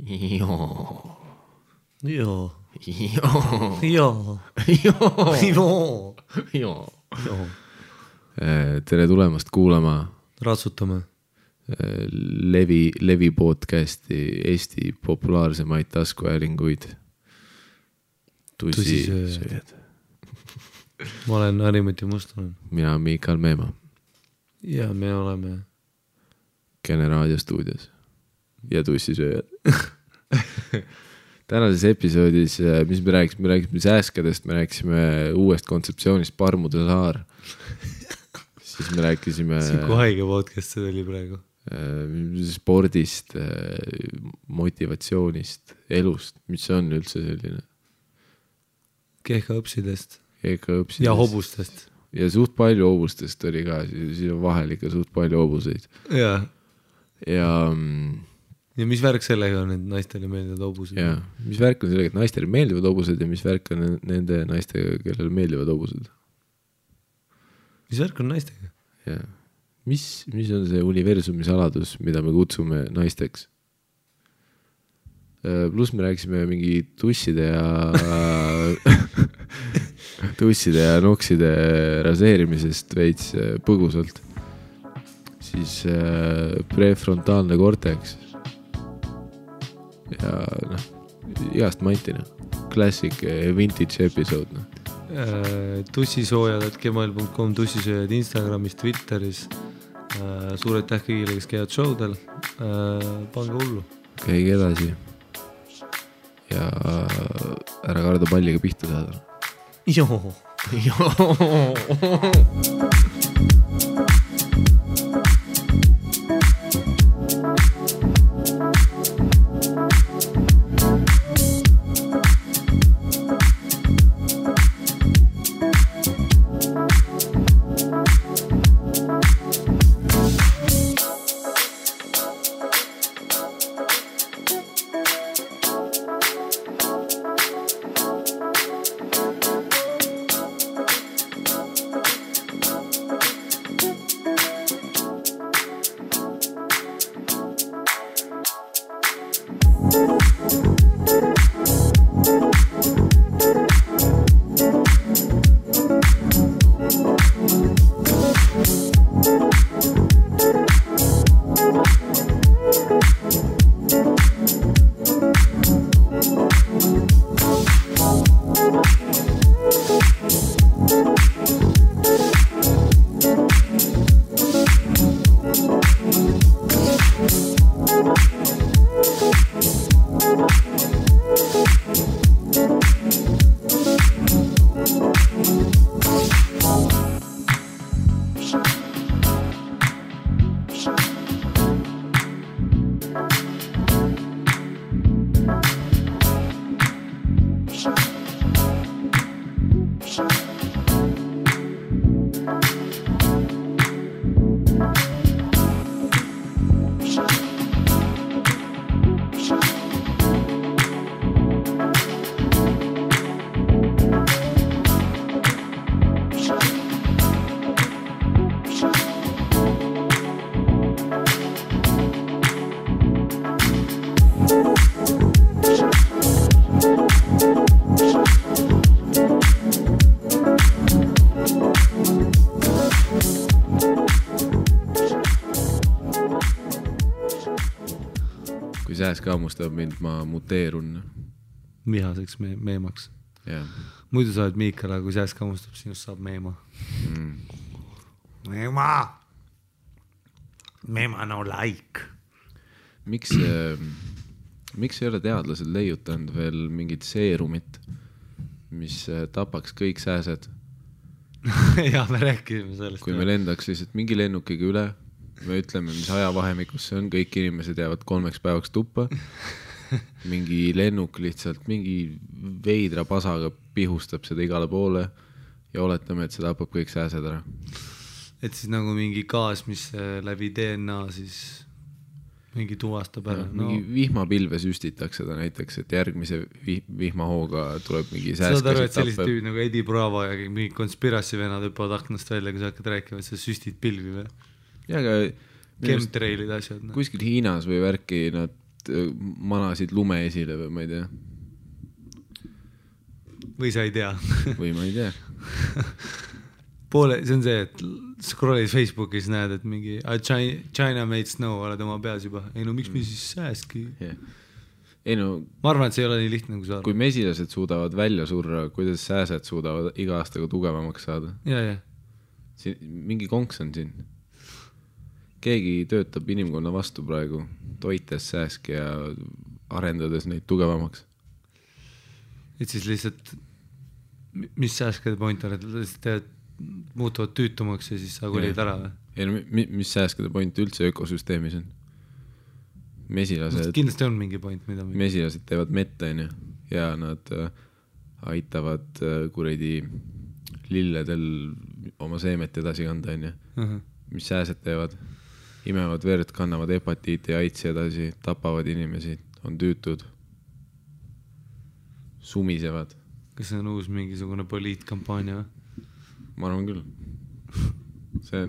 Joo. Joo. Joo. Joo. Joo. Joo. Joo. Joo. Tere tulemast kuulama Ratsutame. Levi podcasti Eesti populaarsemaid taskuhäälinguid. Tussisööjad. Ma olen Harimati Mustonen. Mina olen Miikal Meemaa. Ja me oleme Kene raadiostuudios ja tussisööjad. Tänases episoodis, mis me rääkisime sääskadest, me rääkisime uuest kontseptsioonist Parmude saar. Siis me rääkisime kui haige podcast see oli praegu. Spordist, motivatsioonist, elust, mis on üldse selline Kehkaõpsidest õpsidest. ja hobustest. Ja suht palju hobustest oli ka, siis on vahel ikka suht palju hobuseid. Ja mis värk sellega on, et naistele meeldivad hobused? Ja mis värk on sellega, et naistele meeldivad hobused ja mis värk on nende naistega, kellele meeldivad hobused? Mis värk on naistega? Ja mis on see universumi saladus, mida me kutsume naisteks? Plus me rääkisime mingi tusside ja nokside raseerimisest veits põgusalt. Siis prefrontaalne cortex. Ja igast mantina. Classic vintage episode. Tussisoojad@gmail.com, tussisööjad Instagramis, Twitteris. Suur aitäh kõigile, kes käivad showdel. Pange hullu. Käige edasi. Ja ära karda palliga pihta saada. Joo. Kaamustab mind, ma muteerun. Vihaseks meemaks. Yeah. Muidu sa oled Miikal, aga kui sääs kaamustab, sinust saab meema. Meema no like. Miks ei ole teadlased leiutanud veel mingit seerumit, mis tapaks kõik sääsed? Ja me rääkisime sellest. Kui me lendaks lihtsalt mingi lennukiga üle, me ütleme, mis ajavahemikus see on, kõik inimesed jäävad 3 päevaks tuppa. Mingi lennuk lihtsalt, mingi veidra pasaga pihustab seda igale poole ja oletame, et see tapab kõik sääsed ära. Et siis nagu mingi gaas, mis läbi DNA siis mingi tuvastab ära. Mingi vihmapilve süstitakse seda näiteks, et järgmise vihmahooga tuleb mingi sääskasid tappe. Saad aru, et sellised tüüd nagu Eddie Bravo ja mingi konspirassi venad hüppavad aknast välja, kui sa hakkad rääkima, et sa süstid pilvi või? Ja aga chemtrailid asjad. Kuskil Hiinas või värki nad manasid lume esile või ma ei tea. Või sa ei tea. Või ma ei tea. See on see, et scroll'is Facebookis näed, et mingi China made snow oled oma peas juba. Ei no miks me siis sääski? Yeah. Ei no, ma arvan, et see ei ole nii lihtne, kui sa arvad. Kui mesilased suudavad välja surra, kuidas sääsed suudavad iga aastaga tugevamaks saada? Ja. Mingi konks on siin. Keegi töötab inimkonna vastu praegu, toites sääski ja arendades neid tugevamaks. Et siis lihtsalt, mis sääskede point on, et lihtsalt muutuvad tüütumaks ja siis sa kolid ära või? Ei no, mis sääskede point üldse ökosüsteemis on? Mesilased, kindlasti on mingi point, mida mesilased teevad metta ja nad aitavad kuredi lilledel oma seemet edasi kanda mis sääsed teevad, imevad verd, kannavad hepatiiti ja aitsi edasi, tapavad inimesi, on tüütud, sumisevad. Kas see on uus mingisugune poliitkampaania või? Ma arvan küll. See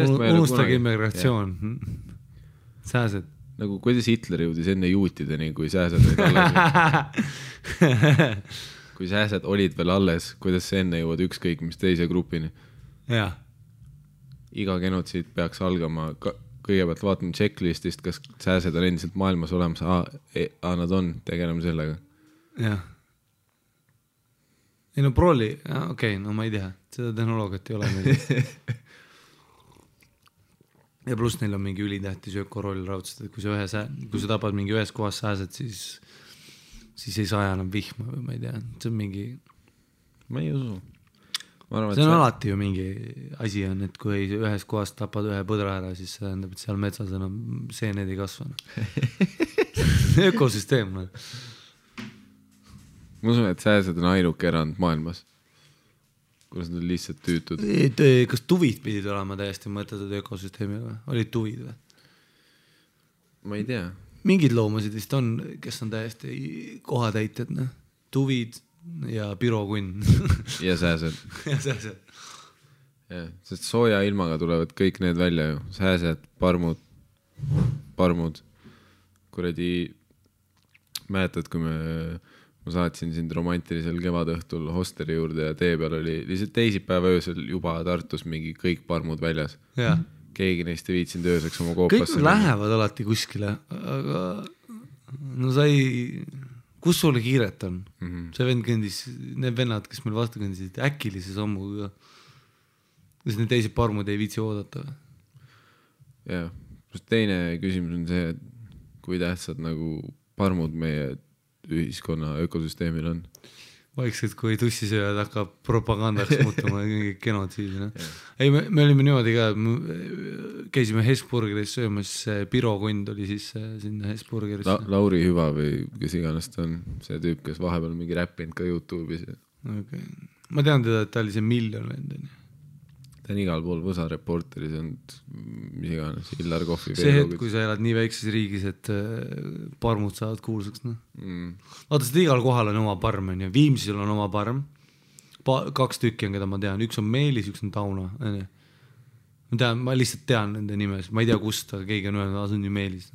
on unustage immigratsioon. Sääsed. Nagu kuidas Hitler jõudis enne juutideni, kui sääsed olid alles. Kui sääsed olid veel alles, kuidas see enne jõuad ükskõik mis teise grupini. Jaa. Iga genotsiid peaks algama, kõigepealt vaatame checklistist, kas sääsed on endiselt maailmas olemas. Nad on, tegeleme sellega. Jah. Ei no proli, okei, no ma ei tea, seda tehnoloogiat ei ole meil. Ja pluss neil on mingi ülitähtis ökoroll raudselt, et kui sa tapad mingi ühes kohas sääsed, siis ei saa enam vihma või ma ei tea, see on mingi... Ma ei usu. See on alati ju mingi asi on, et kui ühes kohas tapad ühe põdra ära, siis see tähendab, et seal metsas enam seened ei kasva. Ökosüsteem. Ma usun, et sääsed on ainuke erand maailmas, kus nad on lihtsalt tüütud. Kas tuvid pidid olema täiesti mõttetud ökosüsteemi või? Olid tuvid või? Ma ei tea. Mingid loomasid vist on, kes on täiesti kohatäited. Tuvid ja pirokunn. Ja sääsed. Ja sääsed. Ja, sest sooja ilmaga tulevad kõik need välja ju. Sääsed, parmud. Kuredi, mäletad, kui ma saatsin sind romantilisel kevadõhtul hosteri juurde ja tee peal oli lihtsalt teisipäeva öösel juba Tartus mingi kõik parmud väljas. Ja. Keegi neist ei viitsinud ööseks oma koopasse. Kõik lähevad alati kuskile, aga no kus sulle kiiret on? See vend kõndis, need vennad, kes meil vastu kõndisid, äkilise sammuga. Kas need teised parmud ei viitsi oodata? Jah, teine küsimus on see, et kui tähtsad nagu parmud meie ühiskonna ökosüsteemil on. Vaikselt, kui tussisööjad hakkab propagandaks muutuma genotsiidi. Ei, me olime niimoodi ka, käisime Hesburgeris söömas, pirokund oli siis sinna Hesburgeris. Lauri Hüva või kes iganes ta on, see tüüp, kes vahepeal mingi räppinud ka YouTube'is. Okay. Ma tean teda, et ta oli see miljon vendeni. Ta on igal pool Võsa reporteris olnud, mis iganes, Illar Kohvi. See hetk, kui sa elad nii väikses riigis, et parmud saavad kuulsaks. Vaata, seda igal kohal on oma parm. Viimsil on oma parm. 2 tükki on, keda ma tean. Üks on Meelis, üks on Tauna. Ma lihtsalt tean nende nimes. Ma ei tea kust, aga keegi on öelnud, see on ju Meelis.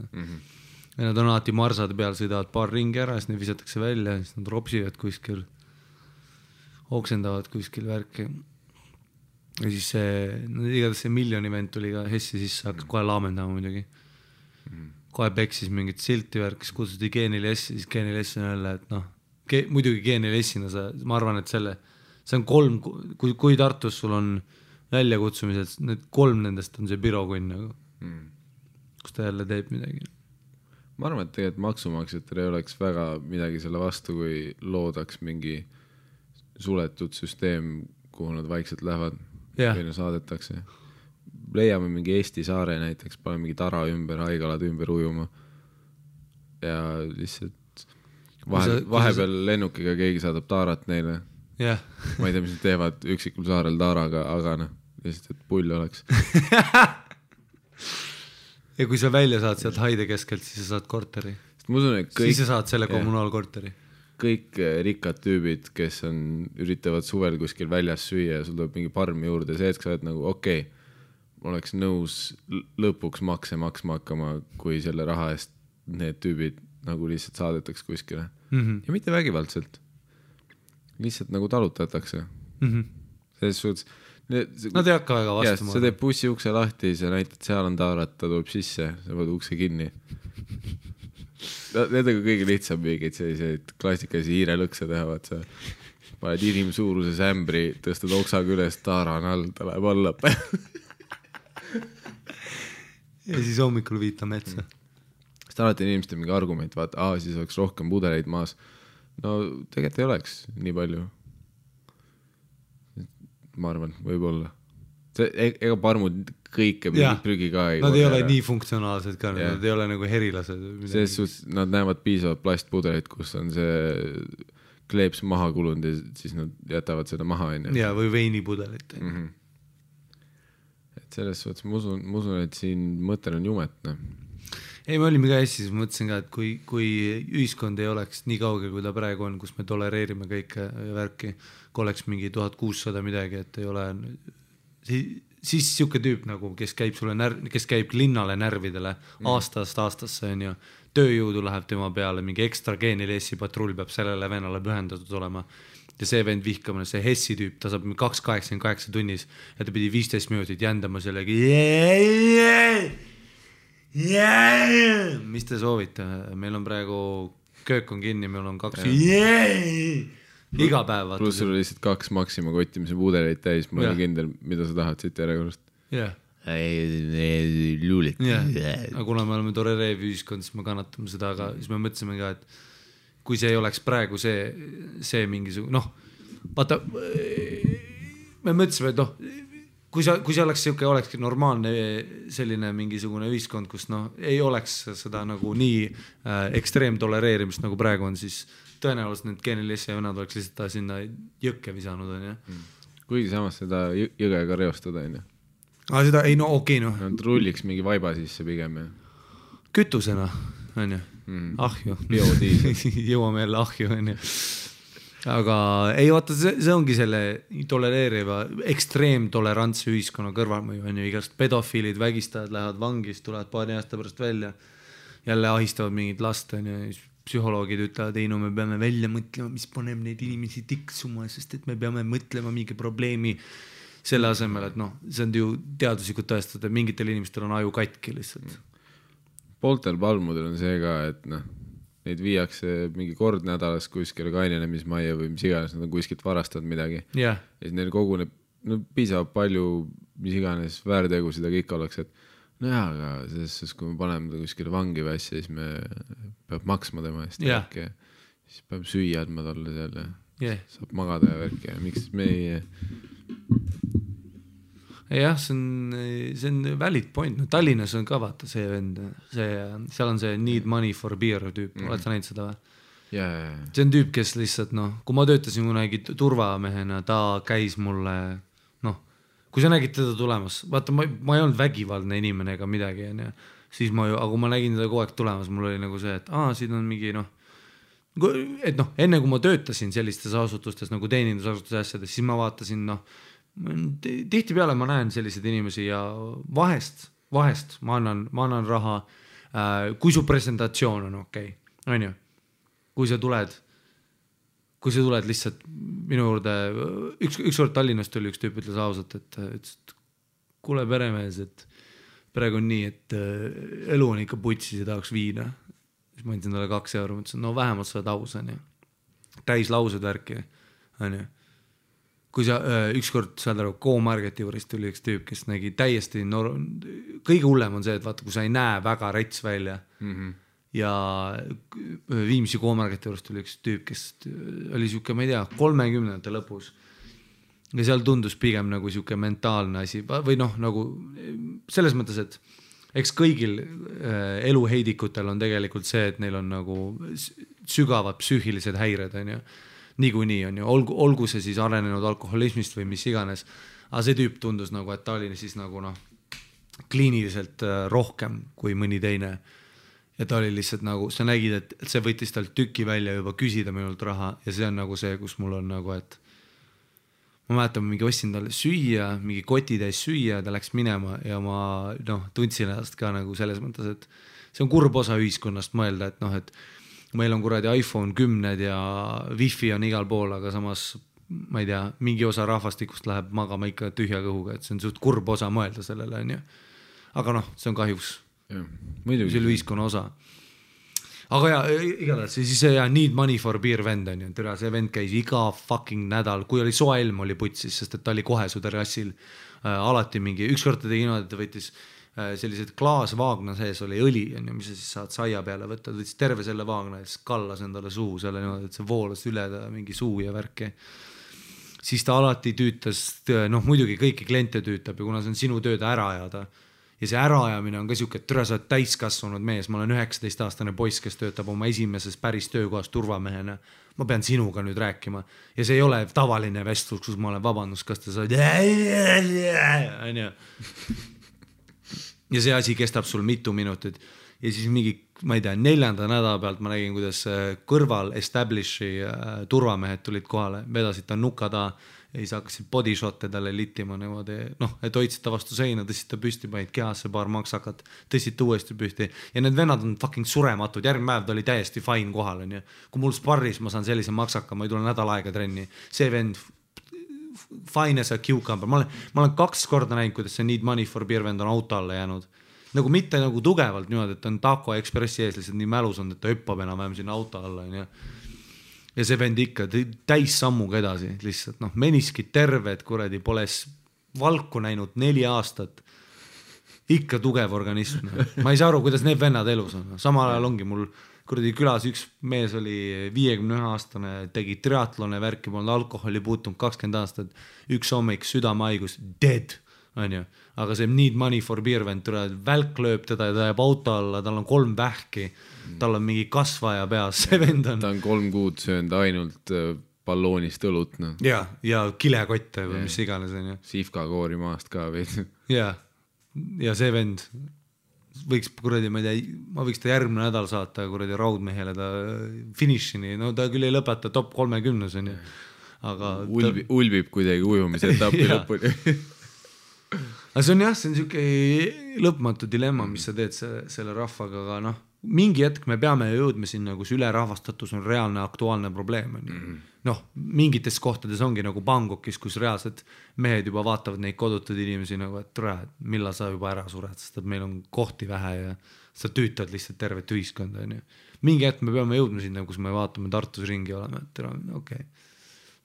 Ja nad on alati marsade peal, sõidavad paar ringi ära, siis need visatakse välja, siis nad ropsivad kuskil, oksendavad kuskil värki. Ja siis igatahes see miljon event tuli ka Hessi sisse, hakkas kohe laamendama muidugi. Kohe peksis mingit silti värk, siis kutsuti Geenil S, siis Geenil S on jälle, et muidugi Geenil S-ina ma arvan, et see on 3, kui Tartus sul on väljakutsumised, need 3 nendest on see pirokunn, kus ta jälle teeb midagi. Ma arvan, et tegelikult maksumaksjatel ei oleks väga midagi selle vastu, kui loodaks mingi suletud süsteem, kuhu nad vaikselt lähevad. Või saadetakse. Leiame mingi Eesti saare näiteks, pane mingi tara ümber, haigalad ümber ujuma ja lihtsalt vahepeal lennukiga keegi saadab taarat neile. Ma ei tea, mis nad teevad üksikul saarel taaraga, aga lihtsalt, et pull oleks. Ja kui sa välja saad sealt haide keskelt, siis sa saad korteri. Siis sa saad selle kommunaalkorteri. Kõik rikkad tüübid, kes üritavad suvel kuskil väljas süüa ja sul tuleb mingi parmi juurde, see, et sa oled nagu ma oleks nõus lõpuks makse maksma hakkama, kui selle raha eest need tüübid nagu lihtsalt saadetaks kuskile ja mitte vägivaldselt, lihtsalt nagu talutatakse selles suhtes nad ei hakka väga vastu sa teed bussi ukse lahti, sa näitad, seal on taarat, ta tuleb sisse, sa võid ukse kinni need on kõige lihtsam mingeid selliseid klassikalisi hiirelõkse teha, vaat sa paned inimsuuruses ämbri, tõstad oksaga üles, taara on all, ta läheb alla ja siis hommikul viita metsa sest alati inimestel mingi argument, vaata, siis oleks rohkem pudeleid maas. No tegelikult ei oleks nii palju. Ma arvan, võib-olla. Ega parmud kõike prügi ka ei nad ei ole nii funktsionaalsed ka, nad ei ole nagu herilased. Selles suhtes nad näevad piisavalt plastpudelit, kus on see kleeps maha kulunud ja siis nad jätavad seda maha. Ja, või veinipudelit. Et selles suhtes ma usun, et siin mõttel on jumetne. Ei, me olime ka Eestis, mõtlesin ka, et kui ühiskond ei oleks nii kaugel, kui ta praegu on, kus me tolereerime kõike värki, kui oleks mingi 1600 midagi, et ei ole, siis siuke tüüp nagu, kes käib linnale närvidele aastast aastasse on ju, tööjõudu läheb tema peale, mingi ekstra geenilessi patrull peab sellele vennale pühendatud olema ja see vend vihkamine, see Hessi tüüp, ta saab 2,88 tunnis ja ta pidi 15 minutit jändama sellegi mis te soovite, meil on praegu köök on kinni, meil on 2 iga päev pluss sul oli lihtsalt 2 Maxima kotti, mis on pudeleid täis, ma olen kindel, mida sa tahad siit järjekorrast luulik aga kuna me oleme tolereeriv ühiskond, siis me kannatame seda, aga siis me mõtlesime ka, et kui see ei oleks praegu see mingisugune vaata me mõtlesime, et kui see olekski normaalne selline mingisugune ühiskond, kus ei oleks seda nagu nii ekstreem tolereerimist nagu praegu on, siis tõenäoliselt need geenilessi ja vennad oleks lihtsalt sinna jõkke visanud on ju. Kuigi samas seda jõgega reostada on ju. Seda ei okei. Nad rulliks mingi vaiba sisse pigem ja. Kütusena on ju, ahju. Jõuame jälle ahju on ju. Aga ei vaata, see ongi selle tolereeriva ekstreemtolerantse ühiskonna kõrvalmõju on ju, igast pedofiilid, vägistajad lähevad vangist, tulevad paari aasta pärast välja, jälle ahistavad mingid last on ju, psühholoogid ütlevad, ei me peame välja mõtlema, mis paneb neid inimesi tiksuma, sest et me peame mõtlema mingi probleemi selle asemel, et see on ju teaduslikult tõestada, et mingitel inimestel on aju katki lihtsalt. Pooltel palmudel on see ka, et neid viiakse mingi kord nädalas kuskile kainenemismajja või mis iganes, nad on kuskilt varastanud midagi. Ja siis neil koguneb piisavalt palju, mis iganes väärtegusid, aga ikka oleks, et aga selles, kui me paneme ta kuskile vangi või asja, siis me peab maksma tema eest värki. Siis peab süüa andma talle seal ja saab magada ja värki ja miks me ei... Jah, see on valid point. Tallinnas on ka vaata see vend, seal on see need money for beer tüüp, oled sa näinud seda või? See on tüüp, kes lihtsalt kui ma töötasin kunagi turvamehena, ta käis mulle, kui sa nägid teda tulemas, vaata ma ei olnud vägivaldne inimene ega midagi, siis aga kui ma nägin teda kogu aeg tulemas, mul oli nagu see, et siin on mingi et enne kui ma töötasin sellistes asutustes nagu teenindusasutuse asjades, siis ma vaatasin tihtipeale ma näen selliseid inimesi ja vahest ma annan raha, kui su presentatsioon on okei, on ju, kui sa tuled lihtsalt minu juurde, ükskord Tallinnast tuli üks tüüp, ütles ausalt, et kuule peremees, et praegu on nii, et elu on ikka putsis ja tahaks viina. Siis ma andsin talle 2 euro, mõtlesin, vähemalt sa oled aus, on ju. Täis laused värki, on ju. Kui sa ükskord saad aru, K-Marketi juures tuli üks tüüp, kes nägi täiesti kõige hullem on see, et vaata, kui sa ei näe väga rets välja ja Viimsi K-Marketi juures tuli üks tüüp, kes oli siuke, ma ei tea, 30. lõpus ja seal tundus pigem nagu siuke mentaalne asi või nagu selles mõttes, et eks kõigil eluheidikutel on tegelikult see, et neil on nagu sügavad psüühilised häired, on ju. Niikuinii on ju, olgu see siis arenenud alkoholismist või mis iganes, aga see tüüp tundus nagu, et ta oli siis nagu kliiniliselt rohkem kui mõni teine ja ta oli lihtsalt nagu, sa nägid, et see võttis tal tüki välja juba küsida minult raha ja see on nagu see, kus mul on nagu, et ma mäletan, mingi ostsin talle süüa, mingi koti täis süüa, ta läks minema ja ma tundsin ennast ka nagu selles mõttes, et see on kurb osa ühiskonnast mõelda, et noh, et meil on kuradi iPhone 10 ja Wi-Fi on igal pool, aga samas ma ei tea, mingi osa rahvastikust läheb magama ikka tühja kõhuga, et see on suht kurb osa mõelda sellele, on ju. Aga noh, see on kahjuks selle ühiskonna osa. Aga ja, igatahes, siis see Need Money for Beer vend on ju, see vend käis iga fucking nädal, kui oli soe ilm oli putsis, sest et ta oli kohe su terrassil alati mingi, ükskord ta tegi niimoodi, et ta võttis sellised klaasvaagna sees oli õli, on ju, mis sa siis saad saia peale võtta, ta võttis terve selle vaagna ja siis kallas endale suu selle niimoodi, et see voolas üle ta mingi suu ja värki. Siis ta alati tüütas, noh muidugi kõiki kliente tüütab ja kuna see on sinu tööd ära ajada ja see äraajamine on ka siuke, et türa sa oled täiskasvanud mees, ma olen 19-aastane poiss, kes töötab oma esimeses päris töökohas turvamehena, ma pean sinuga nüüd rääkima ja see ei ole tavaline vestlus, kus ma olen vabandust, kas te saad ja see asi kestab sul mitu minutit ja siis mingi, ma ei tea, 4. nädala pealt ma nägin, kuidas kõrval Establishi turvamehed tulid kohale, vedasid ta nukada ja siis hakkasid bodyshot'e talle littima niimoodi, noh, et hoidsid ta vastu seina, tõstsid ta püsti, panid kehasse paar maksakat, tõstsid ta uuesti püsti ja need vennad on fucking surematud, järgmine päev ta oli täiesti fine kohal, on ju. Kui mul sparris ma saan sellise maksaka, ma ei tule nädal aega trenni, see vend fine as a cucumber, ma olen 2 korda näinud, kuidas see Need Money for Beer vend on auto alla jäänud. Nagu mitte nagu tugevalt niimoodi, et on Taco Expressi ees lihtsalt nii mälus on, et ta hüppab enam-vähem sinna auto alla, on ju. Ja see vend ikka täis sammuga edasi, lihtsalt noh, meniskid terved, kuradi, pole valku näinud 4 aastat. Ikka tugev organism. Ma ei saa aru, kuidas need vennad elus on. Samal ajal ongi mul kuradi külas üks mees oli 51-aastane, tegi triatlone värki, polnud alkoholi puutunud 20 aastat, üks hommik südamehaigus, dead, on ju. Aga see Need Money for Beer vend, välk lööb teda ja ta jääb auto alla, tal on 3 vähki, tal on mingi kasvaja peas, see vend on. Ta on 3 kuud söönud ainult balloonist õlut, no. Ja kilekotte või mis iganes, on ju. Sifkakoori maast ka veid. Ja see vend võiks kuradi, ma ei tea, ma võiks ta järgmine nädal saata kuradi raudmehele ta finišini, no ta küll ei lõpeta top 30, on ju. Aga ulbib kuidagi ujumise etapi lõpuni. Aga see on jah, see on siuke lõpmatu dilemma, mis sa teed selle rahvaga, aga noh, mingi hetk me peame jõudma sinna, kus ülerahvastatus on reaalne aktuaalne probleem. Noh, mingites kohtades ongi nagu Bangkokis, kus reaalselt mehed juba vaatavad neid kodutud inimesi nagu, et tule, millal sa juba ära sured, sest et meil on kohti vähe ja sa tüütad lihtsalt tervet ühiskonda. Mingi hetk me peame jõudma sinna, kus me vaatame Tartus ringi olema, et tere, okei,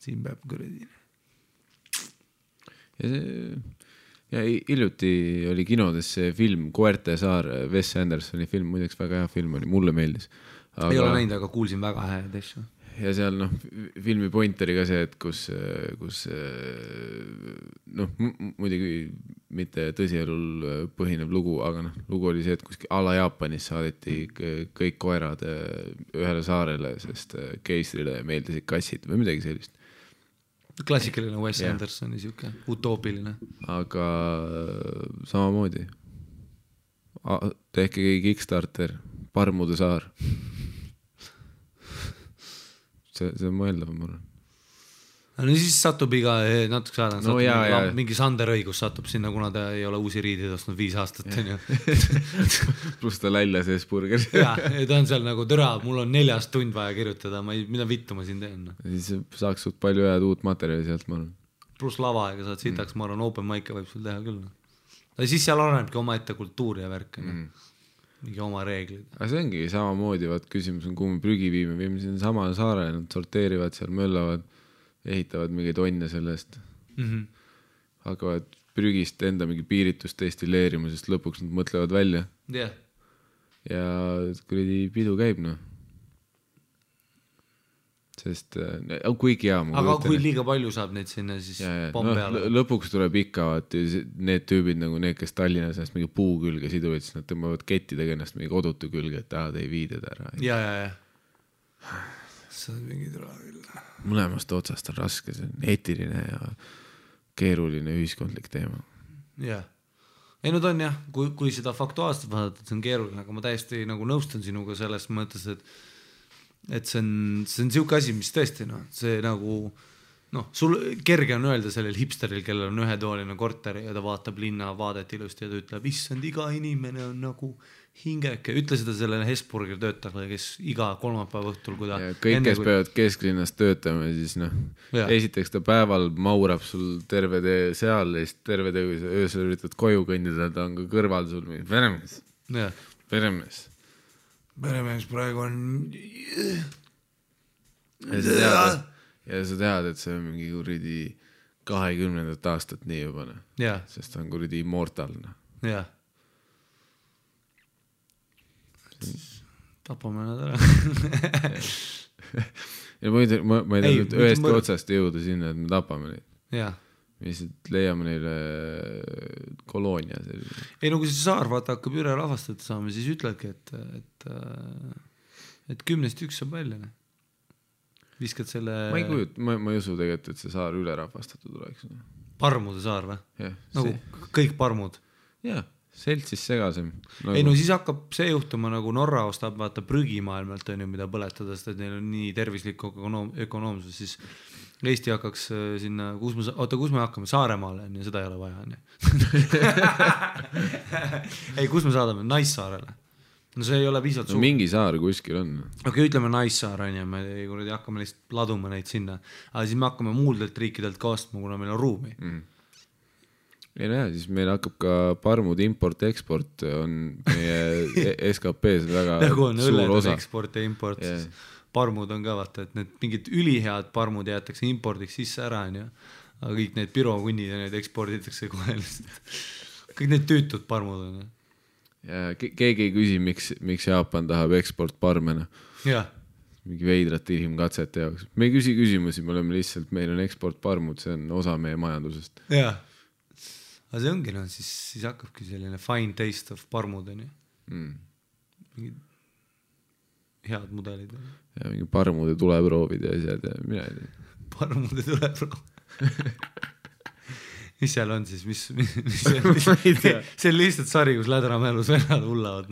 siin peab kuradi. Ja hiljuti oli kinodes see film Koerte saar, Wes Andersoni film, muideks väga hea film oli, mulle meeldis. Ei ole näinud, aga kuulsin väga häid asju. Ja seal noh, filmi point oli ka see, et kus noh, muidugi mitte tõsielul põhinev lugu, aga noh, lugu oli see, et kuskil ala Jaapanis saadeti kõik koerad ühele saarele, sest keisrile meeldisid kassid või midagi sellist. Klassikaline Wes Andersoni siuke utoopiline. Aga samamoodi. Tehke Kickstarter, Parmude saar. See on mõeldav, ma arvan. No siis satub iga natuke saada, no, mingi Sander õigus satub sinna, kuna ta ei ole uusi riidid ostnud 5 aastat. Plus ta lälja sees burger. Ja ta on seal nagu türa, mul on 4 tund vaja kirjutada, mida vittu ma siin teen. Siis saaks suht palju head uut materjali sealt, ma arvan. Plus lava, ega saad sitaks, ma arvan, open mic'e võib sul teha küll. Ja siis seal arenebki oma ette kultuuri ja värk. Mingi oma reeglid. Aga see ongi samamoodi, vaat küsimus on, kuhu me prügi viime siin sama saare, nad sorteerivad seal, möllavad, ehitavad mingeid onne sellest. Hakkavad prügist enda mingi piiritust destilleerima, sest lõpuks nad mõtlevad välja. Ja kuradi pidu käib, noh. Sest kuigi hea. Aga kui liiga palju saab neid sinna, siis pomm peale. Lõpuks tuleb ikka, need tüübid nagu need, kes Tallinnas ennast mingi puu külge siduvad, siis nad tõmbavad kettidega ennast mingi kodutu külge, et te ei viided ära. Ja. See on mingi tule küll. Mõlemast otsast on raske, see on eetiline ja keeruline ühiskondlik teema. Ja. Ei, no ta on jah, kui seda faktuaalselt vaadata, see on keeruline, aga ma täiesti nagu nõustun sinuga selles mõttes, et see on siuke asi, mis tõesti, noh, see nagu, noh, sul kerge on öelda sellel hipsteril, kellel on ühetooline korter ja ta vaatab linna vaadet ilusti ja ta ütleb, issand, iga inimene on nagu hingeke, ütle seda sellele Hesburgeri töötajale, kes iga kolmapäeva õhtul, kui ta kõik, kes peavad kesklinnas töötama, siis noh, esiteks ta päeval maurab sul terve tee seal ja siis terve tee, kui sa öösel üritad koju kõndida, ta on ka kõrval sul peremees praegu on ja sa tead, et see on mingi kuridi 20. aastat nii juba, sest ta on kuridi immortalne. Jah. Tapame nad ära. Ja ma ei tea nüüd ühest otsast jõuda sinna, et me tapame neid. Jah. Me lihtsalt leiame neile koloonia. Ei, no kui see saar vaata hakkab üle rahvastatud saama, siis ütledki, et 10-st 1 saab välja. Viskad selle... Ma ei usu tegelikult, et see saar üle rahvastatud oleks. Parmude saar või? Nagu kõik parmud? Jah. Seltsis segasem. Nagu... Ei, no siis hakkab see juhtuma, nagu Norra ostab vaata prügimaailmalt, on ju, mida põletada, sest et neil on nii tervislik ökonoomsus, siis Eesti hakkaks sinna, kus me hakkame? Saaremaale, on ju, seda ei ole vaja, on ju. Ei, kus me saadame? Naissaarele. No see ei ole piisavalt suur. No mingi saar kuskil on. Okei, ütleme Naissaar, on ju, me hakkame lihtsalt laduma neid sinna, aga siis me hakkame muuldelt riikidelt ka ostma, kuna meil on ruumi. Ei näe, siis meil hakkab ka parmud import-eksport on meie SKP-s väga nagu on suur osa. Eksport ja import, siis parmud on ka vaata, et need mingid ülihead parmud jäetakse impordiks sisse ära, on ju. Aga kõik need pirokunnid ja need eksporditakse kohe lihtsalt. Kõik need tüütud parmud on. Ja keegi ei küsi, miks Jaapan tahab eksportparmena. Jah. Mingi veidrate inimkatsete jaoks. Me ei küsi küsimusi, me oleme lihtsalt, meil on eksportparmud, see on osa meie majandusest. Jah. Aga see ongi, no, siis hakkabki selline fine taste of parmud, on ju. Mingid head mudelid. Ja mingi parmude tuleproovid ja asjad ja mina ei tea. Parmude tuleproov. Mis seal on siis? See on lihtsalt sari, kus lädramälus vennad hullavad.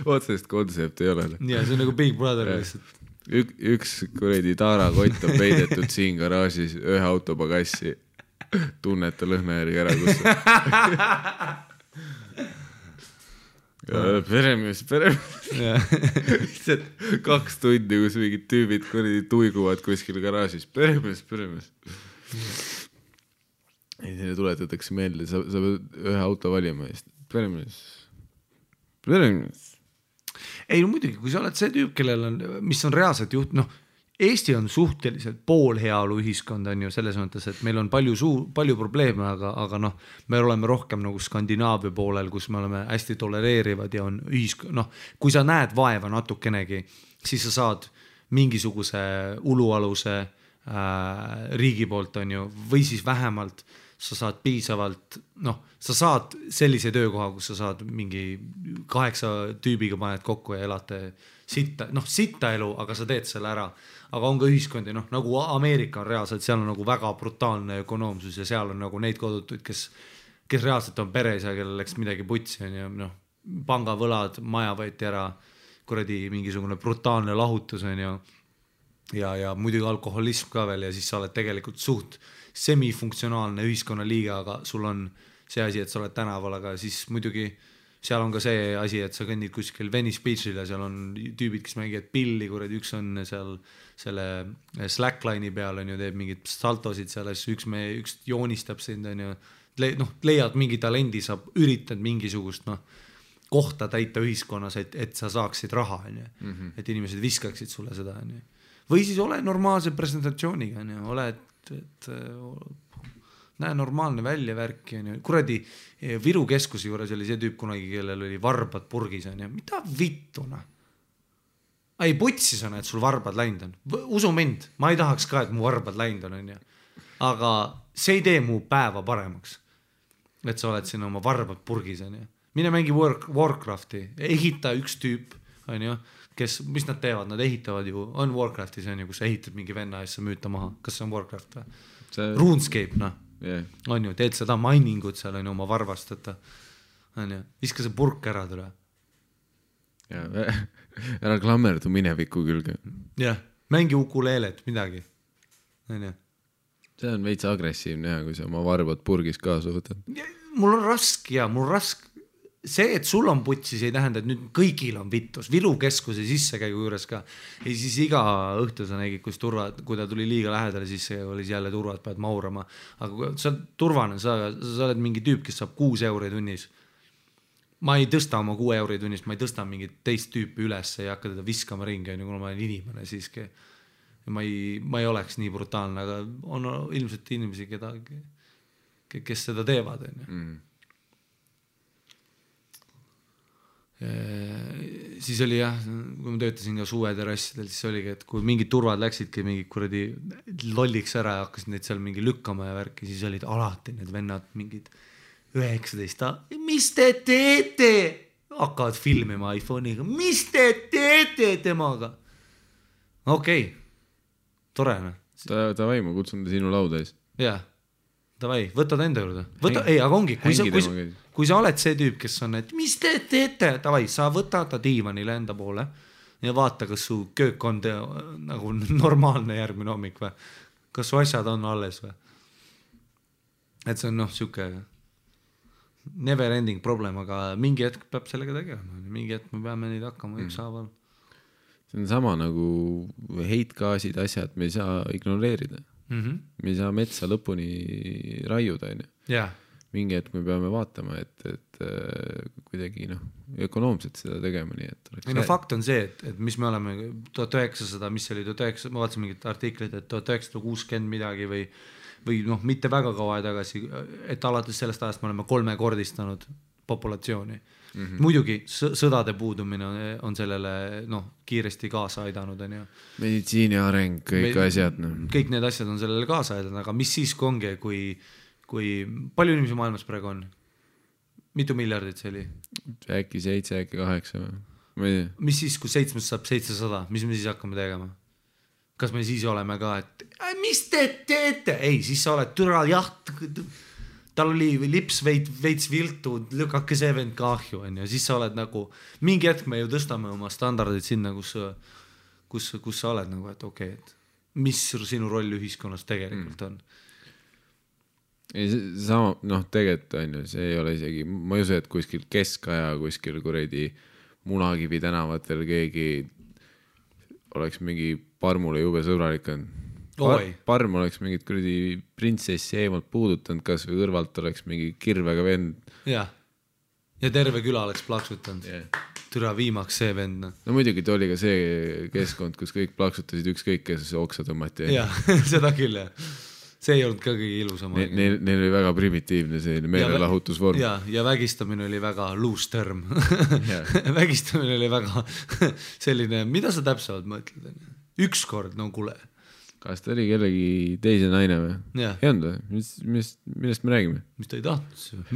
Otsest kontsept ei ole. Ja see on nagu Big Brother lihtsalt. Üks kuredi tarakott on peidetud siin garaažis ühe autopagassi. Tunneta lõhna järgi ära, kus peremees 2 tundi, kus mingid tüübid kuradi tuiguvad kuskil garaažis, peremees ei, neile tuletatakse meelde, sa pead ühe auto valima peremees ei, no muidugi, kui sa oled see tüüp, kellel on, mis on reaalselt Eesti on suhteliselt poolheaolu ühiskond, on ju, selles mõttes, et meil on palju probleeme, aga me oleme rohkem nagu Skandinaavia poolel, kus me oleme hästi tolereerivad ja on kui sa näed vaeva natukenegi, siis sa saad mingisuguse ulualuse riigi poolt, on ju, või siis vähemalt sa saad piisavalt, sa saad sellise töökoha, kus sa saad mingi 8 tüübiga paned kokku ja elate sitta elu, aga sa teed selle ära. Aga on ka ühiskondi, nagu Ameerika on reaalselt, seal on nagu väga brutaalne ökonoomsus ja seal on nagu neid kodutuid, kes reaalselt on peres ja kellel läks midagi putsi, on ju, pangavõlad, maja võeti ära, kuradi mingisugune brutaalne lahutus, on ju, ja muidugi alkoholism ka veel ja siis sa oled tegelikult suht semifunktsionaalne ühiskonnaliiga, aga sul on see asi, et sa oled tänaval, aga siis muidugi seal on ka see asi, et sa kõnnid kuskil Venice Beachil ja seal on tüübid, kes mängivad pilli, kuradi üks on seal selle slackline'i peal, on ju, teeb mingid saltosid seal, üks joonistab sind, on ju, leiad mingi talendi, sa üritad mingisugust kohta täita ühiskonnas, et sa saaksid raha, on ju, et inimesed viskaksid sulle seda, on ju. Või siis ole normaalse presentatsiooniga, on ju, ole, et näe normaalne välja värki, on ju. Kuradi Viru keskuse juures oli see tüüp kunagi, kellel oli varbad purgis, on ju. Mida vittuna? Ei, putsis on, et sul varbad läinud on. Usu mind, ma ei tahaks ka, et mu varbad läinud on ju. Aga see ei tee mu päeva paremaks, et sa oled siin oma varbad purgis, on ju. Mine mängi Warcrafti, ehita üks tüüp, on ju, kes, mis nad teevad, nad ehitavad ju, on Warcraftis, on ju, kus ehitad mingi venna ja sa müüta maha. Kas see on Warcraft või? RuneScape, on ju, teed seda miningut seal, on ju, oma varvast, on ju, viska see purk ära tule. Ära klammerdu mineviku külge. Jah, mängi ukuleelet, midagi. On ju. See on veits agressiivne, kui sa oma varbad purgis kaasa võtad. Mul on raske, see, et sul on putsis, ei tähenda, et nüüd kõigil on vittus. Viru keskuse sissekäigu juures ka. Ja siis iga õhtu sa nägid, kui ta tuli liiga lähedale, siis oli jälle turvad, pead maurama. Aga kui sa oled turvane, sa oled mingi tüüp, kes saab 6 euri tunnis. Ma ei tõsta oma 6 euri tunnis, ma ei tõsta mingit teist tüüpi üles ja hakka teda viskama ringi, kuna ma olen inimene siiski. Ja ma ei oleks nii brutaalne, aga on ilmselt inimesi, kes seda teevad. Siis oli jah, kui ma töötasin ka suveterrassidel, siis oligi, et kui mingid turvad läksidki mingi kuradi lolliks ära ja hakkasid neid seal mingi lükkama ja värki, siis olid alati need vennad mingid 19, mis te teete? Hakkavad filmima iPhone'iga, mis te teete temaga? Okei, tore. Tavai, ma kutsun ta sinu lauda ees. Jah, tavai, võtad enda juurde. Ei, aga ongi, kui sa oled see tüüp, kes on, et mis te teete, tavai, sa võta ta diivanile enda poole ja vaata, kas su köök on nagu normaalne järgmine hommik või? Kas su asjad on alles või? Et see on siuke never ending problem, aga mingi hetk peab sellega tegema. Mingi hetk me peame neid hakkama ükshaaval. See on sama nagu heitgaasid, asjad, me ei saa ignoreerida. Me ei saa metsa lõpuni raiuda. Jah. Mingi hetk me peame vaatama, et kuidagi ökonoomselt seda tegema. Nii, et fakt on see, et mis me oleme 1900, mis oli 1900, ma vaatasin mingit artiklit, et 1960 midagi või mitte väga kaua tagasi, et alates sellest ajast me oleme 3-kordistanud populatsiooni. Muidugi sõdade puudumine on sellele kiiresti kaasa aidanud. Meditsiini areng, kõik asjad. Kõik need asjad on sellele kaasa aidanud, aga mis siis ongi, kui palju inimesi maailmas praegu on? Mitu miljardit see oli? Äkki 7, äkki 8 või? Mis siis, kui 7 saab 700, mis me siis hakkame tegema? Kas me siis oleme ka, et mis te teete? Ei, siis sa oled türa jaht, tal oli lips veits viltu, lükake see vend kahju, ja siis sa oled nagu, mingi hetk me ju tõstame oma standardid sinna, kus sa oled nagu, et okei, et mis sinu roll ühiskonnas tegelikult on? Ei, sama, tegelikult on ju, see ei ole isegi, ma ei usu, et kuskil keskaja, kuskil kuredi Munakivi tänavatel keegi oleks mingi parmule jube sõbralik on. Parm oleks mingit kuradi printsessi eemalt puudutanud, kas või kõrvalt oleks mingi kirvega vend. Ja terve küla oleks plaksutanud. Türa viimaks see vend. No muidugi ta oli ka see keskkond, kus kõik plaksutasid ükskõik, kes oksa tõmmati. Ja, seda küll, jah. See ei olnud ka kõige ilusam. Neil oli väga primitiivne selline meelelahutusvorm. Ja vägistamine oli väga loose term. Vägistamine oli väga selline, mida sa täpselt mõtled? Ükskord, kuule. Kas ta oli kellegi teise naine või? Ei olnud või? Millest me räägime? Mis ta ei tahtnud?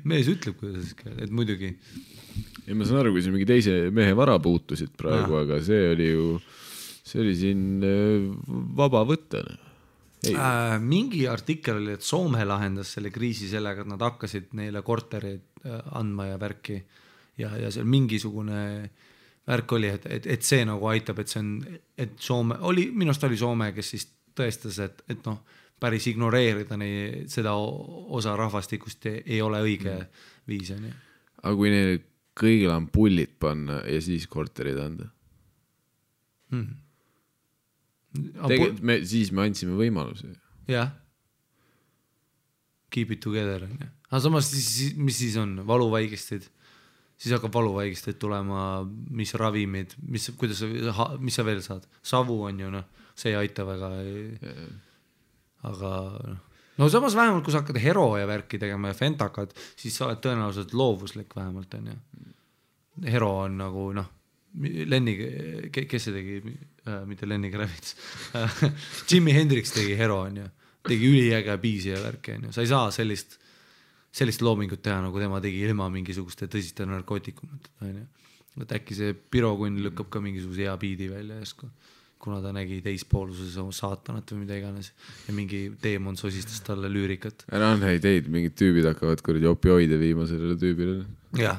Mees ütleb, kuidas et muidugi. Ja ma saan aru, kui see mingi teise mehe vara puutusid praegu, aga see oli siin vaba võtta. Mingi artikkel oli, et Soome lahendas selle kriisi sellega, et nad hakkasid neile korterid andma ja värki ja seal mingisugune värk oli, et see nagu aitab, et see on, et Soome oli, minust oli Soome, kes siis tõestas, et päris ignoreerida seda osa rahvastikust ei ole õige viis. Aga kui neil kõigil on pullid panna ja siis korterid anda? Siis me andsime võimaluse. Jah. Keep it together. Aga samas, mis siis on? Valuvaigistid? Siis hakkab valuvaigistid tulema, mis ravimid, mis sa veel saad? Savu on ju, see ei aita väga. Aga samas vähemalt, kui sa hakkad hero ja värki tegema ja fentakad, siis sa oled tõenäoliselt loovuslik vähemalt. Hero on nagu, Lenni, kes see tegi, mitte Lenni Kravitz, Jimi Hendrix tegi hero, tegi üliäge biisi ja värki, sa ei saa sellist loomingut teha, nagu tema tegi ilma mingisuguste tõsiste narkootikumit, et äkki see Pirokunn lükkab ka mingisuguse hea biidi välja jäsku, kuna ta nägi teispooluses saatanat või mida iganes ja mingi teemon sosistas talle lüürikat. Ära on häid teid, mingid tüübid hakkavad kuradi opioide viima sellele tüübile. Jah.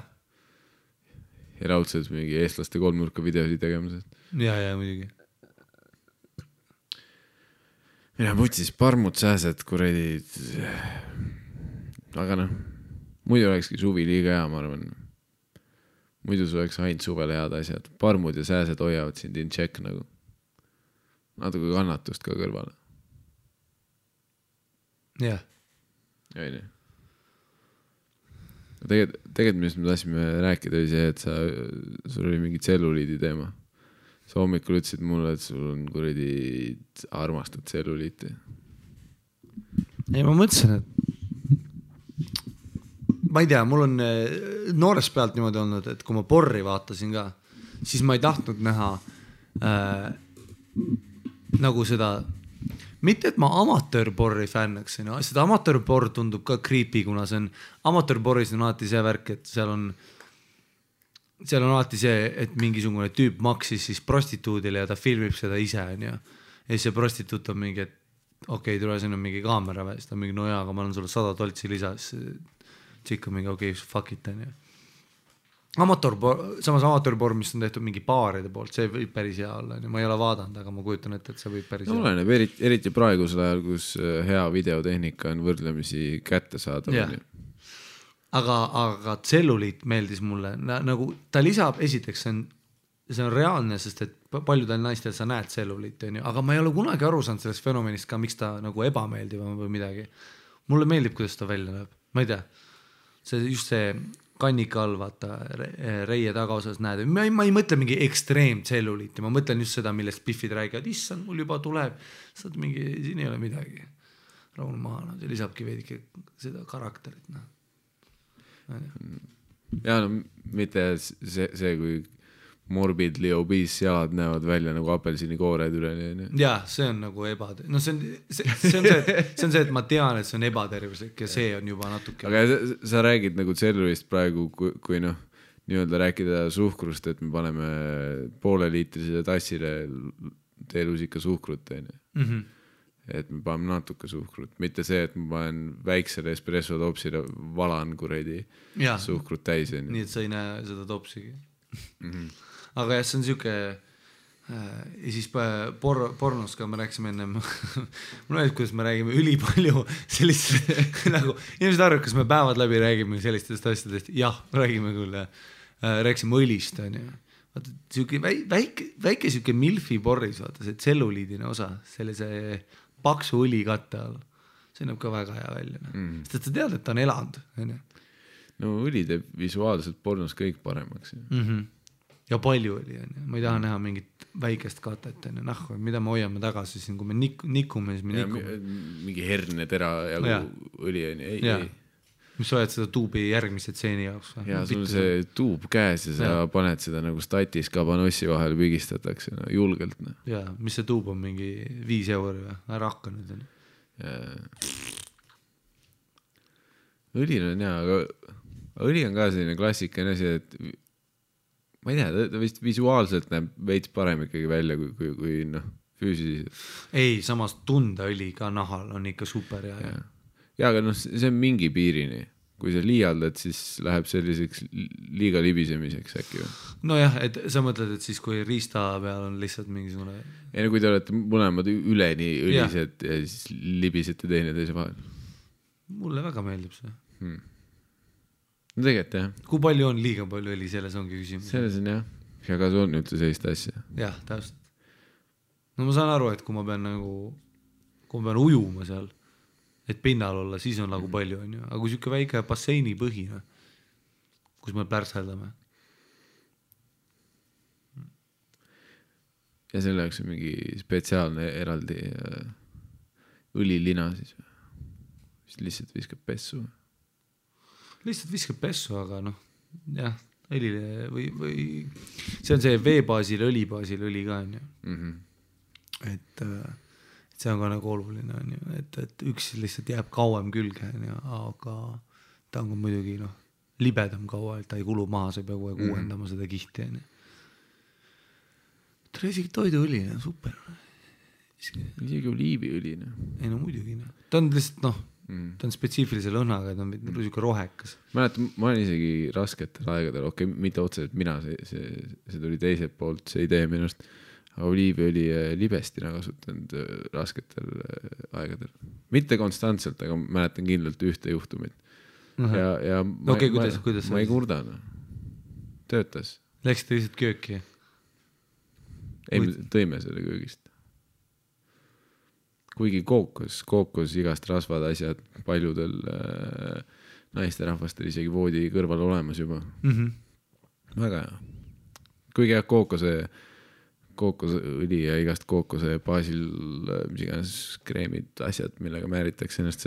Ja raudselt mingi eestlaste kolmnurka videosid tegemised. Ja, muidugi. Mina putsis parmud sääsed kuradi. Aga muidu olekski suvi liiga hea, ma arvan. Muidu sul oleks ainult suvele head asjad. Parmud ja sääsed hoiavad sind in check nagu. Natuke kannatust ka kõrvale. jah. Ei. Tegelikult millest me tahtsime rääkida oli see, et sul oli mingi tselluliidi teema. Sa hommikul ütlesid mulle, et sul on kuradi armastad tselluliiti. Ei, ma mõtlesin, et ma ei tea, mul on noorest pealt niimoodi olnud, et kui ma porri vaatasin ka, siis ma ei tahtnud näha nagu seda, mitte et ma amatöörporri fännaks, seda amatöörporr tundub ka creepy, kuna see on, amatöörporris on alati see värk, et seal on alati see, et mingisugune tüüp maksis siis prostituudile ja ta filmib seda ise, ja siis see prostituut on mingi, et okei, tule siin on mingi kaamera või, siis ta on mingi, no jaa, aga ma olen sulle 100 toltsi lisas, tšikk on mingi, okei, fuck it, on ju. Samas amatöörporr, mis on tehtud mingi baaride poolt, see võib päris hea olla, ma ei ole vaadanud, aga ma kujutan ette, et see võib päris hea olla. Oleneb, eriti praegusel ajal, kus hea videotehnika on võrdlemisi kätte saada. Aga tselluliit meeldis mulle, nagu ta lisab, esiteks see on reaalne, sest et paljudel naistel sa näed tselluliit, aga ma ei ole kunagi aru saanud sellest fenomenist ka, miks ta nagu ebameeldib või midagi. Mulle meeldib, kuidas ta välja näeb, ma ei tea, just see kannika all, vaata, reie tagaosas näed, ma ei mõtle mingi ekstreem tselluliiti, ma mõtlen just seda, millest Biffid räägivad, issand, mul juba tuleb, saad mingi, siin ei ole midagi, rahul maha, see lisabki veidike seda karakterit, ja no mitte see kui morbidly obese jalad näevad välja nagu apelsini koored üle. Ja see on nagu no see on see, et ma tean, et see on ebatervislik ja see on juba natuke. Aga sa räägid nagu tsellulist praegu, kui noh, nii-öelda rääkida suhkrust, et me paneme pooleliitrisele tassile teelusika suhkrut, et me paneme natuke suhkrut, mitte see, et ma panen väiksele espresso topsile valan kuredi suhkrut täis. Nii, et sa ei näe seda topsigi. Aga jah, see on siuke ja siis pornos ka me rääksime ennem mul öeldi, kuidas me räägime ülipalju sellist nagu, inimesed arvavad, kas me päevad läbi räägime sellistest asjadest, jah, räägime küll rääksime õlist, on ju. Vaata, siuke väike siuke milfi porris, vaata, see tselluliidine osa sellise paksu õli katte all, see näeb ka väga hea välja, sest et sa tead, et ta on elanud, on ju. No õli teeb visuaalselt pornos kõik paremaks. Ja palju oli, ma ei taha näha mingit väikest katet, mida me hoiame tagasi siin, kui me nikume, siis me nikume. Mingi herne tera ja õli on, ei. Mis sa oled seda tuubi järgmise tseeni jaoks? Ja sul see tuub käes ja sa paned seda nagu statis kabanossi vahel pigistatakse julgelt. Ja, mis see tuub on, mingi 5 euri või? Ära hakka nüüd. Õli on hea, aga õli on ka selline klassikaline asi, et ma ei tea, ta vist visuaalselt näeb veits parem ikkagi välja kui füüsiliselt. Ei, samas tundeõli ka nahal on ikka super hea. Ja, aga see on mingi piirini. Kui sa liialdad, siis läheb selliseks liiga libisemiseks äkki. No jah, et sa mõtled, et siis kui riista peal on lihtsalt mingisugune... Ei, kui te olete mõlemad üleni õlised ja siis libisete teineteise vahel. Mulle väga meeldib see. No tegelikult jah. Kui palju on liiga palju õli, selles ongi küsimus. Selles on jah. Ja ka see on üldse sellist asja. Jah, täpselt. No ma saan aru, et kui ma pean ujuma seal, et pinnal olla, siis on nagu palju, on ju. Aga kui siuke väike basseini põhina, kus me pärseldame. Ja selle jaoks on mingi spetsiaalne eraldi õlilina siis. Lihtsalt viskab pessu. Lihtsalt viskab pessu, aga jah, õlile või see on see veebaasil, õlibaasil õli ka, on ju. Et see on ka nagu oluline, on ju, et üks lihtsalt jääb kauem külge, on ju, aga ta on ka muidugi libedam kaua, et ta ei kulu maha, sa ei pea kogu aeg uuendama seda kihti, on ju. Isegi toiduõli, super. Isegi oliiviõli. Ei muidugi, ta on lihtsalt ta on spetsiifilise lõhnaga, ta on niisugune rohekas. Ma olen isegi rasketel aegadel, mitte otseselt mina, see tuli teiselt poolt, see idee minust, aga oliiviõli libestina kasutanud rasketel aegadel. Mitte konstantselt, aga mäletan kindlalt ühte juhtumit. ja Okei, kuidas ma ei kurda, noh. Töötas. Läksite lihtsalt kööki? Ei, me tõime selle köögist. Kuigi kookos igast rasvad asjad paljudel naisterahvastel isegi voodi kõrval olemas juba. Väga hea. Kuigi jah, kookosõli ja igast kookose baasil mis iganes kreemid, asjad, millega määritakse ennast,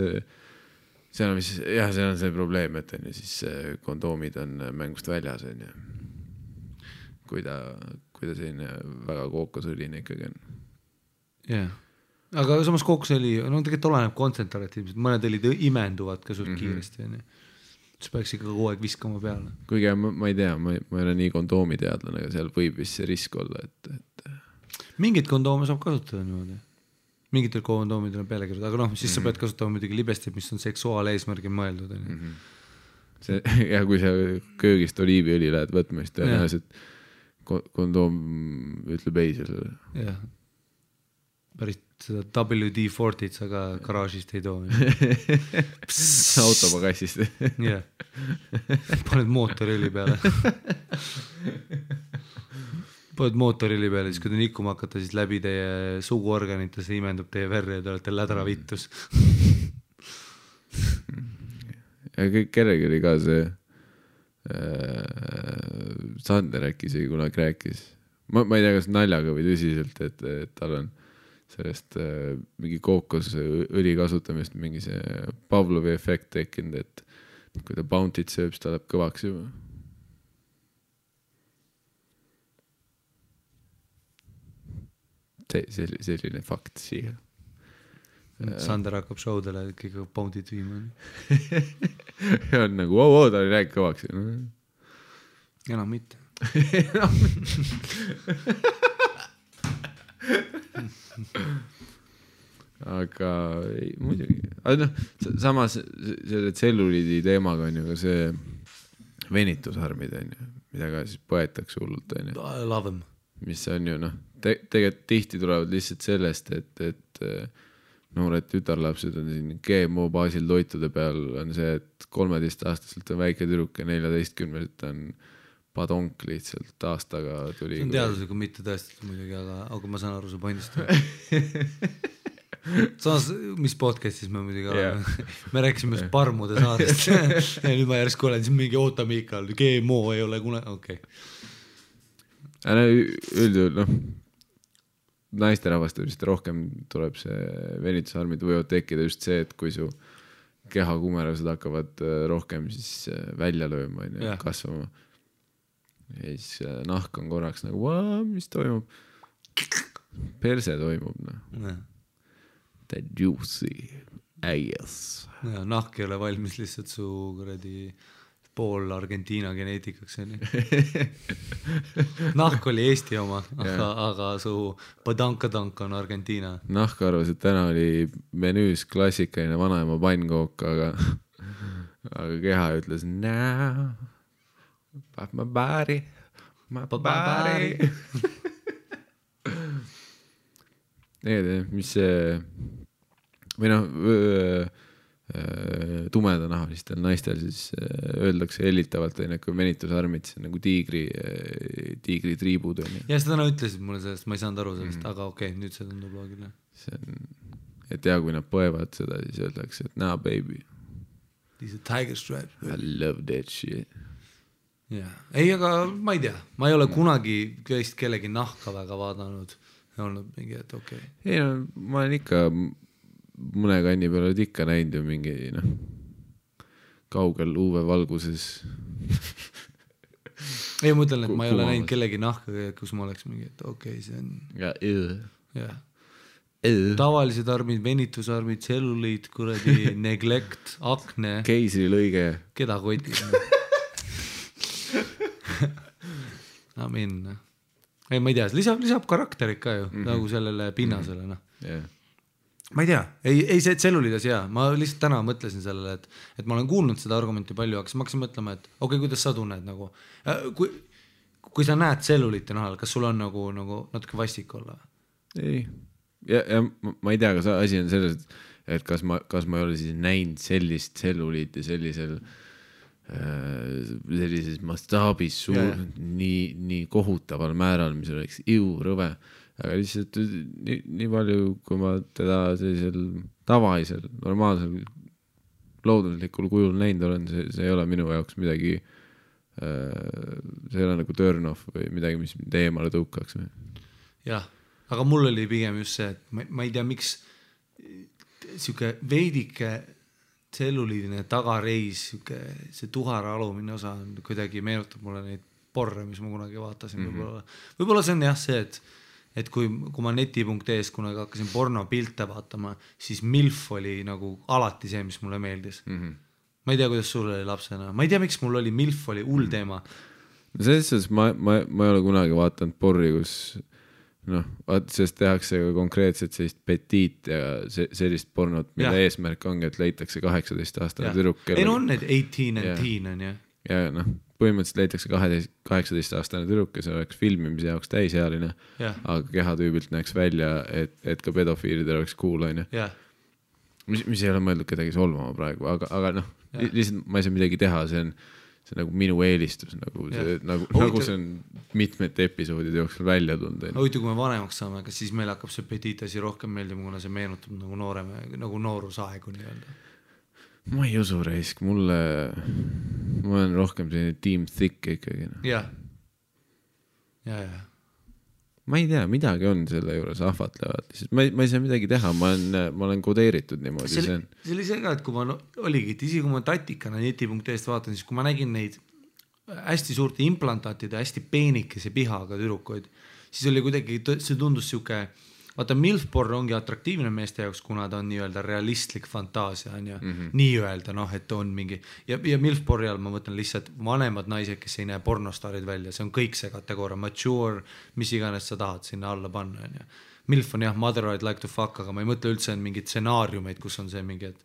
see on see probleem, et on ju siis kondoomid on mängust väljas, on ju. Kui ta selline väga kookosõline ikkagi on. Jah. Aga samas kookosõli, no tegelikult oleneb kontsentratiivselt, mõned õlid imenduvad ka suht kiiresti, on ju. See peaks ikka kogu aeg viskama peale. Kuigi ma ei tea, ma ei ole nii kondoomi teadlane, aga seal võib vist see risk olla, et... Mingid kondoome saab kasutada niimoodi. Mingitel kondoomidel on peale kirjutatud, aga noh, siis sa pead kasutama muidugi libestit, mis on seksuaaleesmärgi mõeldud. Ja kui sa köögist oliiviõli lähed võtma, siis tõenäoliselt kondoom ütleb ei sellele. Jah. Päris seda WD-40 sa ka garaažist ei too. Autopagassist. Jah. Paned mootorili peale. Paned mootorili peale, siis kui te nikkuma hakata, siis läbi teie suguorganite see imendub teie verre ja te olete lädra vittus. Ja kellegi oli ka see Sander äkki isegi kunagi rääkis. Ma ei tea, kas naljaga või tõsiselt, et tal on sellest mingi kookosõli kasutamist mingi see Pavlovi efekt tekkinud, et kui ta Bounty't sööb, siis ta läheb kõvaks juba. Selline fakt siia. Sander hakkab showdele kõige Bounty't viima. Ja on nagu, ta oli rääk kõvaks. Enam mitte. Aga ei, muidugi. Aga noh, samas selle tselluliidi teemaga on ju ka see venitusarmid on ju, mida ka siis põetakse hullult on ju. I love them. Mis on ju noh, tegelikult tihti tulevad lihtsalt sellest, et noored tütarlapsed on siin GMO baasil toitude peal on see, et 13-aastaselt on väike tüdruk ja 14-selt on padonk lihtsalt aastaga tuli. See on teadusega mitte tõestatud muidugi, aga ma saan aru su pointist. Samas, mis podcastis me muidugi oleme? Me rääkisime parmude saadest ja nüüd ma järsku olen siin mingi Mikal, GMO ei ole kunagi, okei. Üldjuhul, noh, naisterahvastel vist rohkem tuleb see venitusarmid võivad tekkida just see, et kui su kehakumerased hakkavad rohkem siis välja lööma ja kasvama. Ja siis nahk on korraks nagu, mis toimub? Perse toimub, noh. That juicy ass. Ja, nahk ei ole valmis lihtsalt su kuradi pool Argentiina geneetikaks. Nahk oli Eesti oma, aga su padankadank on Argentiina. Nahk arvas, et täna oli menüüs klassikaline vanaema pannkook, aga keha ütles, no, my body. Mis see või noh tumedanaalistel naistel siis öeldakse hellitavalt, kui venitusarmid, see on nagu tiigri triibud. Ja seda nad ütlesid mulle sellest, ma ei saanud aru sellest, aga okei, nüüd see tundub loogiline. Et ja kui nad põevad seda, siis öeldakse, et nah baby. These are tiger stripes. I love that shit. Yeah. Ei, aga ma ei tea, ma ei ole kunagi kellegi nahka väga vaadanud ja olnud mingi, et okei. Ei no, ma olen ikka mõne kanni peal oled ikka näinud ju mingi kaugel UV-valguses. Ei, ma ütlen, et ma ei ole näinud kellegi nahka, kus ma oleks mingi, et okei, see on ja tavalised armid, venitusarmid, tselluliid, kuradi neglect, akne, keisrilõige, keda kotis. Amin. Ei, ma ei tea, lisab karakterit ka ju, nagu sellele pinnasele. Ma ei tea, ei see tselluliidas hea, ma lihtsalt täna mõtlesin sellele, et ma olen kuulnud seda argumenti palju, aga siis ma hakkasin mõtlema, et okei, kuidas sa tunned nagu, kui sa näed tselluliite nahal, kas sul on nagu natuke vastik olla? Ei, ja ma ei tea, kas asi on selles, et kas ma ei ole siis näinud sellist tselluliiti sellises mastaabis nii kohutaval määral, mis oleks rõve. Aga lihtsalt nii palju, kui ma teda sellisel tavalisel, normaalsel, looduslikul kujul näinud olen, see ei ole minu jaoks midagi, see ei ole nagu turn off või midagi, mis teemale tõukaks. Jah, aga mul oli pigem just see, et ma ei tea, miks siuke veidike tselluliidine tagareis, see tuhara alumine osa on kuidagi meenutab mulle neid porre, mis ma kunagi vaatasin. Võib-olla see on jah see, et kui ma neti.es kunagi hakkasin porno pilte vaatama, siis MILF oli nagu alati see, mis mulle meeldis. Ma ei tea, kuidas sul oli lapsena. Ma ei tea, miks mul oli MILF oli hull teema. Selles suhtes ma ei ole kunagi vaatanud porri, kus sest tehakse konkreetselt sellist petiit ja sellist pornot, mille eesmärk ongi, et leitakse 18-aastane tüdruk. Ei no on need 18 and teen on ju. Ja põhimõtteliselt leitakse 18-aastane tüdruk, kes oleks filmimise jaoks täisealine, aga kehatüübilt näeks välja, et ka pedofiilidel oleks cool, on ju. Mis ei ole mõeldud kedagi solvama praegu, aga lihtsalt ma ei saa midagi teha, see on nagu minu eelistus, nagu see on mitmete episoodide jooksul välja tunda. Huvitav, kui me vanemaks saame, kas siis meil hakkab see petiitasi rohkem meeldima, kuna see meenutab nagu nooreme, nagu noorusaegu nii-öelda? Ma ei usu reisk, ma olen rohkem selline team thick ikkagi. Ja. Ma ei tea, midagi on selle juures ahvatlevad. Ma ei saa midagi teha, ma olen kodeeritud niimoodi. See oli see ka, et kui ma oligi, et isi kui ma tatikana neti.est vaatan, siis kui ma nägin neid hästi suurte implantaatide, hästi peenikese pihaga tüdrukoid, siis oli kuidagi, see tundus siuke, vaata MILF-porn ongi atraktiivne meeste jaoks, kuna ta on nii-öelda realistlik fantaasia, on ju, nii-öelda, et on mingi, ja MILF-porri all ma mõtlen lihtsalt vanemad naised, kes ei näe pornostaarid välja, see on kõik see kategooria, mature, mis iganes sa tahad sinna alla panna, on ju. MILF on jah, mother I'd like to fuck, aga ma ei mõtle üldse on mingid stsenaariumeid, kus on see mingi, et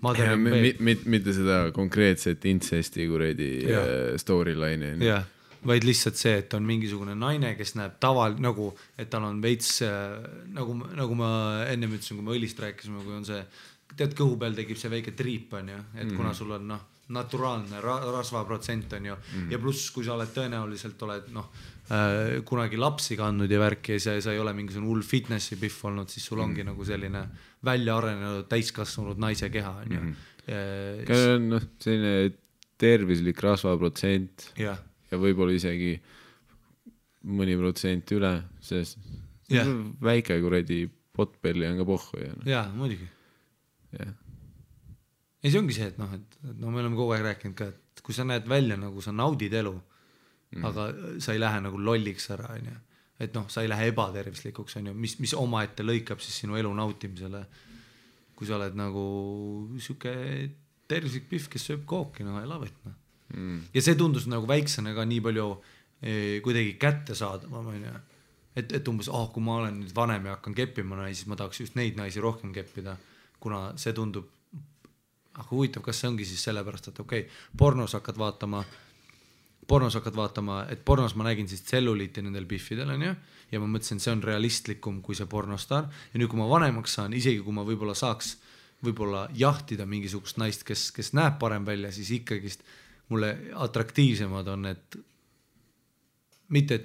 mother mitte seda konkreetset incesti kuredi storyline'i. Jah. Vaid lihtsalt see, et on mingisugune naine, kes näeb nagu, et tal on veits, nagu ma ennem ütlesin, kui me õlist rääkisime, kui on see, tead, kõhu peal tekib see väike triip, on ju, et kuna sul on naturaalne rasvaprotsent, on ju, ja pluss, kui sa oled tõenäoliselt kunagi lapsi kandnud ja värki ja sa ei ole mingisugune hull fitnessi piff olnud, siis sul ongi nagu selline välja arenenud täiskasvanud naise keha, on ju. Selline tervislik rasvaprotsent. Jah. Ja võib-olla isegi mõni protsent üle, sest väike kuredi potpelli on ka pohhu. Jaa, muidugi. Ei, see ongi see, et me oleme kogu aeg rääkinud ka, et kui sa näed välja, nagu sa naudid elu, aga sa ei lähe nagu lolliks ära, on ju. Et sa ei lähe ebatervislikuks, on ju, mis oma ette lõikab siis sinu elu nautimisele. Kui sa oled nagu siuke tervislik pihv, kes sööb kooki, I love it, Ja see tundus nagu väiksena ka nii palju kuidagi kätte saadama, et umbes, kui ma olen nüüd vanem ja hakkan keppima naisi, siis ma tahaks just neid naisi rohkem keppida, kuna see tundub, aga huvitav, kas see ongi siis sellepärast, et pornos hakkad vaatama, et pornos ma nägin siis tselluliiti nendel piffidel, on ju, ja ma mõtlesin, see on realistlikum kui see pornostar, ja nüüd kui ma vanemaks saan, isegi kui ma võib-olla saaks jahtida mingisugust naist, kes näeb parem välja, siis ikkagist mulle atraktiivsemad on, et mitte,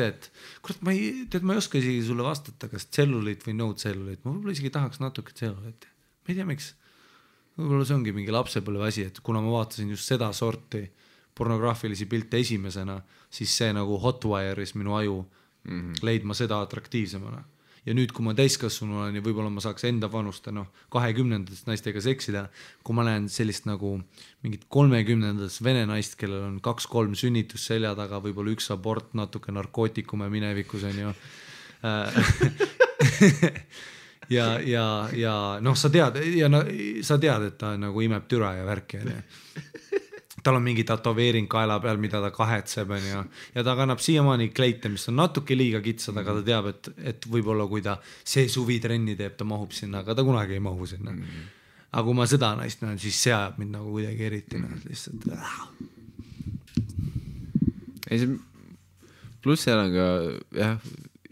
et kurat, ma ei oska isegi sulle vastata, kas tselluliit või no tselluliit, ma võib-olla isegi tahaks natuke tselluliiti, ma ei tea miks, võib-olla see ongi mingi lapsepõlve asi, et kuna ma vaatasin just seda sorti pornograafilisi pilte esimesena, siis see nagu hotwire'is minu aju leidma seda atraktiivsemana. Ja nüüd, kui ma täiskasvanu olen ja võib-olla ma saaks enda vanuste 20-ndatest naistega seksida, kui ma näen sellist nagu mingit 30-ndatest vene naist, kellel on 2-3 sünnitus selja taga, võib-olla üks abort, natuke narkootikume minevikus on ju. ja sa tead, et ta nagu imeb türa ja värki. Tal on mingi tatoveering kaela peal, mida ta kahetseb, ja ta kannab siiamaani kleite, mis on natuke liiga kitsad, aga ta teab, et võib-olla kui ta see suvi trenni teeb, ta mahub sinna, aga ta kunagi ei mahu sinna. Aga kui ma seda naist näen, siis see ajab mind nagu kuidagi eriti. Lihtsalt. Pluss seal on ka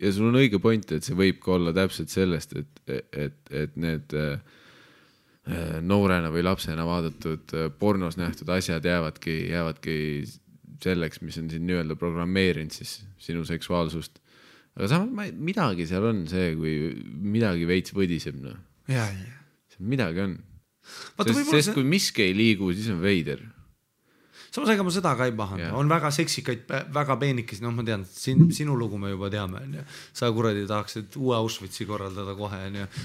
ja sul on õige point, et see võib ka olla täpselt sellest, et need noorena või lapsena vaadatud pornos nähtud asjad jäävadki selleks, mis on siin nii-öelda programmeerinud siis sinu seksuaalsust. Aga samas midagi seal on see, kui midagi veits võdiseb, no. Ja. Midagi on. Sest kui miski ei liigu, siis on veider. Samas ega ma seda ka ei pahanda, on väga seksikaid, väga peenikesi, ma tean, sinu lugu me juba teame, sa kuradi tahaksid uue Auschwitzi korraldada kohe,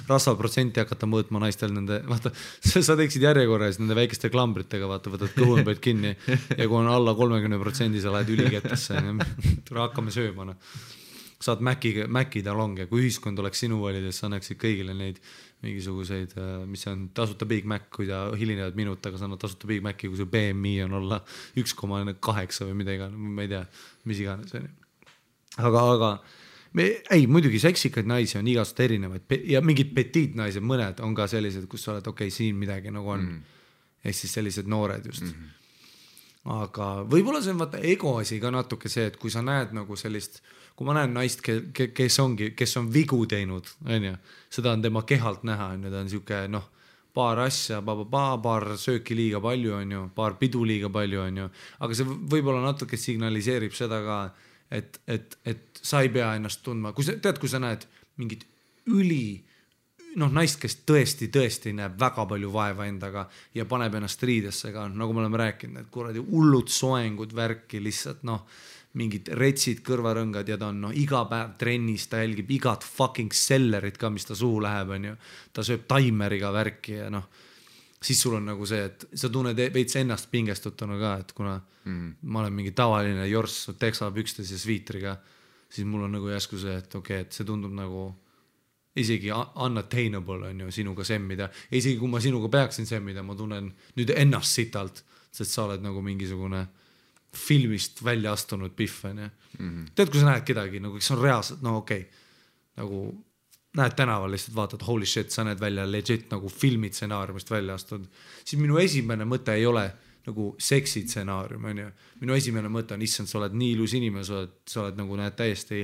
rasvaprotsenti hakata mõõtma naistel nende, vaata, sa teeksid järjekorras nende väikeste klambritega, vaata, võtad kõhunõpeid kinni ja kui on alla 30%, sa lähed ülikettesse, hakkame sööma, saad Maci talonge, kui ühiskond oleks sinu valides, sa annaksid kõigile neid mingisuguseid, mis on tasuta Big Mac, kui ta hilinevad minut, aga sa annad tasuta Big Maci, kui see BMI on olla 1,8 või mida iganes, ma ei tea, mis iganes. Aga muidugi seksikaid naisi on igast erinevaid ja mingid petiit naised, mõned on ka sellised, kus sa oled, okei, siin midagi nagu on. Ehk siis sellised noored just. Aga võib-olla see on vaata ego asi ka natuke see, et kui sa näed nagu sellist, kui ma näen naist, kes on vigu teinud, seda on tema kehalt näha, ta on siuke, paar asja, paar sööki liiga palju, paar pidu liiga palju, aga see võib-olla natuke signaliseerib seda ka, et sa ei pea ennast tundma, kui sa näed mingit naist, kes tõesti näeb väga palju vaeva endaga ja paneb ennast riidesse ka, nagu me oleme rääkinud, et kuradi hullud soengud värki lihtsalt, mingid retsid, kõrvarõngad ja ta on iga päev trennis, ta jälgib igat fucking sellerit ka, mis ta suhu läheb, ta sööb taimeriga värki ja siis sul on nagu see, et sa tunned veits ennast pingestutuna ka, et kuna ma olen mingi tavaline jorss, teksapükstes ja sviitriga, siis mul on nagu jäsku see, et okei, et see tundub nagu isegi unattainable on sinuga semmida. Isegi kui ma sinuga peaksin semmida, ma tunnen nüüd ennast sitalt, sest sa oled nagu mingisugune filmist välja astunud pihv. Tead, kui sa näed kedagi, nagu kes on reaalselt, nagu näed tänaval lihtsalt vaatad, holy shit, sa näed välja legit nagu filmitsenaariumist välja astud, siis minu esimene mõte ei ole nagu seksitsenaarium, minu esimene mõte on, issand, sa oled nii ilus inimene, sa oled nagu näed täiesti,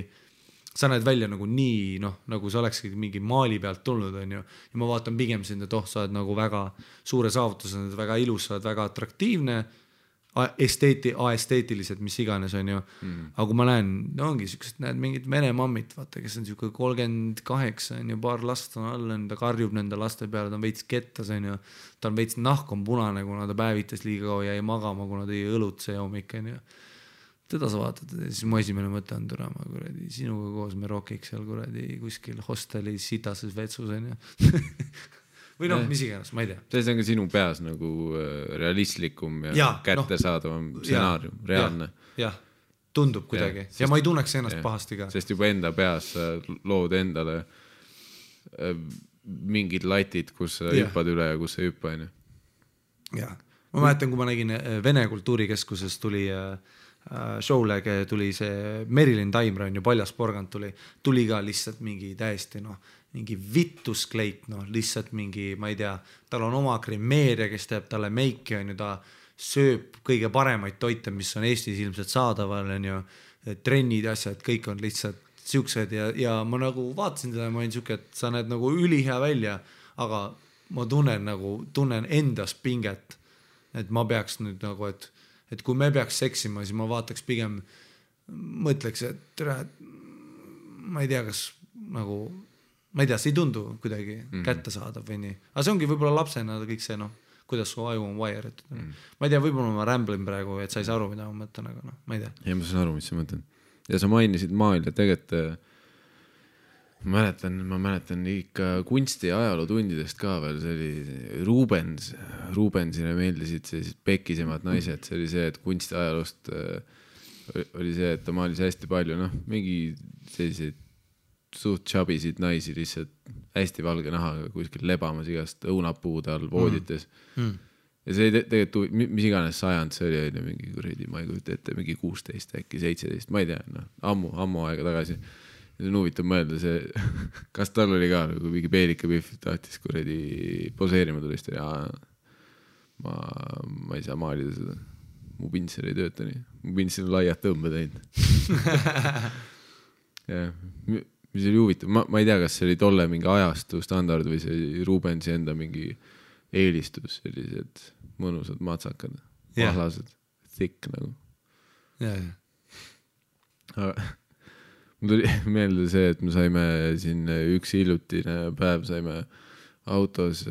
sa näed välja nagu nii, nagu sa olekski mingi maali pealt tulnud, ja ma vaatan pigem sind, et sa oled nagu väga suure saavutus, sa oled väga ilus, sa oled väga atraktiivne, aesteetiliselt, mis iganes, aga kui ma näen, ongi siuksed, näed mingid vene mammit, vaata, kes on siuke 38, paar last on all, ta karjub nende laste peale, ta on veits kettas, ta on veits nahk on punane, kuna ta päevitas liiga kaua jäi magama, kuna ta jäi õlut see hommik, teda sa vaatad, siis mu esimene mõte on turama, kuradi, sinuga koos me rokiks seal kuradi kuskil hosteli sitases vetsus, või mis iganes, ma ei tea. See on ka sinu peas nagu realistlikum ja kättesaadavam stsenaarium, reaalne. Jah, tundub kuidagi. Ja ma ei tunneks ennast pahasti ka. Sest juba enda peas lood endale mingid latid, kus sa hüppad üle ja kus sa hüppa. Jah, ma mäletan, kui ma nägin Vene kultuurikeskuses tuli show'le tuli see Merilin Taimre on ju paljas porgand tuli ka lihtsalt mingi täiesti mingi vittuskleit, lihtsalt mingi, ma ei tea, tal on oma kremeeria, kes teeb talle meiki, ta sööb kõige paremaid toite, mis on Eestis ilmselt saadaval, trennid ja asjad, kõik on lihtsalt siuksed ja ma nagu vaatasin teda ja ma olin siuke, et sa näed nagu ülihea välja, aga ma tunnen endas pinget, et ma peaks nüüd nagu, et kui me peaks seksima, siis ma vaataks pigem, mõtleks, et ma ei tea, kas nagu ma ei tea, see ei tundu kuidagi kätte saadav või nii. Aga see ongi võib-olla lapsena kõik see, kuidas su aju on wire'itud. Ma ei tea, võib-olla ma rämblin praegu, et sa ei saa aru, mida ma mõtlen, aga ma ei tea. Ja ma saan aru, mis sa mõtlen. Ja sa mainisid maal ja tegelikult ma mäletan ikka kunsti ja ajalootundidest ka veel, see oli Rubensile meeldisid sellised pekisemad naised, see oli see, et kunsti ajaloost oli see, et ta maalis hästi palju, mingi selliseid suht chabisid naisi lihtsalt hästi valge nahaga kuskil lebamas igast õunapuude all voodites. Ja see tegelikult, mis iganes sajand see oli, mingi kuredi, ma ei kujuta ette, mingi 16, äkki 17, ma ei tea, ammu aega tagasi. Ja see on huvitav mõelda see, kas tal oli ka nagu mingi peelika pihv, tahtis kuredi poseerima tulist ja ma ei saa maalida seda. Mu pintsel ei tööta nii. Mu pintsel on laiad tõmbe teinud. jah, mis oli huvitav, ma ei tea, kas see oli tolle mingi ajastu standard või see Rubensi enda mingi eelistus, sellised mõnusad matsakad, mahlased, thick nagu. Aga mul tuli meelde see, et me saime siin üks hiljutine päev saime autos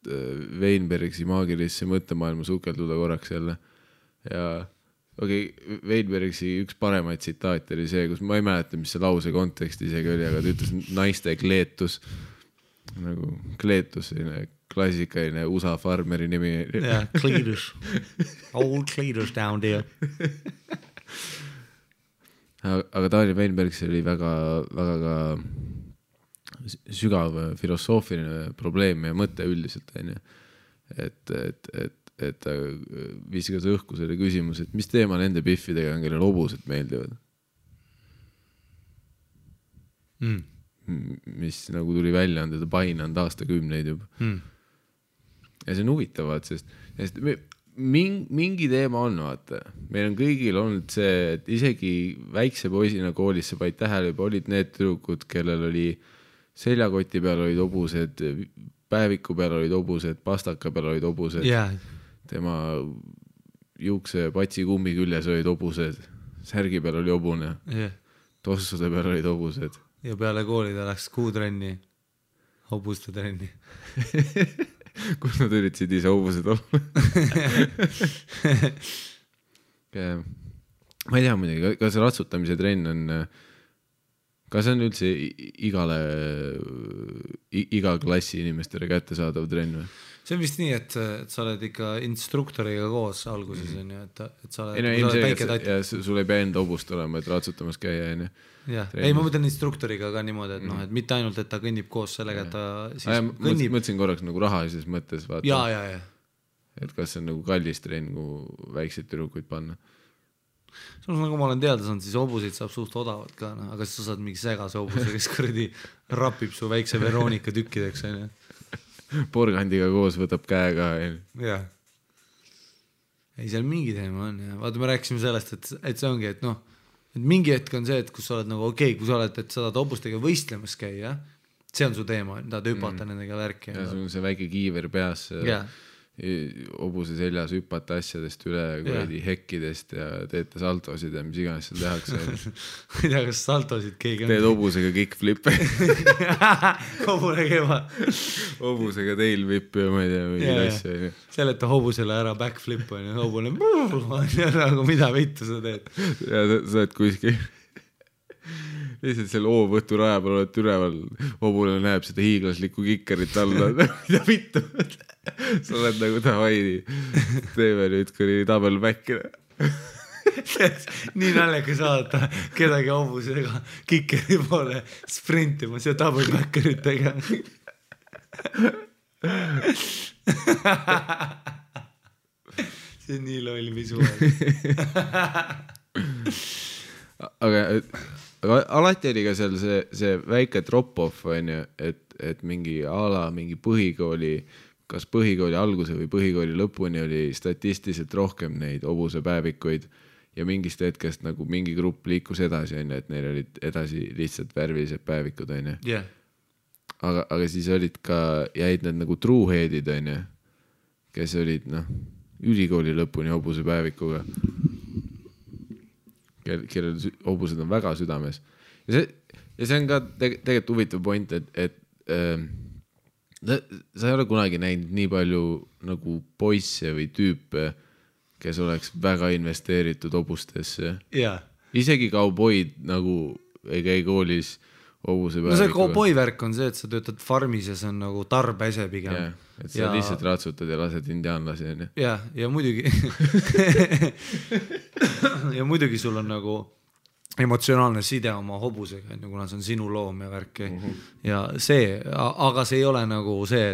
Weinbergsi maagilisse mõttemaailma sukelduda korraks jälle ja Weinbergsi üks paremaid tsitaate oli see, kus ma ei mäleta, mis see lause kontekst isegi oli, aga ta ütles naiste kleetus, nagu kleetus, selline klassikaline USA farmeri nimi. Yeah, Cletus. Old Cletus down there. Aga Daniel Weinbergsi oli väga ka sügav filosoofiline probleem ja mõte üldiselt, et ta viskas õhku selle küsimus, et mis teema nende biffidega on, kellel hobused meeldivad. Mis nagu tuli välja, on teda painanud aastakümneid juba. Ja see on huvitavad, sest mingi teema on, vaata. Meil on kõigil olnud see, et isegi väikse poisina koolis sa paid tähele, juba olid need tüdrukud, kellel oli seljakoti peal olid hobused, päeviku peal olid hobused, pastaka peal olid hobused. Yeah. Tema juukse patsi kummi küljes olid hobused, särgi peal oli hobune, tossude peal olid hobused. Ja peale kooli ta läks kuutrenni, hobuste trenni. Kus nad üritasid ise hobused olla? Ma ei tea muidugi, kas ratsutamise trenn on, kas on üldse iga klassi inimestele kättesaadav trenn või? See on vist nii, et sa oled ikka instruktoriga koos alguses, et sa oled väike tatt. Ja sul ei pea enda hobust olema, et ratsutamas käia. Ei, ma mõtlen instruktoriga ka niimoodi, et mitte ainult, et ta kõnnib koos sellega, et ta siis kõnnib. Mõtlesin korraks nagu rahalises mõttes. Vaata, ja. Et kas see on nagu kallis trenn, kui väikseid tüdrukuid panna. Sul nagu ma olen teada saanud, siis hobuseid saab suht odavalt ka, aga siis sa saad mingi segase hobuse, kes kuradi rapib su väikse Veronika tükkideks. Porgandiga koos võtab käega. Jah. Ei, seal mingi teema on. Ja. Vaata, me rääkisime sellest, et see ongi, et et mingi hetk on see, et kus sa oled nagu kui sa oled, et sa tahad hobustega võistlemas käia, see on su teema, tahad hüpata nendega värki. Ja sul on see väike kiiver peas. Hobuse seljas hüpata asjadest üle hekkidest ja teete saltosid ja mis iganes seal tehakse. Ma ei tea, kas saltosid keegi on. Teed hobusega kickflippe. Hobune keva. Hobusega tailwhip ja ma ei tea, mingi asja. Seleta hobusele ära backflip on ja hobune nagu mida vittu sa teed. Ja sa oled kuskil lihtsalt selle O-võtu raja peal oled üleval, hobune näeb seda hiiglaslikku kikkerit alla. Mida vittu? Sa oled nagu Hawaii, teeme nüüd kuni double back'ina. Nii naljaga saada kedagi hobusega kikkeri poole sprintimas ja double backeritega. See on nii loll visuaal. Aga alati oli ka seal see väike drop-off, et mingi mingi põhikooli, kas põhikooli alguse või põhikooli lõpuni oli statistiliselt rohkem neid hobusepäevikuid ja mingist hetkest nagu mingi grupp liikus edasi, et neil olid edasi lihtsalt värvilised päevikud. Yeah. Aga siis olid ka, jäid need nagu trueheadid, kes olid ülikooli lõpuni hobusepäevikuga. Kellel hobused on väga südames. Ja see on ka tegelikult huvitav point, et sa ei ole kunagi näinud nii palju nagu poisse või tüüpe, kes oleks väga investeeritud hobustesse. Yeah. Isegi kauboid nagu ei käi koolis hobusepäevikuga. See kauboi värk on see, et sa töötad farmis ja see on nagu tarbese pigem. Yeah. Et sa lihtsalt ratsutad ja lased indiaanlasi. Ja muidugi ja muidugi sul on nagu emotsionaalne side oma hobusega, kuna see on sinu loom ja värki. Ja see, aga see ei ole nagu see,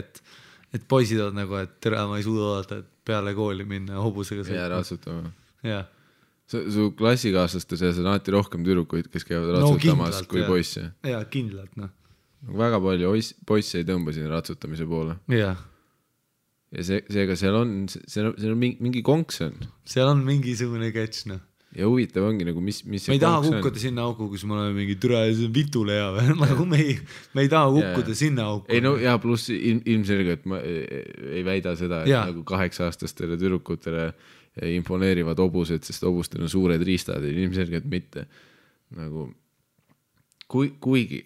et poisid on nagu, et tere, ma ei suuda oodata, et peale kooli minna hobusega sõitma. Ja ratsutama. Ja. Su klassikaaslaste seas on alati rohkem tüdrukuid, kes käivad ratsutamas kui poisse. Ja, kindlalt. Väga palju poisse ei tõmba siin ratsutamise poole. Ja. Ja seega seal on mingi konks on. Seal on mingisugune catch, ja huvitav ongi nagu, mis me ei taha kukkuda sinna auku, kus me oleme mingi türa ja see on vitule hea või, nagu me ei taha kukkuda sinna auku. Ei no ja pluss ilmselgelt ma ei väida seda, et nagu 8-aastastele tüdrukutele imponeerivad obused, sest obustel on suured riistad, ilmselgelt mitte. Nagu kuigi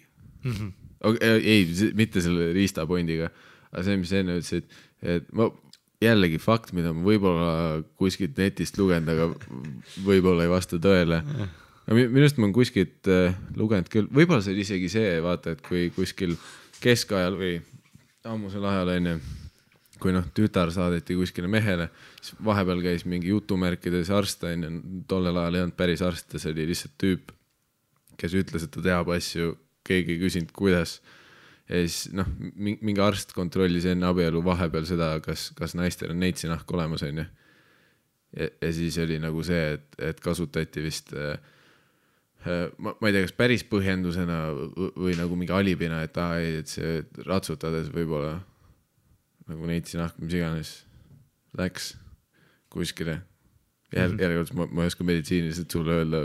ei, mitte selle riistapointiga, aga see, mis enne ütlesid, et ma jällegi fakt, mida ma võib-olla kuskilt netist lugenud, aga võib-olla ei vasta tõele. Minust ma olen kuskilt lugenud küll, võib-olla see oli isegi see, vaata, et kui kuskil keskajal või ammusel ajal enne, kui tütar saadeti kuskile mehele, siis vahepeal käis mingi jutumärkides arst, tollel ajal ei olnud päris arst, see oli lihtsalt tüüp, kes ütles, et ta teab asju, keegi ei küsinud, kuidas. Ja siis mingi arst kontrollis enne abielu vahepeal seda, kas naistel on neitsinahk olemas, on ju. Ja siis oli nagu see, et kasutati vist, ma ei tea, kas päris põhjendusena või nagu mingi alibina, et see ratsutades võib-olla nagu neitsinahk, mis iganes läks kuskile. Järgselt ma ei oska meditsiiniliselt sulle öelda,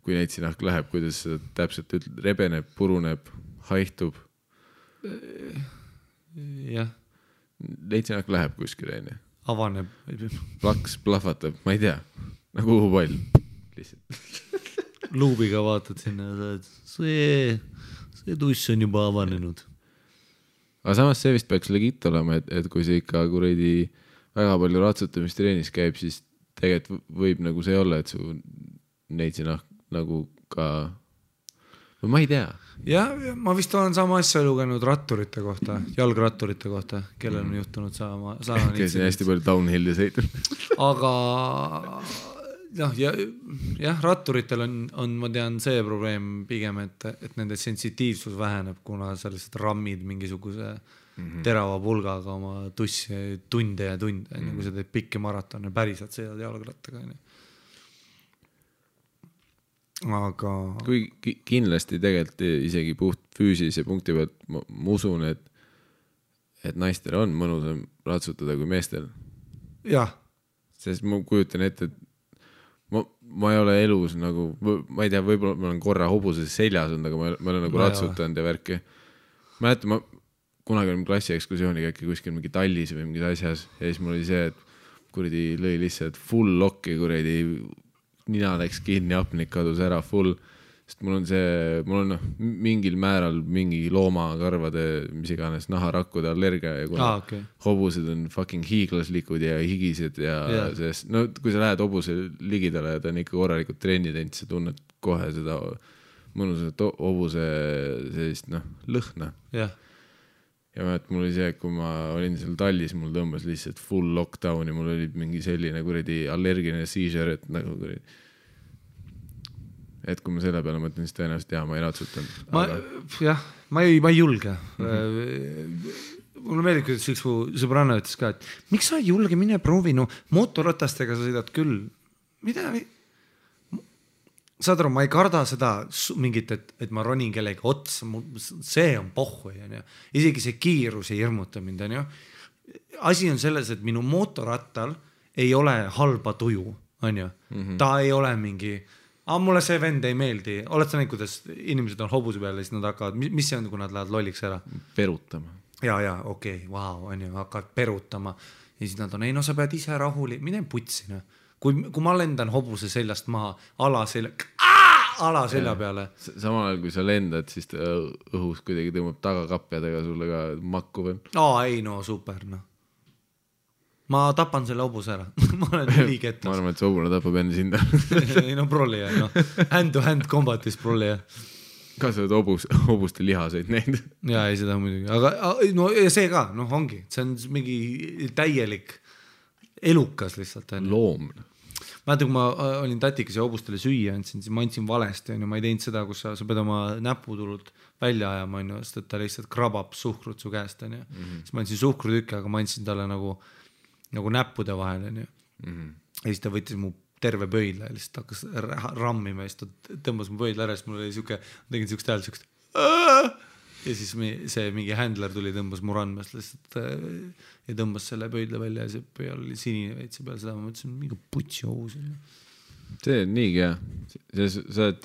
kui neitsinahk läheb, kuidas seda täpselt rebeneb, puruneb, haihtub. Jah. Neitsinahk läheb kuskile, enne. Avaneb. Plaks, plahvatab, ma ei tea. Nagu uhupall. Lihtsalt. Luubiga vaatad sinna ja see tuss on juba avanenud. Aga samas see vist peaks legit olema, et kui see ikka kuradi väga palju ratsutamistreenis käib, siis tegelikult võib nagu see olla, et su neitsinahk nagu ka või ma ei tea. Ja ma vist olen sama asja lugenud ratturite kohta, jalgratturite kohta, kellel on juhtunud sama kes on hästi palju downhilli sõitnud. Aga jah, ratturitel on, ma tean, see probleem pigem, et nende sensitiivsus väheneb, kuna sa lihtsalt rammid mingisuguse terava pulgaga oma tussi tunde ja tunde, kui sa teed pikki maratone, päriselt sõidad jalgrattaga. Aga kui kindlasti tegelikult isegi puht füüsilise punkti pealt ma usun, et naistel on mõnusam ratsutada kui meestel. Jah. Sest ma kujutan ette, et ma ei ole elus nagu, ma ei tea, võib-olla ma olen korra hobuses seljas olnud, aga ma olen nagu ratsutanud ja värki. Ma kunagi olin klassiekskursiooniga äkki kuskil mingi Tallis või mingis asjas ja siis mul oli see, et kuradi lõi lihtsalt full lokki kuradi nina läks kinni, apnik kadus ära full, sest mul on mingil määral mingi loomakarvade, mis iganes naharakkude allergia ja kuna hobused on fucking hiiglaslikud ja higised ja sest, kui sa lähed hobuse ligidale ja ta on ikka korralikult trenni teinud, sa tunned kohe seda mõnusat hobuse sellist lõhna. Jah. Ja mul oli see, et kui ma olin seal Tallis, mul tõmbas lihtsalt full lockdowni, mul oli mingi selline kuradi allergiline seizure, et nagu kuradi. Et kui ma selle peale mõtlen, siis tõenäoliselt ma ei ratsutanud. Ma ei julge. Mulle meeldib, kuidas üks sõbranna ütles ka, et miks sa ei julge, mine proovi, motorratastega sa sõidad küll. Mida? Saad aru, ma ei karda seda mingit, et ma ronin kellegi otsa, see on pohhu. Isegi see kiirus ei hirmuta mind. Asi on selles, et minu motorrattal ei ole halba tuju. Ta ei ole mingi, mulle see vend ei meeldi. Oled sa näinud, kuidas inimesed on hobuse peale, siis nad hakkavad, mis see on, kui nad lähevad lolliks ära? Perutama. Ja, okei, vau, hakkavad perutama. Ja siis nad on, sa pead ise rahuli, mine putsi. Kui ma lendan hobuse seljast maha, ala selja peale. Samal ajal, kui sa lendad, siis õhus kuidagi tõmbab tagakapjadega sulle ka makku veel. Ei, super. Ma tapan selle hobuse ära. Ma olen ülikettas. Ma arvan, et see hobune tapab enne sinda. Ei, prolli. Hand to hand combatis prolli. Kas sa oled hobuste lihaseid näinud? Jaa, ei seda muidugi. Aga ja see ka, ongi. See on mingi täielik elukas lihtsalt. Loomne. Mäletan, kui ma olin tatikas ja hobustele süüa andsin, siis ma andsin valesti. Ma ei teinud seda, kus sa pead oma näputulult välja ajama, sest et ta lihtsalt krabab suhkrut su käest. Siis ma andsin suhkrutükke, aga ma andsin talle nagu näppude vahel. Ja siis ta võttis mu terve pöidla ja lihtsalt hakkas rammima ja siis ta tõmbas mu pöidla ära, siis mul oli tegin siukest hääl, siukest ja siis see mingi händler tuli, tõmbas mu randmast lihtsalt ja tõmbas selle pöidla välja ja see peal oli sinine veitsi peal, seda ma mõtlesin, mingi putsi hobus. see on niigi hea. Sa oled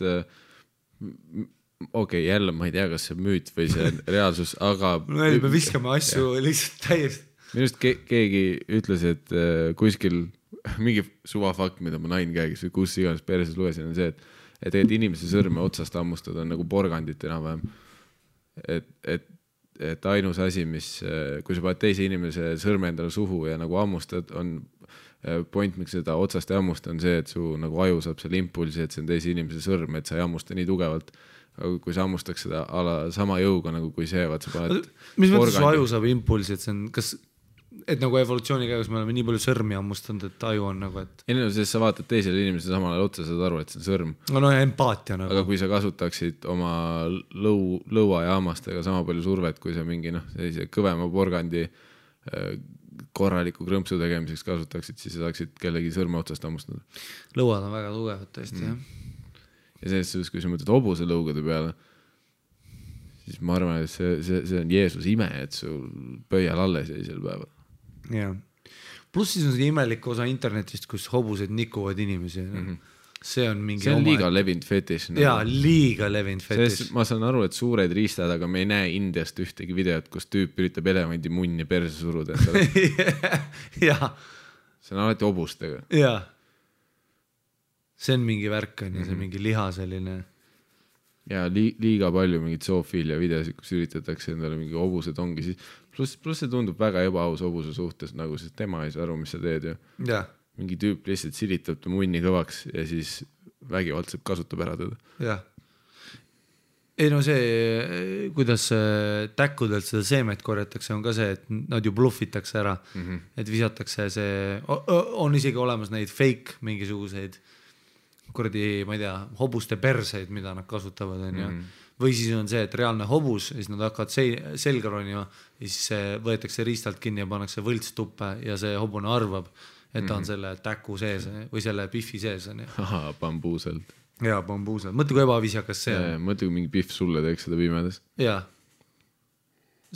okei, jälle ma ei tea, kas see müüt või see reaalsus, aga me viskame asju lihtsalt täiesti. Minu arust keegi ütles, et kuskil mingi suvafakt, mida ma nain käegis või kus iganes perses lugesin, on see, et tegelikult inimese sõrme otsast hammustada on nagu porgandit enam-vähem. Et ainus asi, mis, kui sa paned teise inimese sõrme endale suhu ja nagu hammustad, on point, miks seda otsast ei hammusta, on see, et su nagu aju saab selle impulsi, et see on teise inimese sõrm, et sa ei hammusta nii tugevalt. Aga kui sa hammustaks seda sama jõuga, nagu kui see, vaat sa paned mis mõttes su aju saab impulsi, et see on, kas et nagu evolutsiooni käigus me oleme nii palju sõrmi hammustanud, et aju on nagu, et ei, sest sa vaatad teisele inimesele samal ajal otsa, saad aru, et see on sõrm. No empaatia nagu. Aga kui sa kasutaksid oma lõua ja hammastega sama palju survet, kui sa mingi sellise kõvema porgandi korraliku krõmpsu tegemiseks kasutaksid, siis saaksid kellegi sõrme otsast hammustada. Lõuad on väga tugevad tõesti, jah. Ja selles suhtes, kui sa mõtled hobuse lõugade peale, siis ma arvan, et see on Jeesus ime, et sul pöial alles jäi sel päeval. Jah. Pluss siis on see imelik osa internetist, kus hobused nikuvad inimesi. See on mingi see on liiga levinud fetiš. Jaa, liiga levinud fetiš. Ma saan aru, et suured riistad, aga me ei näe Indiast ühtegi videot, kus tüüp üritab elevandi munni perse suruda. Jaa. See on alati hobustega. Jaa. See on mingi värk on ja see mingi liha selline. Ja liiga palju mingid zoofiilia videosid, kus üritatakse endale mingi hobused ongi siis. Plus see tundub väga ebaaus hobuse suhtes, nagu siis tema ei saa aru, mis sa teed ju. Ja. Mingi tüüp lihtsalt silitab ta munni kõvaks ja siis vägivaldselt kasutab ära teda. Jah. Ei no see, kuidas täkkudelt seda seemet korjatakse, on ka see, et nad ju bluffitakse ära, et visatakse see, on isegi olemas neid fake mingisuguseid kuradi, ma ei tea, hobuste perseid, mida nad kasutavad, on ju. Või siis on see, et reaalne hobus, siis nad hakkavad selga ronima ja siis võetakse riistalt kinni ja pannakse võlts tuppe ja see hobune arvab, et ta on selle täku sees või selle piffi sees. Aha, bambuuselt. Jaa, bambuuselt. Mõtle, kui ebaviisakas see on. Mõtle, kui mingi pihv sulle teeks seda pimedas. Jaa.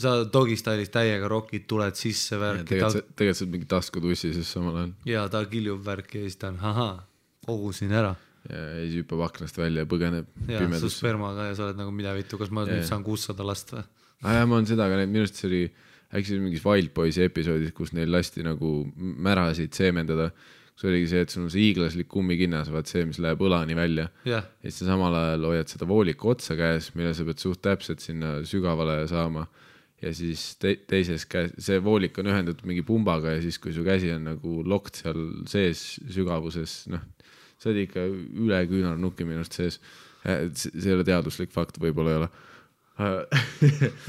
Sa dogistailis täiega rokid, tuled sisse värki. Tegelikult sa mingi taskutussi siis samal ajal. Jaa, ta kiljub värki ja siis ta on, kogusin ära. Ja siis hüppab aknast välja ja põgeneb pimedas. Su spermaga ja sa oled nagu mida vittu, kas ma nüüd saan 600 last või? Ja ma olen seda, aga minust see oli äkki mingis Wild Boysi episoodis, kus neil lasti nagu märasid seemendada. See oligi see, et sul on see hiiglaslik kummikinnas, vaat see, mis läheb õlani välja. Ja siis sa samal ajal hoiad seda vooliku otsa käes, mille sa pead suht täpselt sinna sügavale saama. Ja siis teises käes, see voolik on ühendatud mingi pumbaga ja siis, kui su käsi on nagu lokt seal sees sügavuses, see oli ikka üle küünarnuki minust sees. See ei ole teaduslik fakt, võib-olla ei ole.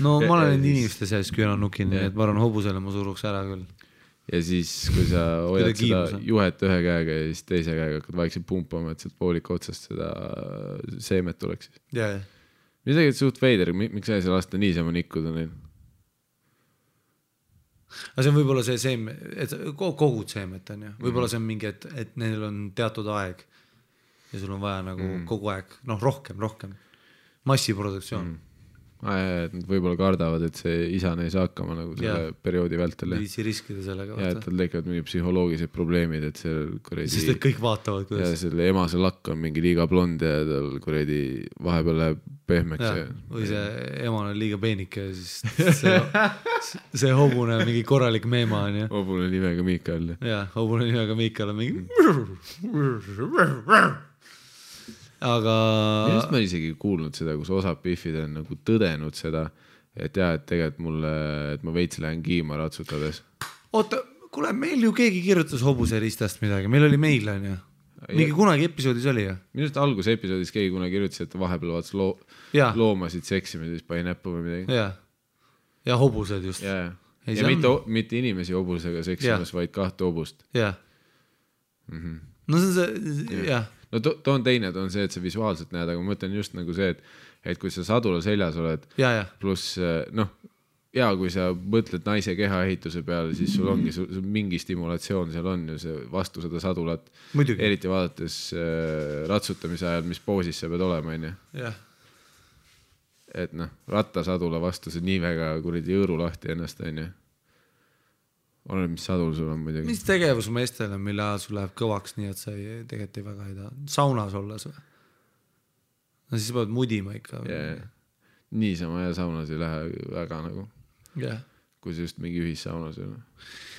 No ma olen need inimeste sees küünarnukin, nii et ma arvan hobusele ma suruks ära küll. Ja siis, kui sa hoiad seda juhet ühe käega ja siis teise käega hakkad vaikselt pumpama, et sealt voolika otsast seda seemet tuleks. Jaa. Mis tegelikult suht veider, miks sa ei saa lasta niisama nikkuda neil? Aga see on võib-olla see seemet, et kogud seemet on ju. Võib-olla see on mingi, et neil on teatud aeg ja sul on vaja nagu kogu aeg, rohkem. Massiproduktsioon. Nad võib-olla kardavad, et see isane ei saa hakkama nagu selle perioodi vältel. Viisi riskida sellega. Ja, et tal tekivad mingi psühholoogised probleemid, et see kuredi... Sest et kõik vaatavad, kuidas... Ja selle emase lakk on mingi liiga blond ja tal kuredi vahepeal läheb pehmeks. Ja, või see eman on liiga peenike ja siis see hobune on mingi korralik meema on ju. Hobune nimega Miikael. Ja, hobune nimega Miikael on mingi... Aga... Minust ma isegi kuulnud seda, kus osad piffid on nagu tõdenud seda, et jah, et tegelikult mulle, et ma veits lähen kiima ratsutades. Oota, kuule, meil ju keegi kirjutas hobuse ristast midagi, meil oli meil on ju. Mingi kunagi episoodis oli ju. Minust alguse episoodis keegi kunagi kirjutas, et vahepeal vaatas loomasid seksime, siis pani näppu või midagi. Ja hobused just. Ja mitte inimesi hobusega seksimas, vaid kahte hobust. Ja. No see on see, jah. No toon teine, on see, et sa visuaalselt näed, aga ma mõtlen just nagu see, et kui sa sadula seljas oled, pluss kui sa mõtled naise kehaehituse peale, siis sul ongi mingi stimulatsioon seal on ju see vastu seda sadulat. Muidugi. Eriti vaadates ratsutamise ajal, mis poosis sa pead olema, on ju. Jah. Et rattasadula vastu see nii väga kuridi jõõru lahti ennast, on ju. Oleneb, mis sadul sul on muidugi. Mis tegevus meestele, mille ajal sul läheb kõvaks, nii et sa tegelikult ei väga ei taha. Saunas olles või? No siis pead mudima ikka. Niisama ja saunas ei lähe väga nagu. Kui see just mingi ühissaunas ei ole.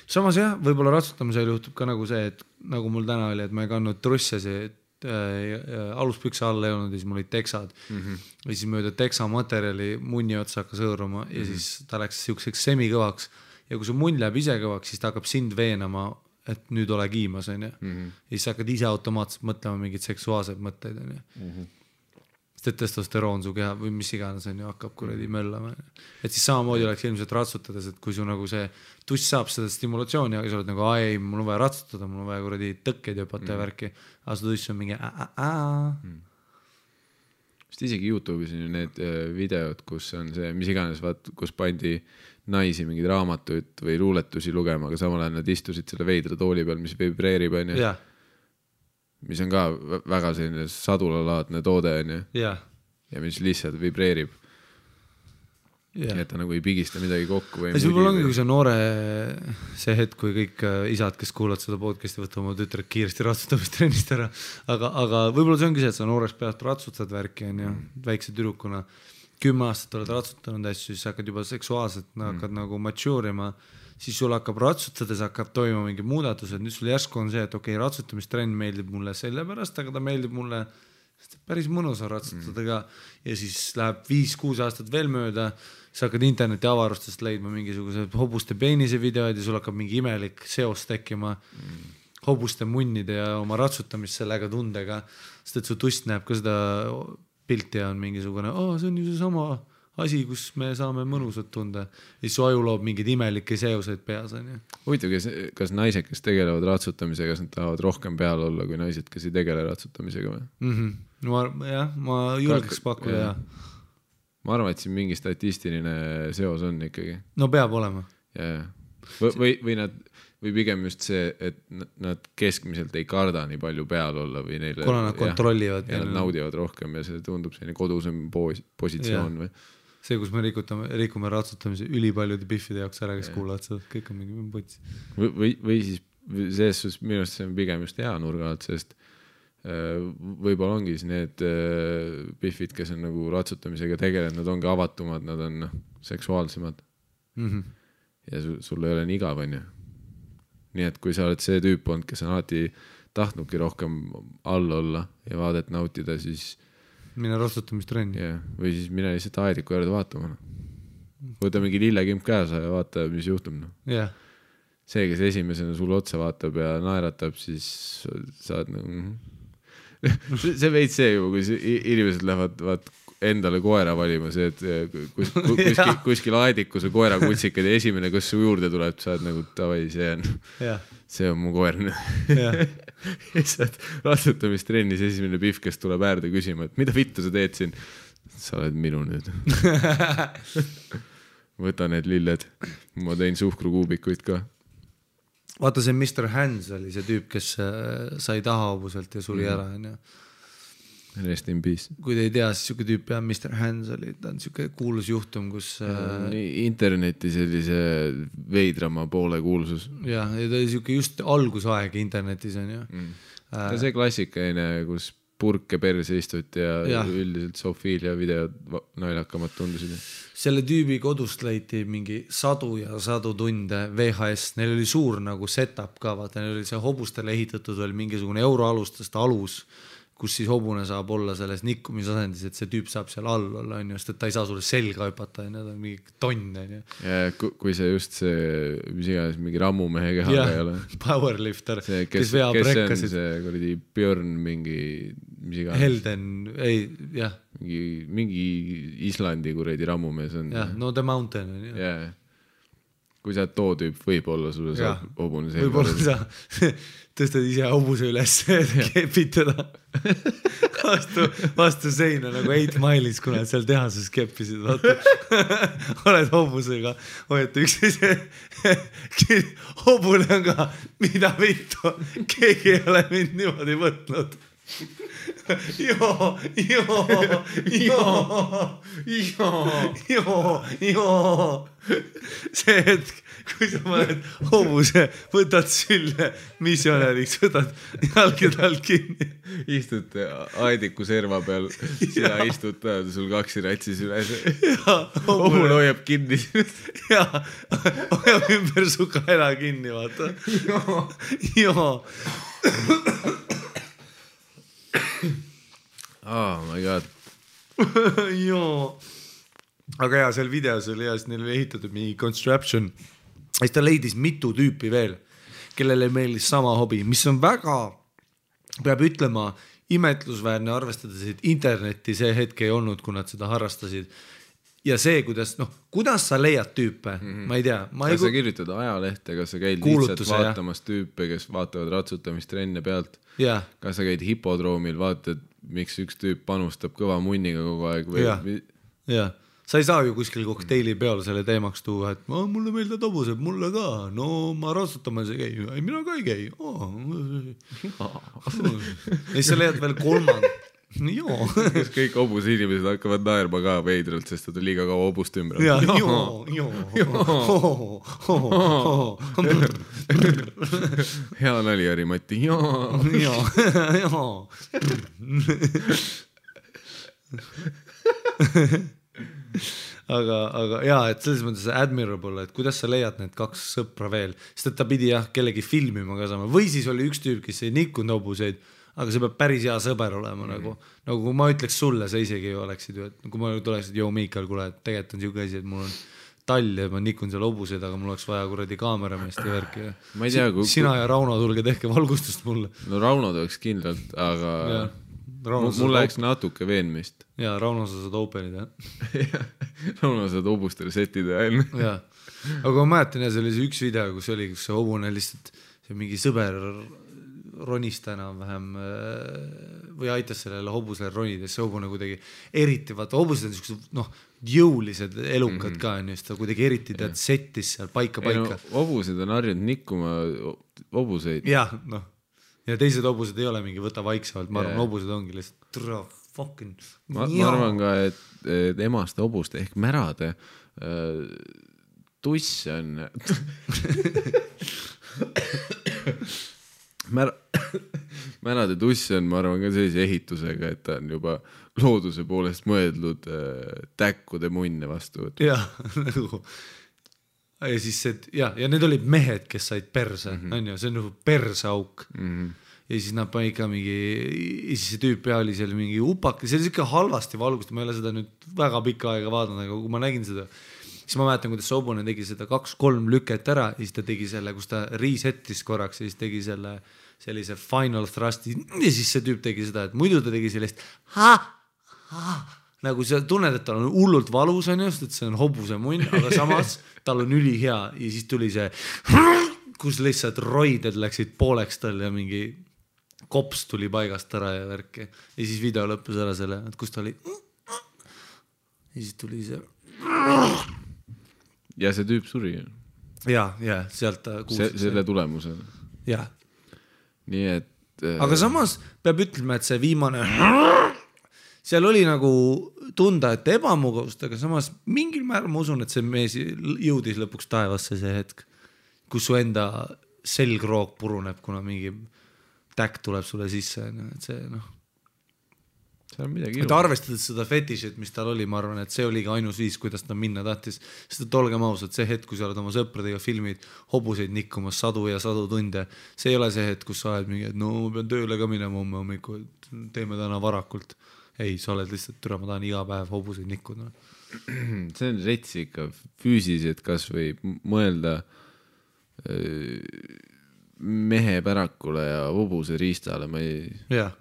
Samas jah, võib-olla ratsutamisel juhtub ka nagu see, et nagu mul täna oli, et ma ei kandnud trussasi, aluspükse alla ei olnud ja siis mul olid teksad. Ja siis mööda teksa materjali munni otsa hakkas hõõruma ja siis ta läks siukseks semikõvaks. Ja kui su munn läheb ise kõvaks, siis ta hakkab sind veenama, et nüüd ole kiimas, on ju. Ja siis sa hakkad ise automaatselt mõtlema mingid seksuaalsed mõtteid, on ju. Sest et testosteroon su keha või mis iganes, on ju, hakkab kuradi möllama. Et siis samamoodi oleks ilmselt ratsutades, et kui su nagu see tuss saab seda stimulatsiooni, aga sa oled nagu, ei, mul on vaja ratsutada, mul on vaja kuradi tõkkeid jõpata ja värki, aga su tuss on mingi Sest isegi YouTube'is on ju need videod, kus on see, mis iganes, kus pandi naisi mingeid raamatuid või luuletusi lugema, aga samal ajal nad istusid selle veidra tooli peal, mis vibreerib, on ju. Mis on ka väga selline sadulalaadne toode, on ju. Ja mis lihtsalt vibreerib. Et ta nagu ei pigista midagi kokku. Ja see võib-olla ongi, kui see noore see hetk, kui kõik isad, kes kuulavad seda podcasti, võtta oma tütred kiiresti ratsutamistrennist ära. Aga võib-olla see ongi see, et sa nooreks pealt ratsutad värki, on ju, väikse tüdrukuna. 10 aastat oled ratsutanud asju, siis hakkad juba seksuaalselt, hakkad nagu maturima, siis sul hakkab ratsutades, hakkab toimuma mingi muudatused, nüüd sul järsku on see, et okei, ratsutamistrend meeldib mulle selle pärast, aga ta meeldib mulle päris mõnus on ratsutada ka ja siis läheb 5-6 aastat veel mööda, sa hakkad interneti avarustest leidma mingisuguse hobuste peenise videoid ja sul hakkab mingi imelik seos tekkima hobuste munnide ja oma ratsutamist sellega tundega, sest et su tust näeb ka seda pilti ja on mingisugune, see on ju see sama asi, kus me saame mõnusat tunda. Ja su aju loob mingid imelikke seoseid peas. Huvitav, kas naised, kes tegelevad ratsutamisega, kas nad tahavad rohkem peal olla kui naised, kes ei tegele ratsutamisega või? Ma julgeks pakkuda, jah. Ma arvan, et siin mingi statistiline seos on ikkagi. No peab olema. Või pigem just see, et nad keskmiselt ei karda nii palju peal olla või neile, kuna nad kontrollivad ja nad naudivad rohkem ja see tundub selline kodusem positsioon või? See, kus me rikume ratsutamise ülipaljude biffide jaoks ära, kes kuulavad seda, kõik on mingi potsi. Või siis selles minu arust see on pigem just hea nurga alt, sest võib-olla ongi siis need biffid, kes on nagu ratsutamisega tegelenud, nad ongi avatumad, nad on seksuaalsemad ja sul ei ole nii igav, on ju. Nii et kui sa oled see tüüp olnud, kes on alati tahtnudki rohkem all olla ja vaadet nautida, siis mine ratsutamistreni. Või siis mine lihtsalt aediku juurde vaatama. Võta mingi lillekimp käesa ja vaata, mis juhtub. See, kes esimesena sulle otsa vaatab ja naeratab, siis saad see veid see ju, kui inimesed lähevad endale koera valima, see, et kuskil aediku see koera kutsikad ja esimene, kus su juurde tuleb, saad nagu tavai, see on mu koer. Ratsutamistreenis esimene pihv, kes tuleb äärde küsima, et mida vittu sa teed siin? Sa oled minu nüüd. Võta need lilled. Ma tein suhkrukuubikuid ka. Vaata, see Mr. Hands oli see tüüp, kes sai taha hobuselt ja suri ära. Rest in peace. Kui te ei tea, siis siuke tüüp ja Mr. Hands oli, ta on siuke kuulus juhtum, kus interneti sellise veidrama poole kuulsus. Ja ta oli siuke just algusaeg internetis on ju. Ta see klassikaine, kus purke perse istuti ja üldiselt Sofiilia videod naljakamad tundusid. Selle tüübi kodust leiti mingi 100 ja 100 tunde VHS. Neil oli suur nagu setup ka, vaata, neil oli see hobustele ehitatud veel mingisugune euroalustest alus, kus siis hobune saab olla selles nikkumisasendis, et see tüüp saab seal all olla, on just, et ta ei saa sulle selga hüpata, ja need on mingi tonn. Ja kui see just see, mis iganes, mingi rammumehe kehaga ei ole. Powerlifter, kes veab rekkasid. See kuradi Björn mingi, mis iganes. Helden, ei, jah. Mingi Islandi kuradi rammumees on. Jah, no The Mountain on ju. Jah. Kui sa too tüüp võib-olla sulle saab hobune selga. Võib-olla sa tõstad ise hobuse üles, kepid teda vastu seina nagu 8 Mile'is, kuna seal tehases keppisid. Oled hobusega, hoiate üksteise hobune on ka, mida vittu, keegi ei ole mind niimoodi võtnud. joo. See hetk, kui sa paned hobuse, võtad sülle misjonäriks, võtad jalgid all kinni. Istud aediku serva peal, sina istud peal, sul kaksi ratsi süles. Hobune hoiab kinni. Jaa, hoiab ümber su kaela kinni, vaata. Joo. Oh my god. Joo. Aga jaa, seal videos oli hea, sest neil oli ehitatud mingi construction. Siis ta leidis mitu tüüpi veel, kellele meeldis sama hobi, mis on väga, peab ütlema, imetlusväärne arvestades, et internetti see hetk ei olnud, kui nad seda harrastasid. Ja see, kuidas sa leiad tüüpe, ma ei tea. Kas sa kirjutad ajalehte, kas sa käid lihtsalt vaatamas tüüpe, kes vaatavad ratsutamist trenne pealt? Yeah. Kas sa käid hipodroomil, vaatad, miks üks tüüp panustab kõva munniga kogu aeg? Jah. Sa ei saa ju kuskil kokteili peal selle teemaks tuua, et mulle meeldavad hobused, mulle ka. No ma ratsutamas ei käi. Ei, mina ka ei käi. Ja sa leiad veel kolmand. Joo. Kas kõik hobuse inimesed hakkavad naerma ka veidralt, sest ta liiga kaua hobust ümber. Hea nali, Mati. Aga jaa, et selles mõttes admirable, et kuidas sa leiad need kaks sõpra veel, sest et ta pidi kellegi filmima ka saama, või siis oli üks tüüp, kes ei nikkunud hobuseid, aga see peab päris hea sõber olema nagu kui ma ütleks sulle, sa isegi ju oleksid ju, et kui ma tuleksid, joo Miikal, kuule, et tegelikult on siuke asi, et mul on tall ja ma nikun seal hobuseid, aga mul oleks vaja kuradi kaamerameest ja värki. Ma ei tea, sina ja Rauno tulge tehke valgustust mulle. No Rauno tuleks kindlalt, aga mul läheks natuke veenmist. Jaa, Rauno sa saad openida. Rauno saad hobustele setida. Jaa, aga ma mäletan, see oli see üks video, kus see hobune lihtsalt, see mingi sõber ronista enam-vähem või aitas sellele hobusele ronida, see hobune kuidagi eriti, vaata hobused on sellised jõulised elukad ka, ta kuidagi eriti settis seal paika. Hobused on harjunud nikkuma hobuseid. Jah, ja teised hobused ei ole mingi võta vaiksemalt, ma arvan, hobused ongi lihtsalt fucking. Ma arvan ka, et emaste hobuste ehk märade tuss on märade tuss on, ma arvan, ka sellise ehitusega, et ta on juba looduse poolest mõeldud täkkude munne vastu. Jah, nagu ja siis ja need olid mehed, kes said perse, on ju, see on nagu perseauk. Ja siis nad pani ikka mingi, ja siis see tüüp oli seal mingi upak, see oli ikka halvasti valgust, ma ei ole seda nüüd väga pikka aega vaadanud, aga kui ma nägin seda, siis ma mäletan, kuidas Sobune tegi seda 2-3 lüket ära ja siis ta tegi selle, kus ta resettis korraks ja siis tegi sellise final thrusti ja siis see tüüp tegi seda, et muidu ta tegi sellist nagu sa tunned, et tal on hullult valus on just, et see on hobuse munn, aga samas tal on ülihea ja siis tuli see, kus lihtsalt roided läksid pooleks tal ja mingi kops tuli paigast ära ja värki ja siis video lõppus ära selle, et kus ta oli ja siis tuli see ja see tüüp suri. Ja, sealt ta kuulsid. Selle tulemusel. Ja. Nii et... Aga samas peab ütlema, et see viimane... Seal oli nagu tunda, et ebamugavust, aga samas mingil määral ma usun, et see mees jõudis lõpuks taevasse see hetk, kus su enda selgroog puruneb, kuna mingi täkk tuleb sulle sisse. Et see et arvestades seda fetišit, mis tal oli, ma arvan, et see oligi ainus viis, kuidas ta minna tahtis. Sest et olgem ausad, see hetk, kui sa oled oma sõpradega filmid hobuseid nikkumas sadu ja sadu tunde, see ei ole see hetk, kus sa oled mingi, et no ma pean tööle ka minema homme hommikul, teeme täna varakult. Ei, sa oled lihtsalt türa, ma tahan iga päev hobuseid nikkuda. See on rets ikka füüsiliselt kas või mõelda mehe pärakule ja hobuse riistale, ma ei... Jah.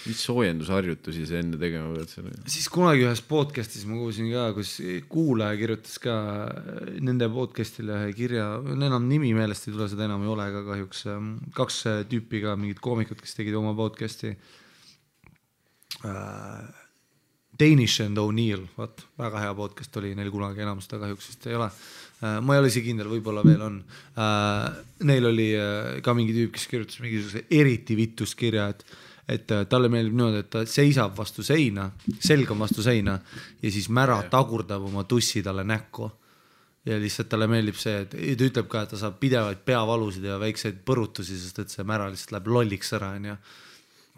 Mis soojendusharjutusi see enne tegema pead selle? Siis kunagi ühes podcastis ma kuulsin ka, kus kuulaja kirjutas ka nende podcastile kirja, enam nimi meelest ei tule, seda enam ei ole ka kahjuks. 2 tüüpi ka, mingid koomikud, kes tegid oma podcasti. Danish and O'Neill, väga hea podcast oli, neil kunagi enam seda kahjuks vist ei ole. Ma ei ole isi kindel, võib-olla veel on. Neil oli ka mingi tüüp, kes kirjutas mingisuguse eriti vitust kirja, et talle meeldib niimoodi, et ta seisab vastu seina, selg on vastu seina ja siis mära tagurdab oma tussi talle näkku. Ja lihtsalt talle meeldib see, et ta ütleb ka, et ta saab pidevaid peavalusid ja väikseid põrutusi, sest et see mära lihtsalt läheb lolliks ära,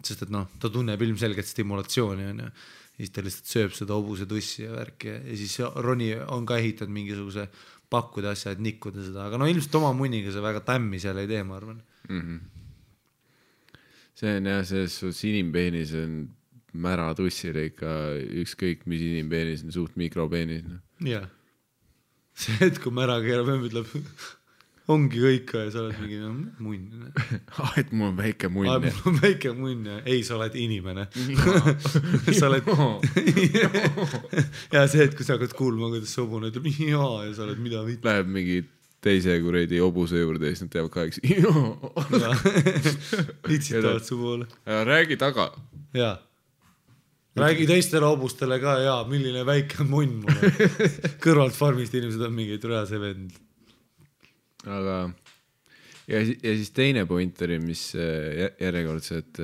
sest et ta tunneb ilmselgelt stimulatsiooni, ja siis ta lihtsalt sööb seda hobuse tussi ja värki ja siis Roni on ka ehitanud mingisuguse pakkude asja, et nikkuda seda, aga ilmselt oma munniga see väga tämmi seal ei tee, ma arvan. See on jah, selles inimpeenis on mära tussile ikka ükskõik, mis inimpeenis on suht mikropeenis. Jah. See hetk, kui mära keerab, ütleb, ongi kõik ja sa oled mingi munn. Et mul on väike munn. Mul on väike munn ja ei, sa oled inimene. Sa oled... ja see hetk, kui sa hakkad kuulma, kuidas see hobune ütleb ja sa oled mida mitte. Läheb mingi teise kuredi hobuse juurde ja siis nad teevad kaheks. Itsitavad su poole. Räägi taga. Jaa. Räägi teistele hobustele ka, milline väike munn mul. Kõrvalt farmist inimesed on mingi türa see vend. Aga ja siis teine point oli, mis järjekordselt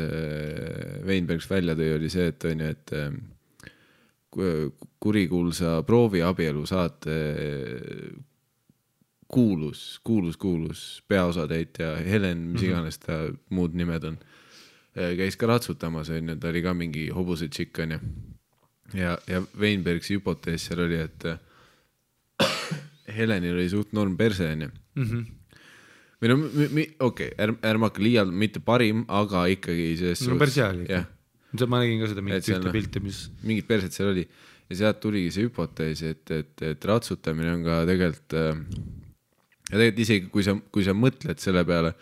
Weinbergs välja tõi, oli see, et on ju, et kurikuulsa prooviabielu saate kuulus peaosatäitja Helen, mis iganes ta muud nimed on, käis ka ratsutamas, ta oli ka mingi hobuse tšikk, on ju. Ja Weinbergsi hüpotees seal oli, et Helenil oli suht norm perse, on ju. Või okei, ärma hakka liialt, mitte parim, aga ikkagi no perse oli. Ma nägin ka seda mingit ühte pilti, mis... Mingit perset seal oli. Ja sealt tuligi see hüpotees, et ratsutamine on ka tegelikult... Ja tegelikult isegi, kui sa mõtled selle peale,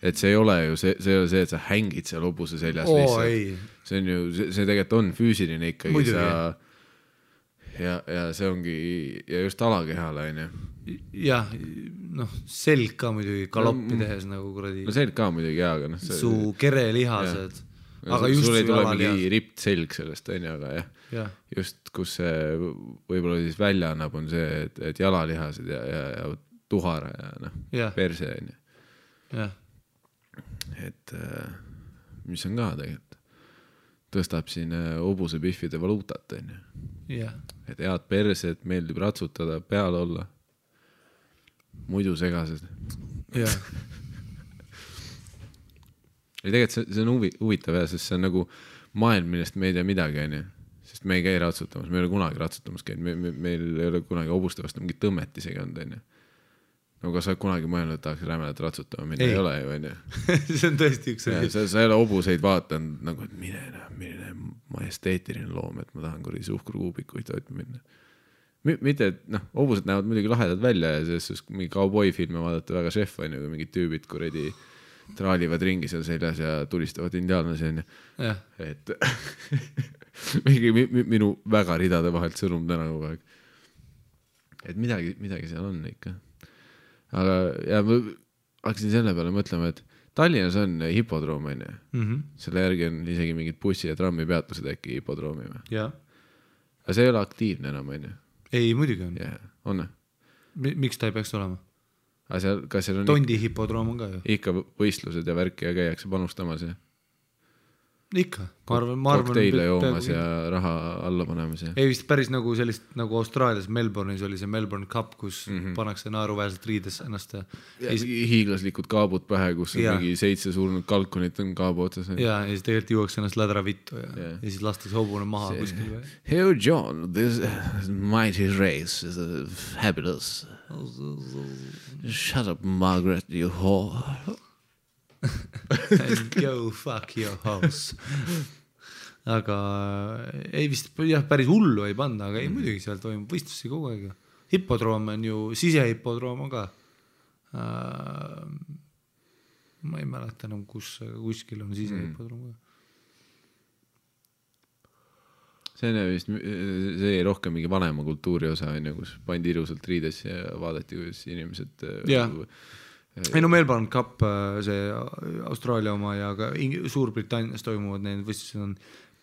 et see ei ole ju see, et sa hängid seal hobuse seljas lihtsalt. See on ju, see tegelikult on füüsiline ikkagi. Ja see ongi, ja just alakehale, on ju. Jah, selg ka muidugi galoppi tehes nagu kuradi. No selg ka muidugi, aga su kerelihased. Aga just sul ei tule mingi ript selg sellest, on ju, aga jah. Just, kus see võib-olla siis välja annab, on see, et jalalihased ja tuhara ja perse, on ju. Jah. Et mis on ka tegelikult tõstab siin hobuse pihvide valuutat, on ju. Et head persed, meeldib ratsutada, peal olla, muidu segased. Ja tegelikult see on huvitav, sest see on nagu maailm, millest me ei tea midagi, on ju. Sest me ei käi ratsutamas, me ei ole kunagi ratsutamas käinud, meil ei ole kunagi hobuste vastu mingit tõmmet isegi olnud, on ju. No kas sa kunagi mõelnud, et tahaks rämelat ratsutama, minna ei ole ju, on ju. See on tõesti üks sa ei ole hobuseid vaatanud, nagu, et milline majesteetiline loom, et ma tahan kuradi suhkrukuubikuid toitma minna. Mitte, et hobused näevad muidugi lahedad välja ja selles mingi cowboy-filme vaadata väga šef, on ju, kui mingid tüübid kuradi traalivad ringi seal seljas ja tulistavad indiaanlasi, on ju. Et minu väga ridade vahelt sõnum täna kogu aeg. Et midagi seal on ikka. Aga ja ma hakkasin selle peale mõtlema, et Tallinnas on hipodroom, on ju. Selle järgi on isegi mingid bussi ja trammi peatused äkki hipodroomi. Aga see ei ole aktiivne enam, on ju. Ei, muidugi on. On? Miks ta ei peaks olema? Kas seal on Tondi hipodroom on ka ju. Ikka võistlused ja värki ja käiakse panustamas ja ikka. Kokteile joomas ja raha alla panemas. Ei vist päris nagu sellist, nagu Austraalias Melbourne'is oli see Melbourne Cup, kus pannakse naeruväärselt riides ennast. Ja hiiglaslikud kaabud pähe, kus on mingi 7 surnud kalkunit on kaabu otsas. Ja siis tegelikult juuakse ennast lädra vittu ja siis lastakse hobune maha kuskil. Hey John, this mighty race is fabulous. Shut up, Margaret, you whore. And go fuck your house. Aga ei vist päris hullu ei panna, aga ei muidugi seal toimub võistlusi kogu aeg. Hipodroom on ju, sisehipodroom on ka. Ma ei mäleta enam, kuskil on sisehipodroom ka. See on vist, see ei rohkem mingi vanema kultuuri osa, kus pandi ilusalt riides ja vaadati, kuidas inimesed... Ei no Melbourne Cup, see Austraalia oma ja ka Suurbritannias toimuvad need võistlused on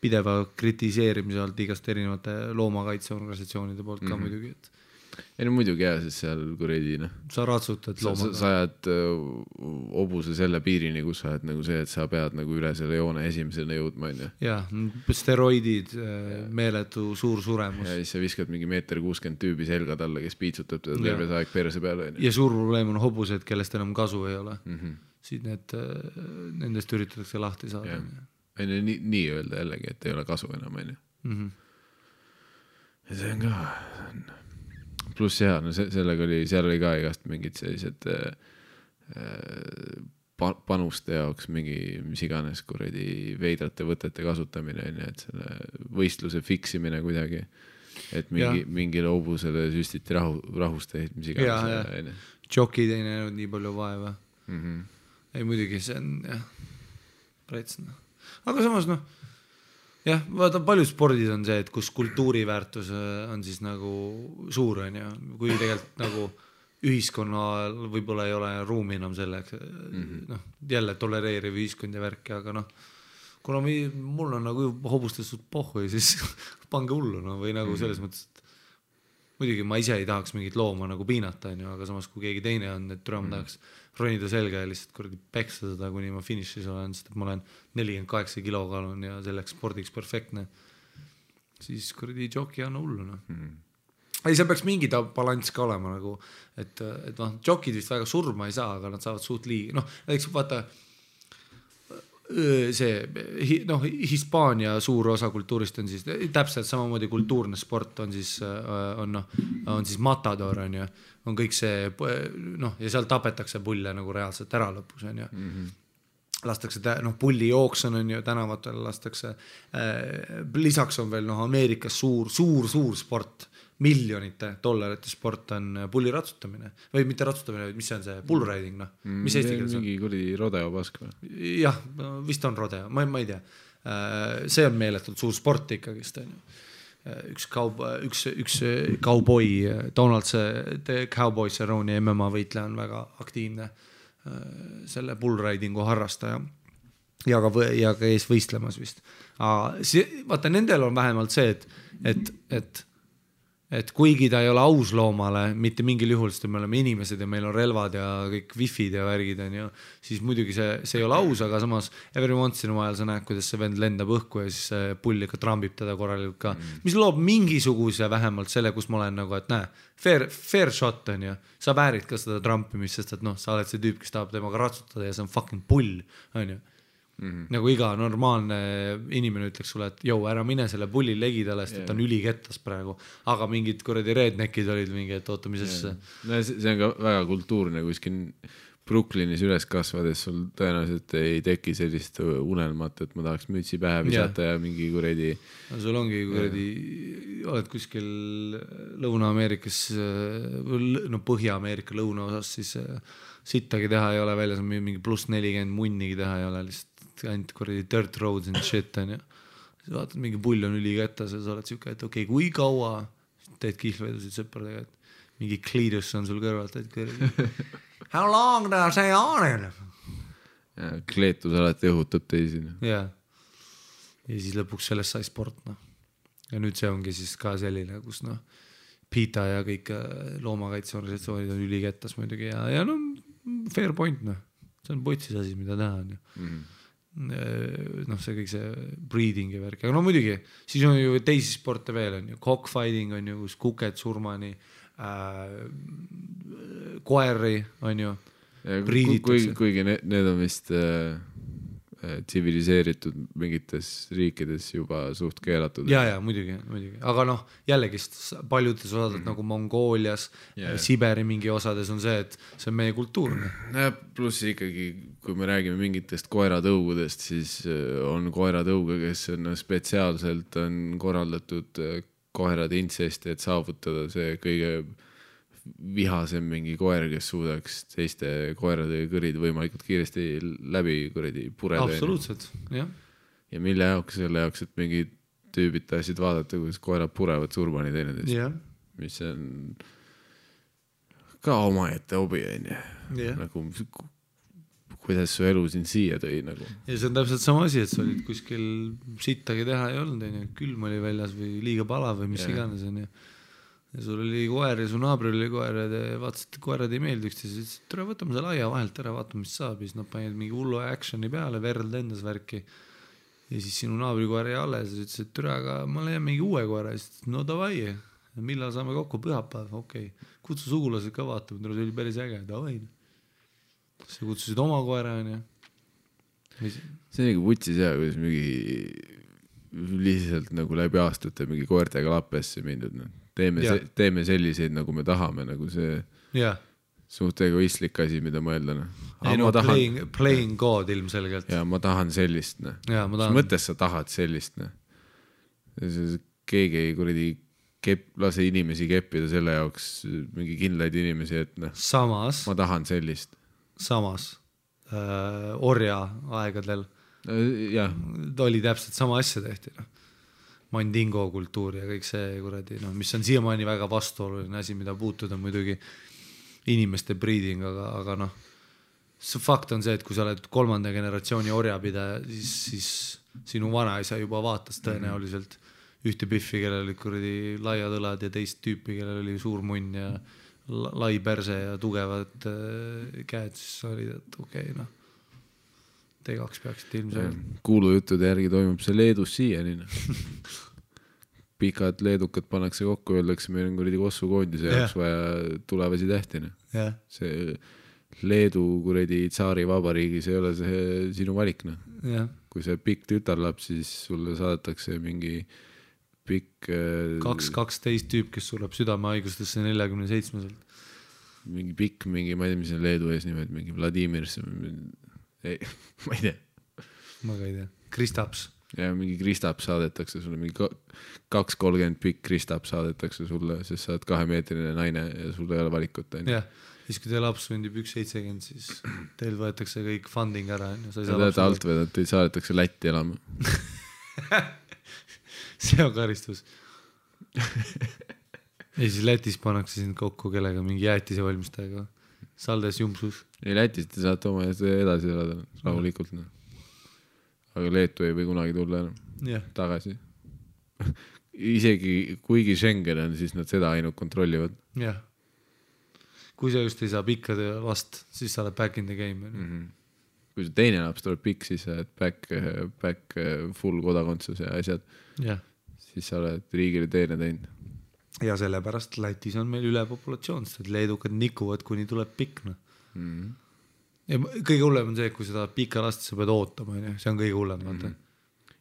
pideva kritiseerimise alt igast erinevate loomakaitseorganisatsioonide poolt ka muidugi. ei no muidugi jah, sest seal kuredi noh. Sa ratsutad loomaga. Sa ajad hobuse selle piirini, kus sa oled nagu see, et sa pead nagu üle selle joone esimesena jõudma, on ju. Jah, steroidid, meeletu suur suremus. Ja siis sa viskad mingi 1.60 m tüübi selga talle, kes piitsutab teda terve aeg perse peale. Ja suur probleem on hobused, kellest enam kasu ei ole. Siit nendest üritatakse lahti saada. Nii öelda jällegi, et ei ole kasu enam, on ju. Ja see on ka... Pluss jah, no sellega seal oli ka igast mingid sellised panuste jaoks mingi mis iganes kuredi veidrate võtete kasutamine, et selle võistluse fiksimine kuidagi, et mingile hobusele süstiti rahusteid, mis iganes. Jokid ei näinud nii palju vaeva. Ei muidugi, see on jah, pretsna. Aga samas jah, vaata paljud spordid on see, et kus kultuuriväärtus on siis nagu suur on ja kui tegelikult nagu ühiskonnal võib-olla ei ole ruumi enam selleks, jälle tolereeriv ühiskond ja värki, aga kuna mul on nagu hobustestud pohhu ja siis pange hullu või nagu selles mõttes, et muidugi ma ise ei tahaks mingit looma nagu piinata, aga samas kui keegi teine on, et ma tahaks ronida selga ja lihtsalt kuradi peksa seda, kuni ma finišis olen, sest et ma olen 48 kilokaalun ja selleks spordiks perfektne, siis kuradi joki on hullu. Ei, seal peaks mingi balans ka olema nagu, et jokid vist väga surma ei saa, aga nad saavad suht liigi. Näiteks vaata, see Hispaania suur osa kultuurist on siis täpselt samamoodi kultuurne sport on siis matador on kõik see ja seal tapetakse pulle nagu reaalselt ära lõpus on ju lastakse pulli jooks on ju tänavatel lastakse lisaks on veel Ameerikas suur sport miljonite dollarite sport on pulli ratsutamine või mitte ratsutamine, mis see on see bull riding, mis eesti keeles on? Mingi kuradi rodeo pask või? Jah, vist on rodeo, ma ei tea. See on meeletult suur sport ikkagist, on ju. Üks cowboy, Donald the Cowboy Cerrone MMA võitleja on väga aktiivne selle bull ridingu harrastaja ja ka ees võistlemas vist. Vaata, nendel on vähemalt see, et kuigi ta ei ole aus loomale, mitte mingil juhul, sest me oleme inimesed ja meil on relvad ja kõik wifid ja värgid on ju, siis muidugi see ei ole aus, aga samas every once in a while sa näed, kuidas see vend lendab õhku ja siis see pull ikka trambib teda korralikult ka, mis loob mingisuguse vähemalt selle, kus ma olen nagu, et näe, fair shot on ju, sa väärid ka seda trampimist, sest et sa oled see tüüp, kes tahab temaga ratsutada ja see on fucking pull, on ju. Nagu iga normaalne inimene ütleks sulle, et ära mine selle pulli legidale, sest et on ülikettas praegu, aga mingid kuradi redneckid olid mingi, et oota, mis asja. See on ka väga kultuurne, kuskil Brooklynis üles kasvades sul tõenäoliselt ei teki sellist unelmat, et ma tahaks mütsi pähe visata ja mingi kuradi sul ongi kuradi oled kuskil Lõuna-Ameerikas Põhja-Ameerika lõunaosas, siis sittagi teha ei ole väljas, mingi +40 munnigi teha ei ole, lihtsalt ainult kuradi dirt roads and shit on ja siis vaatad, mingi pull on ülikättas ja sa oled siuke, et okei, kui kaua teed kihlvedusid sõpradega, et mingi kliidus on sul kõrvalt, et kuradi how long does see on? Kleetus alati õhutab teisi. Ja siis lõpuks sellest sai sport, ja nüüd see ongi siis ka selline, kus PETA ja kõik loomakaitseorganisatsioonid on ülikettas muidugi ja fair point, see on potsis asi, mida teha on ju. See kõik see breeding ja värk, aga muidugi siis on ju teisi sporte veel on ju, cockfighting on ju, kus kuked surmani koeri on ju priiditakse. Kuigi need on vist tsiviliseeritud mingites riikides juba suht keelatud. Ja, muidugi. Aga jällegi paljudes osades nagu Mongoolias, Siberi mingi osades on see, et see on meie kultuurne. Pluss ikkagi, kui me räägime mingitest koeratõugudest, siis on koeratõuge, kes on spetsiaalselt on korraldatud koerade intsesti, et saavutada see kõige vihasem mingi koer, kes suudaks teiste koerade kõrid võimalikult kiiresti läbi kuradi pureda. Absoluutselt, jah. Ja mille jaoks, selle jaoks, et mingi tüübid tahtsid vaadata, kuidas koerad purevad surmani teineteist. Yeah. Mis on ka omaette hobi, nagu kuidas su elu siin siia tõi nagu. Ja see on täpselt sama asi, et sa olid kuskil sittagi teha ei olnud, külm oli väljas või liiga palav või mis iganes on. ja sul oli koer ja su naabril oli koer ja te vaatasite, koerad ei meeldi üksteise, siis tule võtame selle aia vahelt ära, vaatame, mis saab ja siis nad panid mingi hullu actioni peale, verd lendas värki ja siis sinu naabri koer jäi alles ja ütles, et türa, aga ma leian mingi uue koera ja siis no davai, millal saame kokku, pühapäev, okei. Kutsu sugulased ka vaatama, see oli päris äge, davai. Sa kutsusid oma koera, on ju. See on nagu vutsis jah, kuidas mingi lihtsalt nagu läbi aastate mingi koertega lappesse mindud. No. Teeme selliseid, nagu me tahame, nagu see suht egoistlik asi, mida mõelda. No. Playing God ilmselgelt. Ja ma tahan sellist. No. Mis mõttes sa tahad sellist? No. Keegi ei kuradi lase inimesi keppida selle jaoks mingi kindlaid inimesi, et noh, samas, ma tahan sellist. Samas orja aegadel oli täpselt sama asja tehti. No. Mandingo kultuur ja kõik see kuradi, no, mis on siiamaani väga vastuoluline asi, mida puutuda muidugi inimeste breeding, aga noh, see fakt on see, et kui sa oled 3. generatsiooni orjapidaja, siis sinu vanaisa juba vaatas tõenäoliselt ühte piffi, kellel olid kuradi laiad õlad ja teist tüüpi, kellel oli suur munn ja lai perse ja tugevad käed, siis oli, et okei, noh, te kaks peaksite ilmselt. Kuulujuttude järgi toimub see Leedus siiani. Pikad leedukad pannakse kokku, öeldakse, meil on kuradi Kossu koondise jaoks vaja tulevasi tähtina. See Leedu kuradi tsaari vabariigis ei ole see sinu valik. No. Kui see pikk tütarlaps, siis sulle saadetakse mingi pikk 2-12 tüüp, kes sureb südamehaigustesse 47-selt. Mingi pikk, mingi, ma ei tea, mis on Leedu ees nimed, mingi Vladimir, ei, ma ei tea. Ma ka ei tea. Kristaps. Ja mingi Kristaps saadetakse sulle, mingi 2-30 pikk Kristaps saadetakse sulle, sest sa oled 2-meetrine naine ja sul ei ole valikut. Jah, siis kui teie laps sündib 1,70, siis teil võetakse kõik funding ära. Sa tead alt või, et teid saadetakse Lätti elama. See on karistus. Ja siis Lätis pannakse sind kokku kellega mingi jäätise valmistajaga. Saldes Jumsus. Ei, Lätis te saate oma edasi elada rahulikult. No. Aga Leetu ei või kunagi tulla enam tagasi. Isegi kuigi Schengen on, siis nad seda ainult kontrollivad. Jah. Kui sa just ei saa pikkade last, siis sa oled back in the game. Kui see teine laps tuleb pikk, siis sa oled back full kodakondsus ja asjad. Siis sa oled riigile teene teinud. Ja sellepärast Lätis on meil ülepopulatsioon, sest leedukad nikuvad, kuni tuleb pikk. No. Ja kõige hullem on see, kui seda pika last sa pead ootama, see on kõige hullem.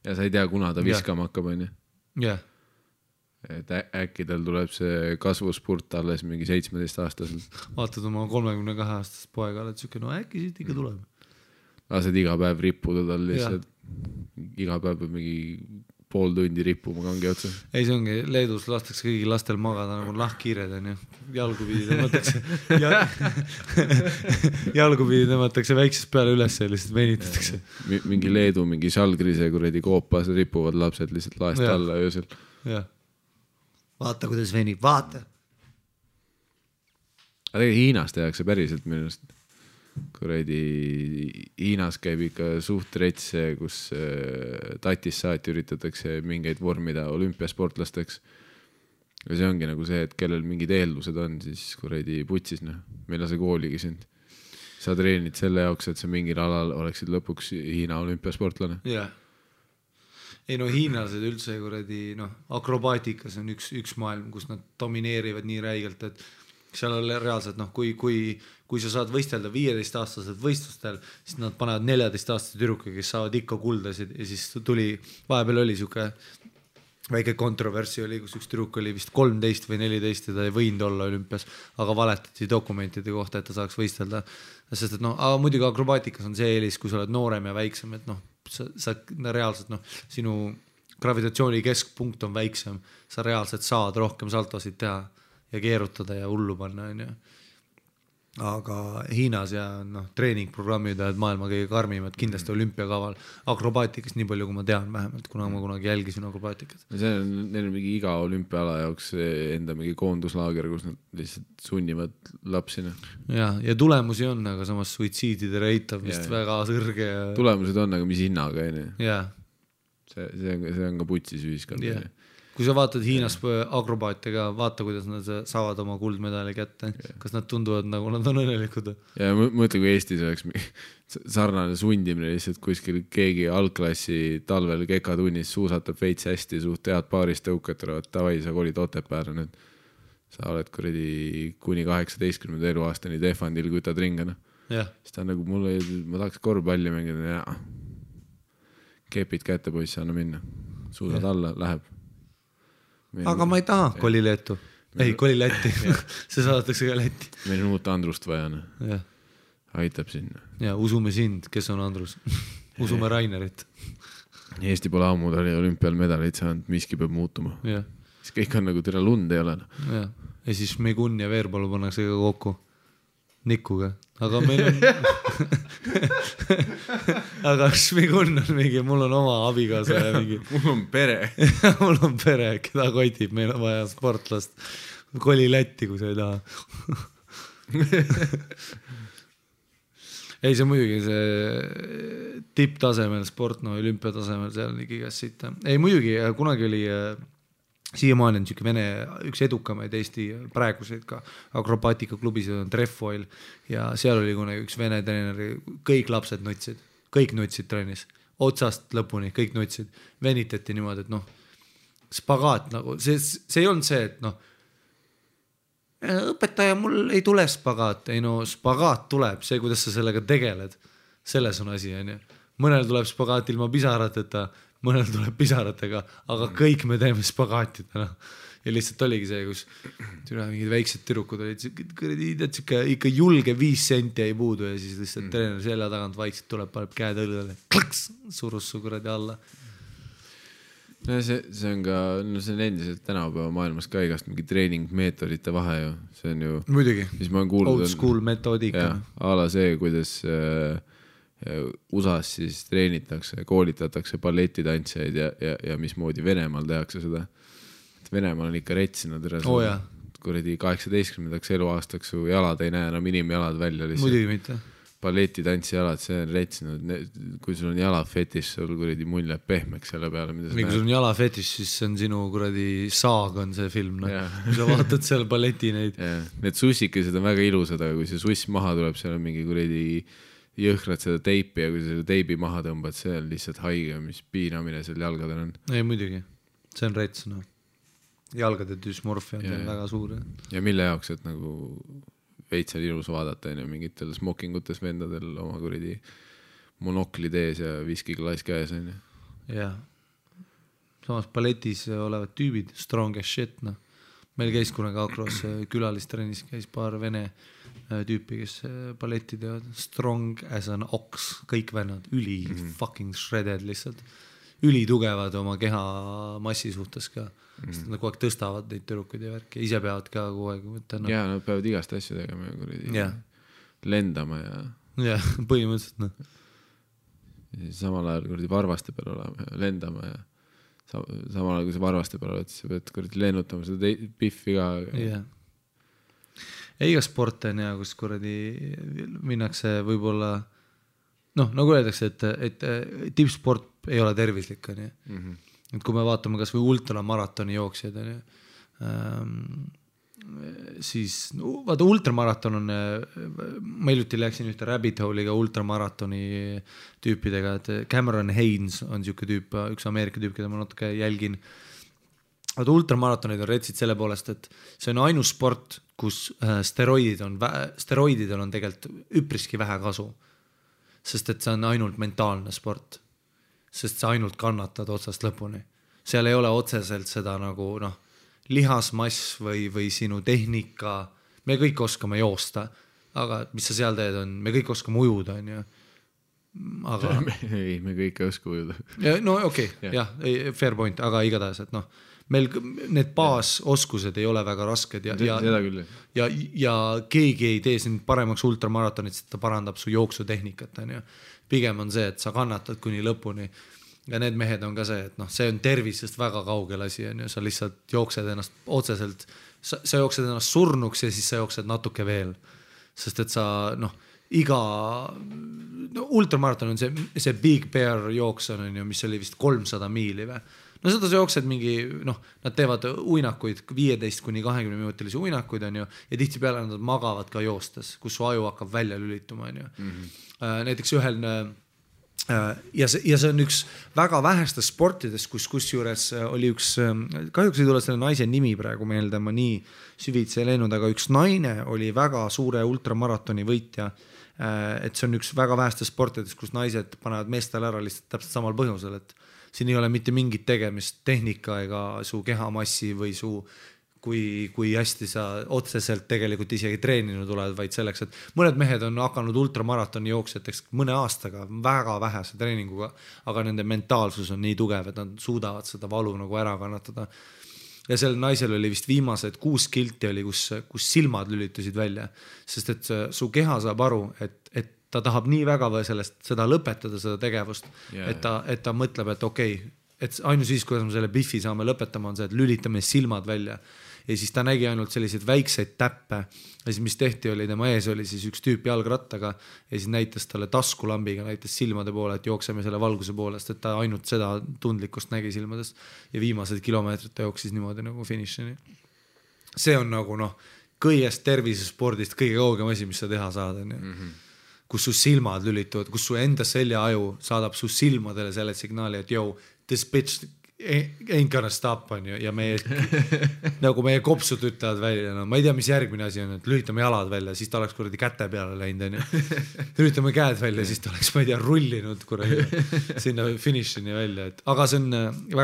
Ja sa ei tea, kuna ta viskama hakkab. Jah. Et äkki tal tuleb see kasvuspurt alles mingi 17-aastaselt. Vaatad oma 32-aastast poega, oled siuke, no äkki siit ikka tuleb. Lased iga päev rippuda tal lihtsalt. Iga päev peab mingi pool tundi rippuma kangi otsa. Ei, see ongi, Leedus lastakse kõigi lastel magada nagu lahkkiired, on ju. Jalgupidi tõmmatakse väiksest peale üles ja lihtsalt venitatakse. Mingi Leedu, mingi Žalgrise kuradi koopas ripuvad lapsed lihtsalt laest alla öösel. Jah. Vaata, kuidas venib, vaata. Aga tegelikult Hiinas tehakse päriselt minust. Kuradi Hiinas käib ikka suht retse, kus tatis saati üritatakse mingeid vormida olümpiasportlasteks. Ja see ongi nagu see, et kellel mingid eeldused on, siis kuradi putsis, noh. Meil on see kooligi sind. Sa treenid selle jaoks, et sa mingil alal oleksid lõpuks Hiina olümpiasportlane. Jah. Ei no hiinlased üldse kuradi, noh, akrobaatikas on üks maailm, kus nad domineerivad nii räigelt, et seal on reaalselt, noh, kui sa saad võistelda 15-aastaselt võistlustel, siis nad panevad 14-aastase tüdruka, kes saavad ikka kuldasid ja siis tuli, vahepeal oli siuke väike kontroversi oli, kus üks tüdruk oli vist 13 või 14 ja ta ei võinud olla olümpias, aga valetati dokumentide kohta, et ta saaks võistelda. Sest, et noh, aga muidugi akrobaatikas on see eelis, kui sa oled noorem ja väiksem, et noh, sa reaalselt, noh, sinu gravitatsiooni keskpunkt on väiksem, sa reaalselt saad rohkem saltosid teha ja keerutada ja hullu panna, on ju. Aga Hiinas ja noh, treeningprogrammid oled maailma kõige karmimad, kindlasti olümpiakaval akrobaatikast nii palju, kui ma tean vähemalt, kuna ma kunagi jälgisin akrobaatikat. Neil on mingi iga olümpiaala jaoks enda mingi koonduslaager, kus nad lihtsalt sunnivad lapsina. Ja tulemusi on, aga samas suitsiidide rate on vist väga sõrge. Ja... Tulemused on, aga mis hinnaga, on ju? Jah. See on ka putsis ühiskond. kui sa vaatad Hiinas akrobaate ka, vaata, kuidas nad saavad oma kuldmedali kätte, kas nad tunduvad nagu nad on õnnelikud. Ja mõtle, kui Eestis oleks sarnane sundimine lihtsalt kuskil keegi algklassi talvel kekatunnis suusatab veits hästi, suht head paaris tõukad tulevad, tavai, sa kolid Otepääle nüüd. Sa oled kuradi kuni 18. eluaastani defandil, kui ta tringana. Siis ta on nagu mulle, ma tahaks korvpalli mängida ja kepid kätte poisse, anna minna. Suusad alla, läheb. Aga ma ei taha koli Leetu. Ei, koli Lätti. See saadetakse ka Lätti. Meil on uut Andrust vaja. Aitab sinna. Ja usume sind, kes on Andrus. Usume Rainerit. Eesti pole ammu olümpial medaleid saanud, miski peab muutuma. Siis kõik on nagu tere lund ei ole. Ja siis Megun ja Veerpalu pannakse ka kokku. Nikuga. Aga meil on aga Megun on mingi, mul on oma abikaasa ja mingi mul on pere. Mul on pere, keda kotib, meil on vaja sportlast. Koli Lätti, kui sa ei taha. Ei, see muidugi see tipptasemel sport, no olümpiatasemel seal on igas siit. Ei, muidugi kunagi oli siiamaani on Vene üks edukamaid Eesti praeguseid ka akrobaatikaklubisid on Trefoil ja seal oli kunagi üks Vene treeneri, kõik lapsed nutsid, kõik nutsid trennis, otsast lõpuni, kõik nutsid, venitati niimoodi, et noh, spagaat nagu, see ei olnud see, et noh, õpetaja, mul ei tule spagaat, ei no spagaat tuleb, see, kuidas sa sellega tegeled, selles on asi, on ju. Mõnel tuleb spagaat ilma pisarateta, mõnel tuleb pisaratega, aga kõik me teeme spagaatidena. Ja lihtsalt oligi see, kus mingid väiksed türukud olid, ikka julge 5 senti ei puudu ja siis lihtsalt treener selja tagant vaikselt tuleb, paneb käed õlgale, klaks, surus su kuradi alla. No see on ka, no see on endiselt tänapäeva maailmas ka igast mingi treeningmeetodite vahe ju, see on ju muidugi, kuulnud, old school metoodika. Ala see, kuidas USAs siis treenitakse, koolitatakse balletitantsijaid ja mismoodi Venemaal tehakse seda. Et Venemaal on ikka retsinud kuradi 18. eluaastaks su jalad ei näe enam inimjalad välja lihtsalt. Muidugi mitte. Balletitantsijalad, see on retsinud, kui sul on jalafetis, sul kuradi mull jääb pehmeks selle peale. Kui sul on jalafetis, siis see on sinu kuradi saag on see film. No. Kui sa vaatad seal balleti neid. Need sussikesed on väga ilusad, aga kui see suss maha tuleb, seal on mingi kuradi jõhkrad seda teipi ja kui sa teibi maha tõmbad, see on lihtsalt haige, mis piinamine seal jalgadel on. Ei, muidugi. See on rets, no. Jalgade dysmorfia on väga suur. Ja mille jaoks, et nagu veits on ilus vaadata ja mingitel smokingutes vendadel oma kuradi monoklid ees ja viskiklaas käes on. Jah. Samas balletis olevad tüübid, strong as shit, no. Meil käis kunagi Akros külalistrennis, käis paar vene tüüpi, kes balletti teevad. Strong as an ox, kõik vennad, fucking shredded lihtsalt. Ülitugevad oma keha massi suhtes ka. Sest nad kogu aeg tõstavad neid türukud ja värki. Ise peavad ka kogu aeg. Ja, nad peavad igast asju tegema ja lendama ja... Ja, põhimõtteliselt, noh. Samal ajal kuradi varvaste peal olema ja lendama ja samal ajal, kui sa varvaste peal oled, siis sa pead kuradi lennutama seda piffi ka. Ja. Iga sport on ja, kus kuradi minnakse võib-olla, noh, nagu öeldakse, et tippsport ei ole tervislik, on ju. Et kui me vaatame kas või ultramaratoni jooksjad, siis vaata ultramaraton on, ma hiljuti läksin ühte rabbit hole'iga ultramaratoni tüüpidega, et Cameron Haynes on siuke tüüp, üks Ameerika tüüp, keda ma natuke jälgin. Vaata ultramaratonid on retsid selle poolest, et see on ainus sport, kus steroididel on tegelikult üpriski vähe kasu, sest et see on ainult mentaalne sport. Sest sa ainult kannatad otsast lõpuni. Seal ei ole otseselt seda nagu lihasmass või sinu tehnika. Me kõik oskame joosta, aga mis sa seal teed on, me kõik oskame ujuda, on ju. Aga... Ei, me kõik ei oska ujuda. No okei, jah, fair point, aga igatahes, et meil need baasoskused ei ole väga rasked ja keegi ei tee sind paremaks ultramaratonit, sest ta parandab su jooksutehnikat, on ju. Pigem on see, et sa kannatad kuni lõpuni ja need mehed on ka see, et see on tervisest väga kaugel asi, on ju, sa lihtsalt jooksed ennast otseselt, sa jooksed ennast surnuks ja siis sa jooksed natuke veel, sest et sa ultramaraton on see Big Bear jooks on ju, mis oli vist 300 miili või, no seda sa jooksed mingi, noh, nad teevad uinakuid, 15-20 minutilisi uinakuid, on ju, ja tihtipeale nad magavad ka joostes, kus su aju hakkab välja lülituma, on ju. Näiteks ühel ja see on üks väga vähestes sportides, kusjuures oli üks, kahjuks ei tule selle naise nimi praegu meelde, ma nii süvitsi ei läinud, aga üks naine oli väga suure ultramaratoni võitja, et see on üks väga vähestes sportides, kus naised panevad meestele ära lihtsalt täpselt samal põhjusel, et siin ei ole mitte mingit tegemist tehnika ega su kehamassi või su kui hästi sa otseselt tegelikult isegi treeninud oled, vaid selleks, et mõned mehed on hakanud ultramaratoni jooksjateks mõne aastaga väga vähese treeninguga, aga nende mentaalsus on nii tugev, et nad suudavad seda valu nagu ära kannatada. Ja sellel naisel oli vist viimased 6 kilti oli, kus silmad lülitusid välja, sest et su keha saab aru, et ta tahab nii väga või seda lõpetada, seda tegevust, et ta mõtleb, et okei, et ainus siis, kuidas me selle biffi saame lõpetama, on see, et lülitame silmad välja. Ja siis ta nägi ainult selliseid väikseid täppe ja siis mis tehti oli, tema ees oli siis üks tüüp jalgrattaga ja siis näitas talle taskulambiga, näitas silmade poole, et jookseme selle valguse poolest, et ta ainult seda tundlikkust nägi silmadest ja viimased kilomeetrid ta jooksis niimoodi nagu finišini. See on nagu kõigest tervisespordist kõige kaugem asi, mis sa teha saad, kus su silmad lülituvad, kus su enda seljaaju saadab su silmadele selle signaali, et this bitch ain't gonna stop on ju, ja nagu meie kopsud ütlevad välja, ma ei tea, mis järgmine asi on, et lülitame jalad välja, siis ta oleks kuradi käte peale läinud, on ju. Lülitame käed välja, siis ta oleks, ma ei tea, rullinud kuradi sinna finišini välja, aga see on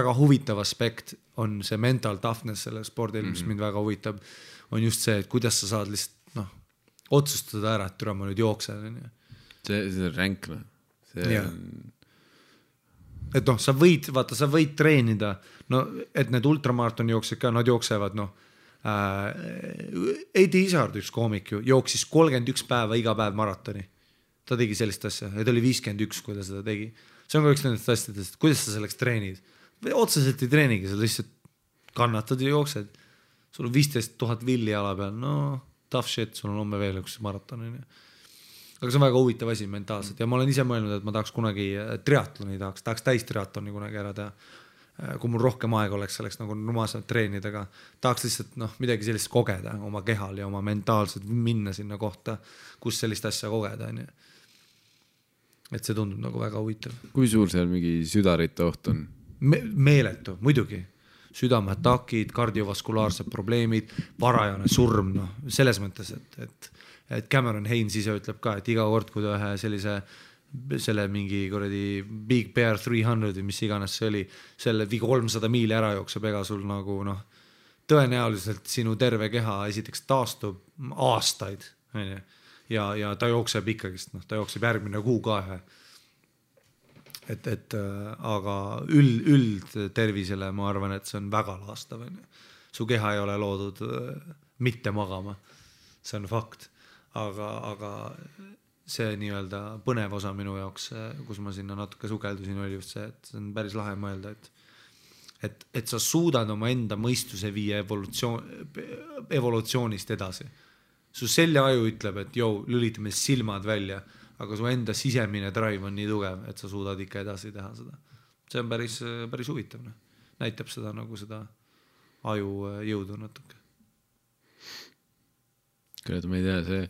väga huvitav aspekt, on see mental toughness selle spordil, mis mind väga huvitab, on just see, et kuidas sa saad lihtsalt, otsustada ära, et türa ma nüüd jooksen, on ju. See on ränk, see on... Et sa võid treenida, et need ultramaratoni jooksed ka, nad jooksevad, Eddie Izzard, üks koomik ju, jooksis 31 päeva iga päev maratoni. Ta tegi sellist asja, ja ta oli 51, kui ta seda tegi. See on ka üks nendest asjadest, kuidas sa selleks treenid. Otseselt ei treenigi, sa lihtsalt kannatad ja jooksed. Sul on 15 000 villi jala peal, tough shit, sul on homme veel üks maraton. Aga see on väga huvitav asi mentaalselt ja ma olen ise mõelnud, et ma tahaks kunagi triatloni, tahaks täistriatloni kunagi ära teha. Kui mul rohkem aega oleks selleks nagu numaselt treenida, aga tahaks lihtsalt midagi sellist kogeda oma kehal ja oma mentaalselt minna sinna kohta, kus sellist asja kogeda. Et see tundub nagu väga huvitav. Kui suur seal mingi südarite oht on? Meeletu, muidugi. Südameatakid, kardiovaskulaarsed probleemid, varajane surm, selles mõttes, et Cameron Haines ise ütleb ka, et iga kord, kui ta ühe selle mingi kuradi Big Bear 300 või mis iganes see oli, selle 300 miili ära jookseb, ega sul nagu tõenäoliselt sinu terve keha esiteks taastub aastaid ja ta jookseb ikkagist, ta jookseb järgmine kuu ka aga üld tervisele ma arvan, et see on väga laastav. Su keha ei ole loodud mitte magama, see on fakt. Aga see nii-öelda põnev osa minu jaoks, kus ma sinna natuke sukeldusin, oli just see, et see on päris lahe mõelda, et sa suudad oma enda mõistuse viia evolutsioonist edasi. Su seljaaju ütleb, et lülitame silmad välja, aga su enda sisemine drive on nii tugev, et sa suudad ikka edasi teha seda. See on päris huvitav. Näitab seda nagu seda aju jõudu natuke. Kuid ma ei tea, see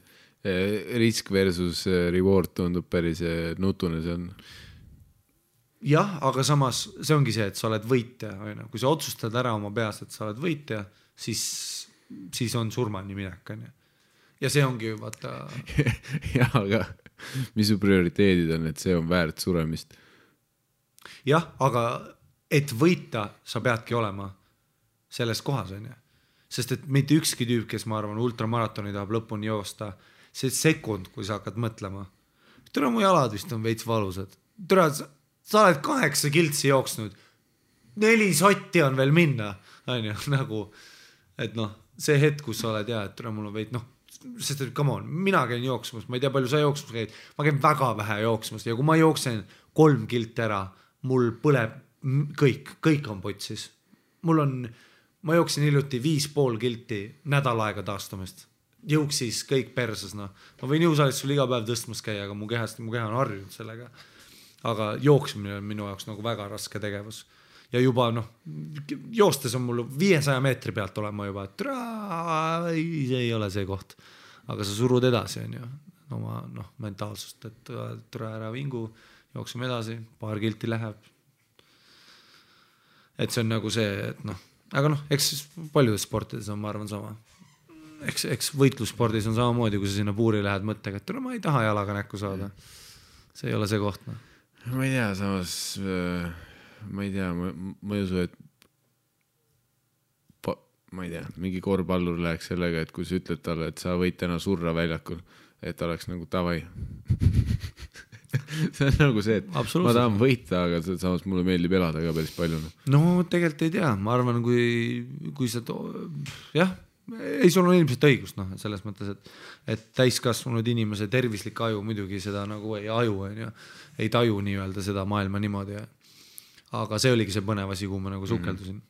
risk versus reward tundub päris nutune see on. Jah, aga samas see ongi see, et sa oled võitja. Kui sa otsustad ära oma peas, et sa oled võitja, siis on surmani minek. Ja see ongi vaata... Jah, aga mis su prioriteedid on, et see on väärt suremist? Jah, aga et võita sa peadki olema selles kohas, on ju. Sest et mitte ükski tüüp, kes ma arvan ultramaratoni tahab lõpuni joosta, see sekund, kui sa hakkad mõtlema. Tere, mu jalad vist on veits valusad. Tere, sa oled 8 kiltsi jooksnud. 4 sotti on veel minna. Nagu, et see hetk, kus sa oled, et tere, mul on veits, sest et come on, mina käin jooksmas, ma ei tea, palju sa jooksmas käid, ma käin väga vähe jooksmas ja kui ma jooksen 3 kilti ära, mul põleb kõik on potsis. Ma jooksin hiljuti 5,5 kilti nädal aega taastumist. Jõuksis kõik perses. Ma võin jõusaalis sul iga päev tõstmas käia, aga mu keha on harjunud sellega. Aga jooksmine on minu jaoks nagu väga raske tegevus. ja juba joostes on mul 500 meetri pealt olema juba, et see ei ole see koht, aga sa surud edasi, on ju, oma mentaalsust, et ära vingu, jookseme edasi, paar kilti läheb. Et see on nagu see, et aga eks paljudes sportides on, ma arvan, sama. Eks võitlusspordis on samamoodi, kui sa sinna puuri lähed mõttega, et ma ei taha jalaga näkku saada. See ei ole see koht. Ma ei tea, samas ma ei tea, ma ei usu, et ma ei tea, mingi korvpallur läheks sellega, et kui sa ütled talle, et sa võid täna surra väljakul, et oleks nagu tavai. See on nagu see, et ma tahan võita, aga samas mulle meeldib elada ka päris palju. No tegelikult ei tea, ma arvan, kui sa jah, ei, sul on ilmselt õigust, selles mõttes, et täiskasvanud inimese tervislik aju muidugi seda nagu ei taju nii-öelda seda maailma niimoodi. Aga see oligi see põnev asi, kuhu ma nagu sukeldusin.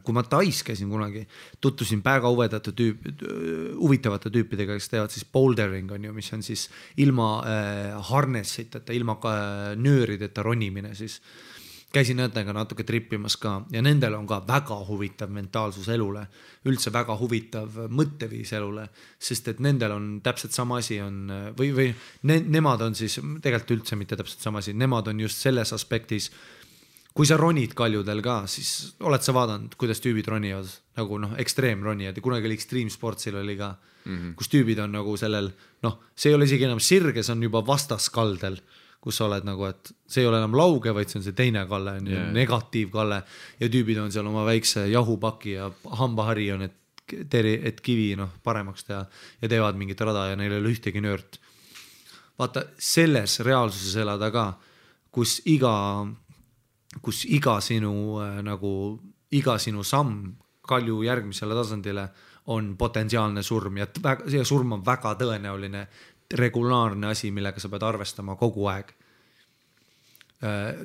Kui ma Tais käisin kunagi, tuttusin väga huvitavate tüüpidega, kes teevad siis bouldering, on ju, mis on siis ilma harnessiteta, ilma nöörideta ronimine siis. Käisin nendega natuke trippimas ka ja nendel on ka väga huvitav mentaalsus elule, üldse väga huvitav mõtteviis elule, sest et nendel on täpselt sama asi on, või nemad on siis tegelikult üldse mitte täpselt sama asi, nemad on just selles aspektis, kui sa ronid kaljudel ka, siis oled sa vaadanud, kuidas tüübid ronivad, nagu ekstreemronijad ja kunagi oli Extreme Sportsil oli ka, kus tüübid on nagu sellel, see ei ole isegi enam sirge, see on juba vastaskaldel, kus sa oled nagu, et see ei ole enam lauge, vaid see on see teine kalle, negatiivkalle ja tüübid on seal oma väikse jahupaki ja hambahari on, et kivi paremaks teha ja teevad mingit rada ja neil ei ole ühtegi nöört. Vaata, selles reaalsuses elada ka, kus iga sinu samm kalju järgmisele tasandile on potentsiaalne surm ja surm on väga tõenäoline regulaarne asi, millega sa pead arvestama kogu aeg.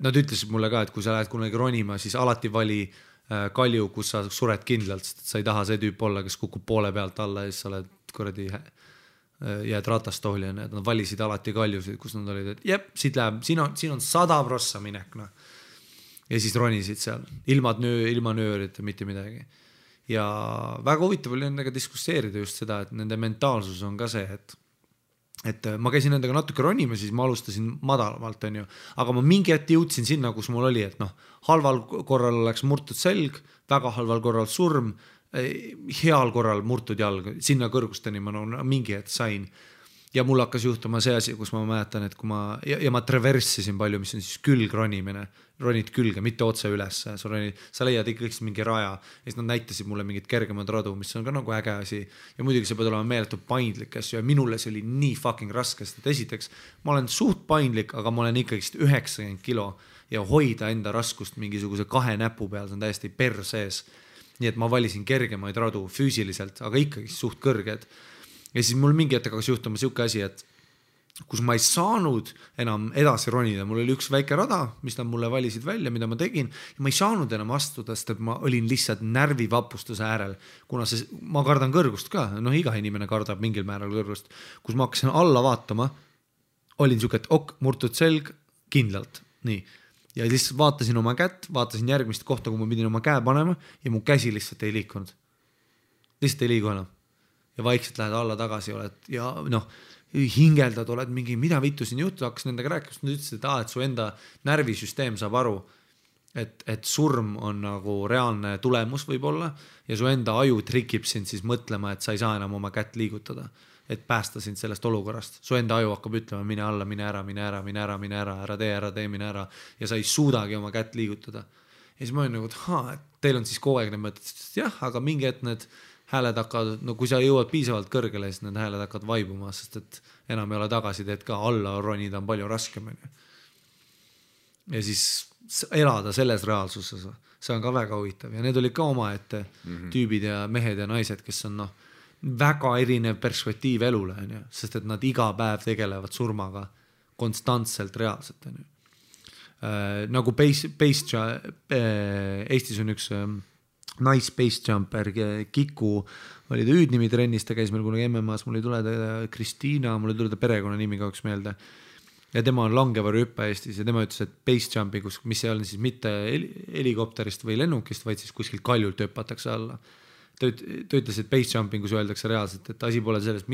Nad ütlesid mulle ka, et kui sa lähed kunagi ronima, siis alati vali kalju, kus sa sured kindlalt, sest sa ei taha see tüüp olla, kes kukub poole pealt alla ja siis sa oled kuradi jääd ratastooli. Nad valisid alati kaljusid, kus nad olid, et jep, siit läheb, siin on 100% minek. Ja siis ronisid seal, ilma nöörid, mitte midagi. Ja väga huvitav oli nendega diskusseerida just seda, et nende mentaalsus on ka see, et ma käisin nendega natuke ronima, siis ma alustasin madalamalt, on ju. Aga ma mingi hetk jõudsin sinna, kus mul oli, et halval korral oleks murtud selg, väga halval korral surm, heal korral murtud jalg, sinna kõrgusteni ma mingi hetk sain. Ja mul hakkas juhtuma see asi, kus ma mäletan, et kui ma traversisin palju, mis on siis külgronimine, ronid külge, mitte otse üles, sa leiad ikkagi mingi raja ja siis nad näitasid mulle mingid kergemad radu, mis on ka nagu äge asi ja muidugi see pead olema meeletu paindlik asju ja minule see oli nii fucking raske, sest esiteks ma olen suht paindlik, aga ma olen ikkagi 90 kilo ja hoida enda raskust mingisuguse 2 näpu peal, see on täiesti persees, nii et ma valisin kergemaid radu füüsiliselt, aga ikkagi suht kõrged. Ja siis mul mingi hetk hakkas juhtuma siuke asi, et kus ma ei saanud enam edasi ronida, mul oli üks väike rada, mis nad mulle valisid välja, mida ma tegin ja ma ei saanud enam astuda, sest et ma olin lihtsalt närvivapustuse äärel, kuna ma kardan kõrgust ka, iga inimene kardab mingil määral kõrgust, kus ma hakkasin alla vaatama, olin siuke, et murtud selg kindlalt, nii. Ja lihtsalt vaatasin oma kätt, vaatasin järgmist kohta, kui ma pidin oma käe panema ja mu käsi lihtsalt ei liikunud. Lihtsalt ei liigu enam. Ja vaikselt lähed alla tagasi oled ja hingeldad, oled mingi, mida vittu siin juhtu, hakkas nendega rääkima, nad ütlesid, et su enda närvisüsteem saab aru, et surm on nagu reaalne tulemus võib-olla ja su enda aju trikib sind siis mõtlema, et sa ei saa enam oma kätt liigutada, et päästa sind sellest olukorrast. Su enda aju hakkab ütlema, mine alla, mine ära, ära tee, mine ära ja sa ei suudagi oma kätt liigutada. Ja siis ma olin nagu, et teil on siis kogu aeg need mõtted, jah, aga mingi hetk need hääled hakkavad, kui sa jõuad piisavalt kõrgele, siis need hääled hakkavad vaibuma, sest et enam ei ole tagasiteed ka, alla ronida on palju raskem. Ja siis elada selles reaalsuses, see on ka väga huvitav ja need olid ka omaette tüübid ja mehed ja naised, kes on väga erinev perspektiiv elule, sest et nad iga päev tegelevad surmaga konstantselt reaalselt. Nagu Eestis on üks nice base jumper, Kiku oli ta hüüdnimi trennis, ta käis meil kunagi MMA-s, mul ei tule ta Kristiina, mul ei tule ta perekonna nimi kauks meelde. ja tema on langevarjuhüppe Eestis ja tema ütles, et base jump'i, mis ei ole siis mitte helikopterist või lennukist, vaid siis kuskilt kaljult hüpatakse alla. Ta ütles, et base jumping, kus öeldakse reaalselt, et asi pole sellest,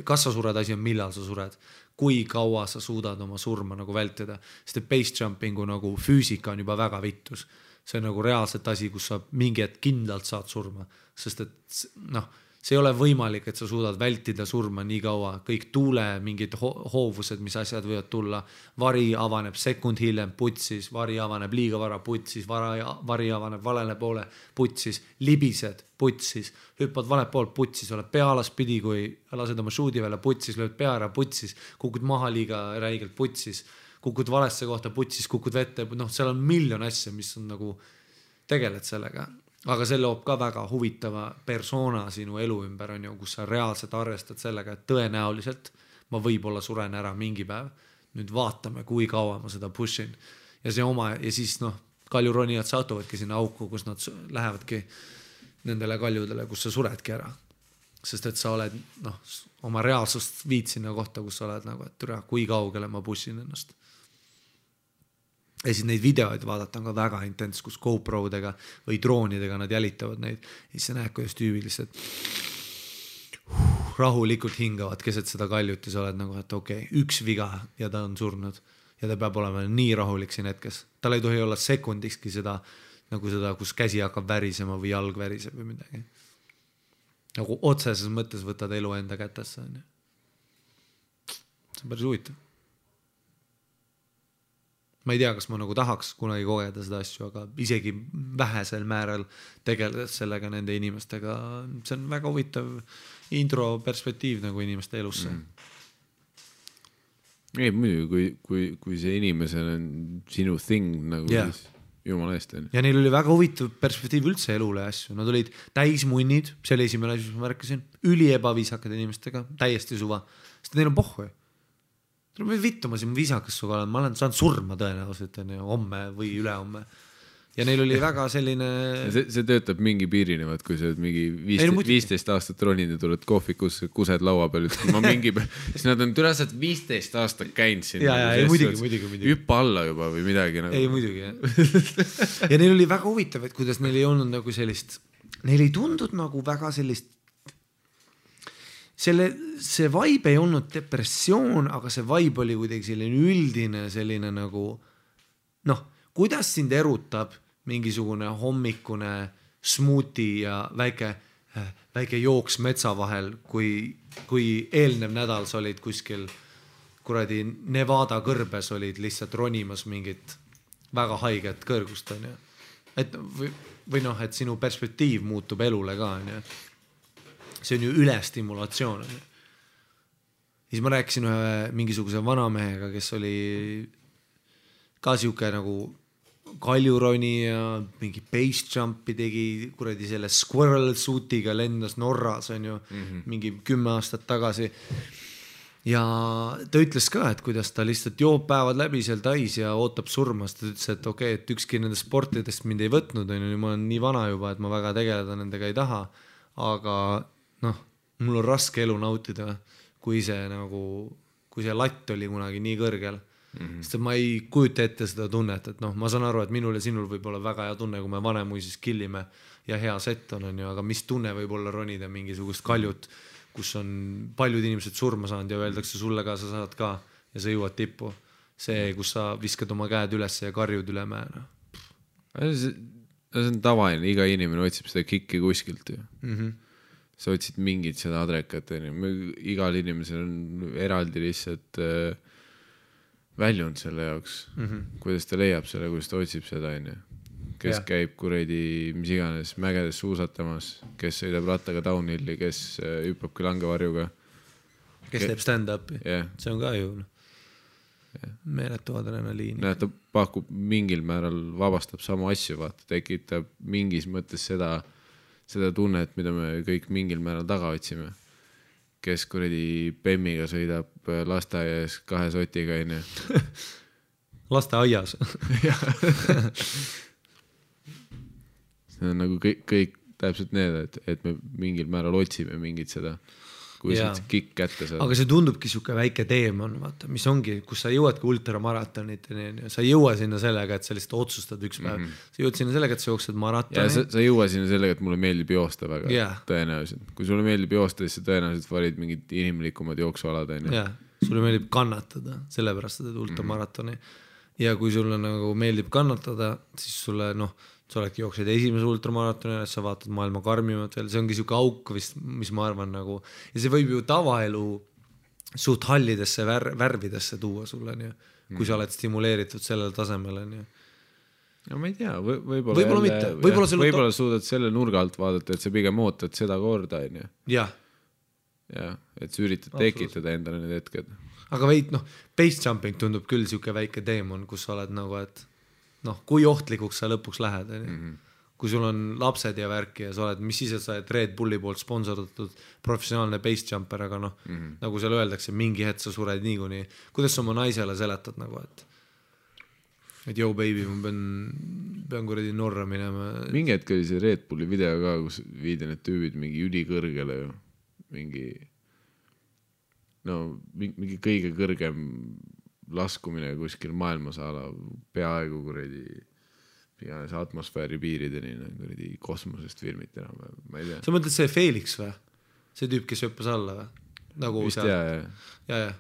kas sa sured, asi on millal sa sured, kui kaua sa suudad oma surma nagu vältida, sest et base jumpingu nagu füüsika on juba väga vittus. See on nagu reaalselt asi, kus sa mingi hetk kindlalt saad surma, sest et noh, see ei ole võimalik, et sa suudad vältida surma nii kaua, kõik tuule, mingid hoovused, mis asjad võivad tulla, vari avaneb sekund hiljem putsis, vari avaneb liiga vara putsis, vari avaneb valele poole putsis, libised putsis, hüppad vale poolt putsis, oled pealaspidi, kui lased oma shoot'i välja putsis, lööd pea ära putsis, kukud maha liiga räigelt putsis, kukud valesse kohta putsis, kukud vette, noh, seal on miljon asja, mis on nagu, tegeled sellega. Aga see loob ka väga huvitava persona sinu elu ümber, on ju, kus sa reaalselt arvestad sellega, et tõenäoliselt ma võib-olla suren ära mingi päev. Nüüd vaatame, kui kaua ma seda pushin. Ja siis kaljuronijad satuvadki sinna auku, kus nad lähevadki nendele kaljudele, kus sa suredki ära. Sest et sa oled oma reaalsust viid sinna kohta, kus sa oled nagu, et türa, kui kaugele ma pushin ennast. Ja siis neid videoid vaadata on ka väga intens, kus GoPro-dega või droonidega nad jälitavad neid. Ja siis sa näed, kuidas tüübiliselt rahulikult hingavad keset seda kaljut ja sa oled nagu, et okei, üks viga ja ta on surnud. Ja ta peab olema nii rahulik siin hetkes. Tal ei tohi olla sekundikski seda, kus käsi hakkab värisema või jalg väriseb või midagi. Nagu otseses mõttes võtad elu enda kätesse. See on päris huvitav. Ma ei tea, kas ma nagu tahaks kunagi kogeda seda asju, aga isegi vähesel määral tegeledes sellega nende inimestega, see on väga huvitav intro perspektiiv nagu inimeste elusse. Ei, muidugi, kui see inimesel on sinu thing nagu siis jumala eest. Ja neil oli väga huvitav perspektiiv üldse elule asju. Nad olid täismunnid, see oli esimene asi, mis ma märkasin, üliebavihakad inimestega, täiesti suva, sest neil on pohhu. Vittu ma siin viisakas suga olen, ma olen saanud surma tõenäoliselt homme või ülehomme. Ja neil oli väga selline... See töötab mingi piirini, kui sa mingi 15 aastat ronid ja tuled kohvikus, kused laua peal, siis nad on türased 15 aastat käinud siin. Ja muidugi. Hüppa alla juba või midagi. Ei, muidugi, jah. Ja neil oli väga huvitav, et kuidas neil ei olnud nagu sellist... Neil ei tundud nagu väga sellist... See vibe ei olnud depressioon, aga see vibe oli kuidagi selline üldine, selline nagu kuidas sind erutab mingisugune hommikune smoothie ja väike jooks metsa vahel, kui eelnev nädal sa olid kuskil kuradi Nevada kõrbes olid lihtsalt ronimas mingit väga haiget kõrgust, on ju. Et sinu perspektiiv muutub elule ka, on ju. See on ju ülestimulatsioon. Siis ma rääkisin ühe mingisuguse vanamehega, kes oli ka siuke nagu kaljuroni ja mingi base jumpi tegi kuradi selle squirrel suitiga lendas Norras, on ju, mingi 10 aastat tagasi. Ja ta ütles ka, et kuidas ta lihtsalt joob päevad läbi seal tais ja ootab surmast. Ta ütles, et okei, et ükski nendest sportidest mind ei võtnud, on ju, ma olen nii vana juba, et ma väga tegeleda nendega ei taha, aga mul on raske elu nautida, kui see latt oli kunagi nii kõrgel. Sest ma ei kujuta ette seda tunnet, et ma saan aru, et minul ja sinul võib olla väga hea tunne, kui me vanemuises killime ja hea set on ju, aga mis tunne võib olla ronida mingisugust kaljut, kus on paljud inimesed surma saanud ja öeldakse sulle ka, sa saad ka ja sa jõuad tippu. See, kus sa viskad oma käed üles ja karjud üle mäe. See on tavaline, iga inimene otsib seda kikki kuskilt ju. Sa otsid mingit seda adrekat, igal inimesel on eraldi lihtsalt väljund selle jaoks, kuidas ta leiab selle, kuidas ta otsib seda, kes käib kuredi mis iganes mägedes suusatamas, kes sõidab rattaga downhilli, kes hüppabki langevarjuga, kes teeb stand-upi, see on ka ju meeletu adrenaliini. Ta pakub mingil määral, vabastab samu asju, tekitab mingis mõttes seda tunnet, mida me kõik mingil määral taga otsime. Kes kuredi Bemmiga sõidab lasteaias 2 sotiga, on ju. Lasteaias. See on nagu kõik täpselt need, et me mingil määral otsime mingit seda kui sa kikk kätte saad. Aga see tundubki siuke väike teemon, vaata, mis ongi, kus sa jõuadki ultramaratonit, sa ei jõua sinna sellega, et sa lihtsalt otsustad üks päev. Sa jõuad sinna sellega, et sa jooksed maratoni. Ja sa ei jõua sinna sellega, et mulle meeldib joosta väga tõenäoliselt. Kui sulle meeldib joosta, siis sa tõenäoliselt valid mingid inimlikumad jooksualad. Sulle meeldib kannatada, sellepärast sa teed ultramaratoni. Ja kui sulle nagu meeldib kannatada, siis sulle, sa oledki jooksed esimese ultramaratoni, sa vaatad maailma karmimat veel, see ongi siuke auk vist, mis ma arvan nagu, ja see võib ju tavaelu suht hallidesse värvidesse tuua sulle, kui sa oled stimuleeritud sellel tasemel. No ma ei tea, võib-olla suudad selle nurga alt vaadata, et sa pigem ootad seda korda. Jah. Ja, et sa üritad tekitada endale need hetked. Aga base jumping tundub küll siuke väike teemon, kus sa oled nagu, et kui ohtlikuks sa lõpuks lähed. Kui sul on lapsed ja värki ja sa oled, mis siis, et sa oled Red Bulli poolt sponsordatud professionaalne base jumper, aga nagu seal öeldakse, mingi hetk sa sured niikuinii. Kuidas sa oma naisele seletad nagu, et yo baby, ma pean kuradi Norra minema. Mingi hetk oli see Red Bulli video ka, kus viidi need tüübid mingi ülikõrgele ju. Mingi kõige kõrgem laskumine kuskil maailmasaala peaaegu kuradi atmosfääri piirideni kuradi kosmosest filmiti enam, ma ei tea. Sa mõtled see Felix või? See tüüp, kes hüppas alla või? Nagu vist ja.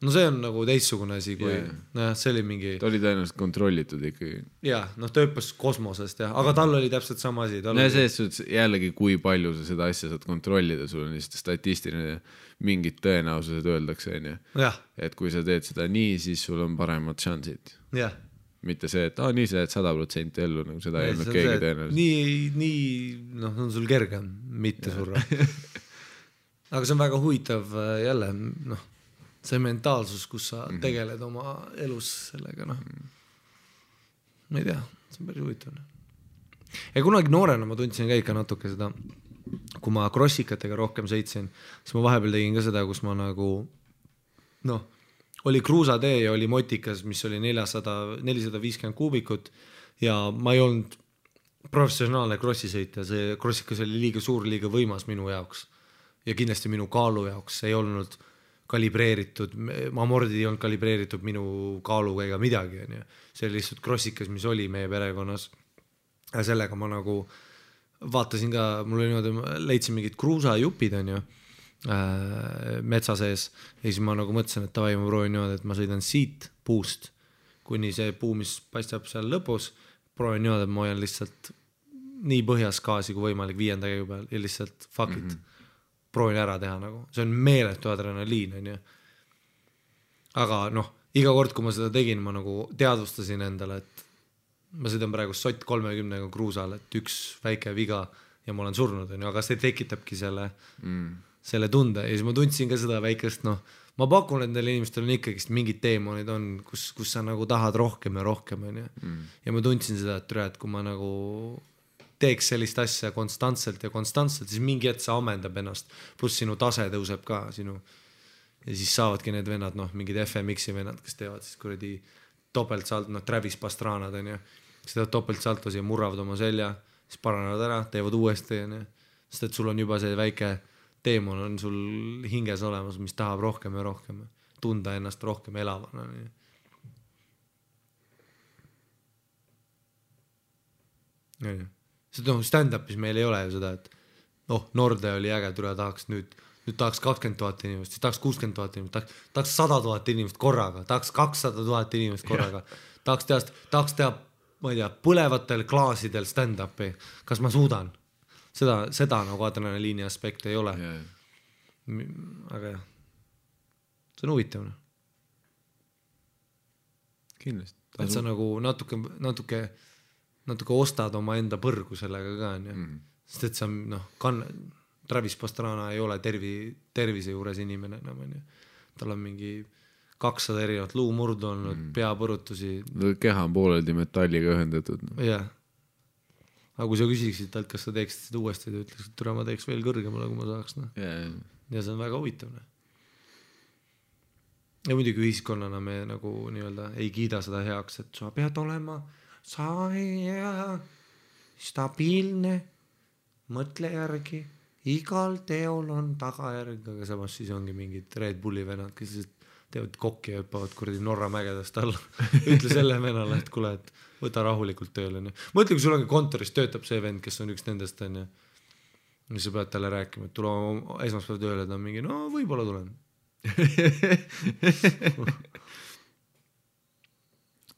No see on nagu teistsugune asi, kui see oli mingi... Ta oli tõenäoliselt kontrollitud ikkagi. Ja, ta hüppas kosmosest, aga tal oli täpselt sama asi. Selles jällegi, kui palju sa seda asja saad kontrollida, sul on lihtsalt statistiline mingid tõenäosused öeldakse. Et kui sa teed seda nii, siis sul on paremad šansid. Mitte see, et nii sa jääd 100% ellu, nagu seda ei olnud keegi tõenäoliselt. Nii, on sul kergem mitte surra. Aga see on väga huvitav jälle, see mentaalsus, kus sa tegeled oma elus sellega, ma ei tea, see on päris huvitav. Ja kunagi noorena ma tundsin ka ikka natuke seda, kui ma crossikatega rohkem sõitsin, siis ma vahepeal tegin ka seda, kus ma nagu, oli kruusatee ja oli motikas, mis oli 450 kuubikut ja ma ei olnud professionaalne crossisõitja, see crossikas oli liiga suur, liiga võimas minu jaoks ja kindlasti minu kaalu jaoks, see ei olnud kalibreeritud, amordid ei olnud kalibreeritud minu kaaluga ega midagi. See oli lihtsalt crossikas, mis oli meie perekonnas. Ja sellega ma nagu vaatasin ka, mul oli niimoodi, leidsin mingid kruusajupid metsa sees ja siis ma nagu mõtlesin, et tavai, ma proovin niimoodi, et ma sõidan siit puust, kuni see puu, mis paistab seal lõpus, proovin niimoodi, et ma hoian lihtsalt nii põhjas gaasi kui võimalik 5. käigu peal ja lihtsalt fuck it. Proovin ära teha nagu, see on meeletu adrenaliin, aga iga kord, kui ma seda tegin, ma nagu teadvustasin endale, et ma sõidan praegu sott 30 kruusal, et üks väike viga ja ma olen surnud, aga see tekitabki selle tunde ja siis ma tundsin ka seda väikest, ma pakun, et neil inimestel on ikkagist mingid teemonid on, kus sa nagu tahad rohkem ja rohkem, ja ma tundsin seda, et kui ma nagu teeks sellist asja konstantselt, siis mingi hetk sa ammendab ennast, pluss sinu tase tõuseb ka sinu ja siis saavadki need vennad, mingid FMX-i vennad, kes teevad siis kuradi topeltsalt, Travis Pastranad kes teevad topeltsaltos ja murravad oma selja, siis paranevad ära, teevad uuesti sest et sul on juba see väike teemon on sul hinges olemas, mis tahab rohkem ja rohkem tunda ennast rohkem elavana stand-upis meil ei ole ju seda, et Norde oli äge, tahaks nüüd tahaks 20 000 inimest, siis tahaks 60 000 inimest, tahaks 100 000 inimest korraga, tahaks 200 000 inimest korraga, tahaks teha, ma ei tea, põlevatel klaasidel stand-upi, kas ma suudan? Seda nagu adrenaliini aspekte ei ole. Aga jah, see on huvitav. Kindlasti. Et sa nagu natuke ostad oma enda põrgu sellega ka, sest et sa Travis Pastrana ei ole tervise juures inimene enam, tal on mingi 200 erinevat luumurdu olnud, peapõrutusi. Keha on pooleldi metalliga ühendatud. Jah. Aga kui sa küsiksid talt, kas sa teeksid seda uuesti, ta ütleks, et ma teeks veel kõrgemale, kui ma saaks. Ja see on väga huvitav. Ja muidugi ühiskonnana me nagu nii-öelda ei kiida seda heaks, et sa pead olema stabiilne, mõtle järgi igal teol on tagajärg, aga samas siis ongi mingid Red Bulli venad, kes teevad kokki ja hüppavad kuradi Norra mägedest alla. Ütle selle venale, et kuule, et võta rahulikult tööle. Mõtle, kui sul ongi kontoris töötab see vend, kes on üks nendest, on ja sa pead talle rääkima, et tule esmaspäev tööle, ta on mingi, no võib-olla tulen.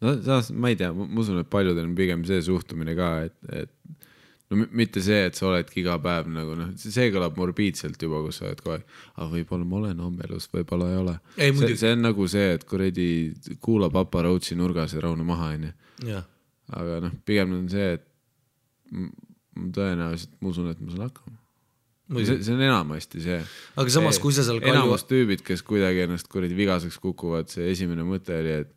No saas, ma ei tea, ma usun, et paljudel on pigem see suhtumine ka, et no mitte see, et sa oledki iga päev nagu noh, see kõlab morbiidselt juba, kus sa oled kohe, aga võib-olla ma olen ammelus, võib-olla ei ole. See on nagu see, et kuradi kuula Papa Rootsi nurgas ja raune maha, on ju. Aga noh, pigem on see, et tõenäoliselt ma usun, et ma saan hakkama. See on enamasti see. Aga samas, kui sa seal enamus tüübid, kes kuidagi ennast kuradi vigaseks kukuvad, see esimene mõte oli, et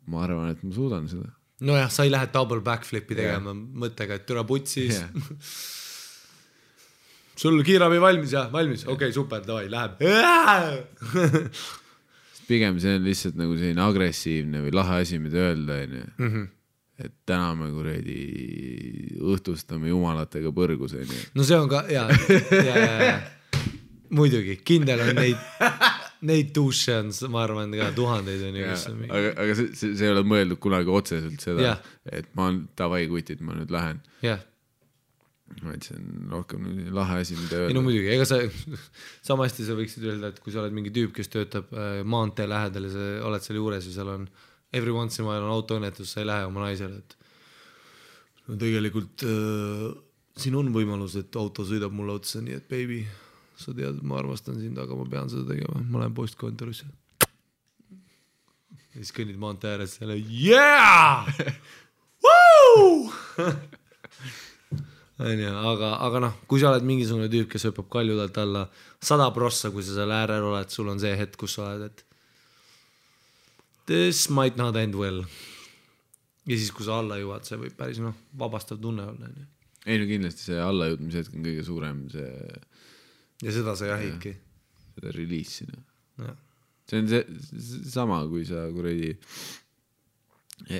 ma arvan, et ma suudan seda. No jah, sa ei lähe double backflipi tegema mõttega, et türa putsis. Sul kiirabi valmis, jah, valmis. Okei, super, davai, läheb. Pigem see on lihtsalt nagu selline agressiivne või lahe asi, mida öelda, et täna me kuradi õhtustame jumalatega põrgus. No see on ka, ja. Muidugi, kindel on neid duše on, ma arvan, ka tuhandeid on ju. Aga see ei ole mõeldud kunagi otseselt seda, et ma on tavai kutid, ma nüüd lähen. vaid see on rohkem lahe asi, mida öelda. No muidugi, ega sama hästi sa võiksid öelda, et kui sa oled mingi tüüp, kes töötab maantee lähedal ja sa oled seal juures ja seal on every once in a while on autoõnnetus, sa ei lähe oma naisele, et no tegelikult siin on võimalus, et auto sõidab mulle otsa, nii et baby, sa tead, et ma armastan sind, aga ma pean seda tegema, ma lähen postkontorisse. Ja siis kõnnid maantee ääres selle yeah! Woo! aga noh, kui sa oled mingisugune tüüp, kes hüppab kaljudelt alla 100%, kui sa seal äärel oled, sul on see hetk, kus sa oled, et this might not end well. Ja siis, kui sa alla jõuad, see võib päris vabastav tunne olla. Ei, no kindlasti see allajõudmise hetk on kõige suurem see... Ja seda sa jahidki. Seda release'ina. See on see sama, kui sa kuradi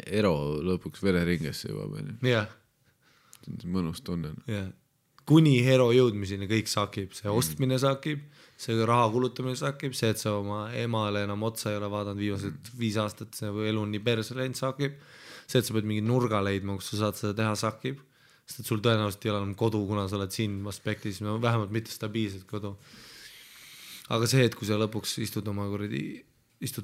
ero lõpuks vereringesse jõuab. Jah. See on mõnus tunne. Kuni hero jõudmiseni kõik sakib, see ostmine sakib, see raha kulutamine sakib, see, et sa oma emale enam otsa ei ole vaadanud viimased 5 aastat, see elu on nii perse läinud sakib, see, et sa pead mingi nurga leidma, kus sa saad seda teha sakib, sest et sul tõenäoliselt ei ole enam kodu, kuna sa oled siin aspektis, vähemalt mitte stabiilselt kodu. Aga see, et kui sa lõpuks istud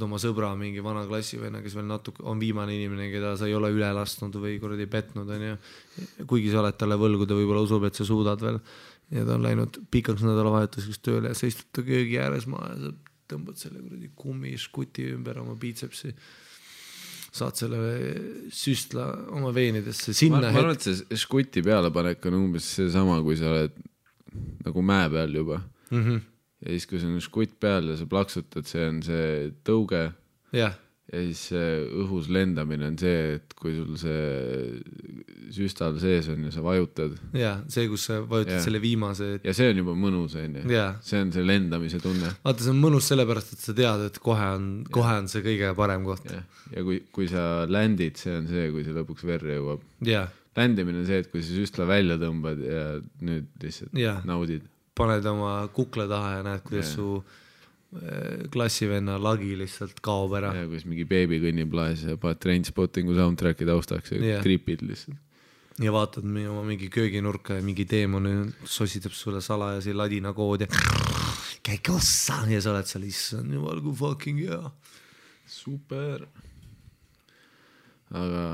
oma sõbra mingi vana klassivenna, kes veel natuke on viimane inimene, keda sa ei ole üle lastnud või kuradi petnud, kuigi sa oled talle võlgu, ta võib-olla usub, et sa suudad veel ja ta on läinud pikaks nädalavahetuseks tööle ja sa istud ta köögi ääres maha ja sa tõmbad selle kuradi kummiskuti ümber oma biitsepsi, saad selle süstla oma veenidesse sinna. Ma arvan, et see škuti pealepanek on umbes see sama, kui sa oled nagu mäe peal juba. Ja siis, kui see on škutt peal ja sa plaksutad, see on see tõuge. Ja siis õhus lendamine on see, et kui sul see süstal sees on ja sa vajutad. Ja, see, kus sa vajutad selle viimase. Ja see on juba mõnus, see on see lendamise tunne. Vaata, see on mõnus sellepärast, et sa tead, et kohe on see kõige parem koht. Ja kui sa ländid, see on see, kui see lõpuks verre jõuab. Ländimine on see, et kui sa süstla välja tõmbad ja nüüd lihtsalt naudid. Paned oma kukla taha ja näed, kuidas su klassivenna lagi lihtsalt kaob ära. Ja kuidas mingi beebi kõnnib laes ja paned Trainspottingu soundtracki taustaks ja tripid lihtsalt. Ja vaatad oma mingi kööginurka ja mingi teemon sositab sulle salajasi ladina kood ja käik ossa ja sa oled seal issand jumal kui fucking hea. Super. Aga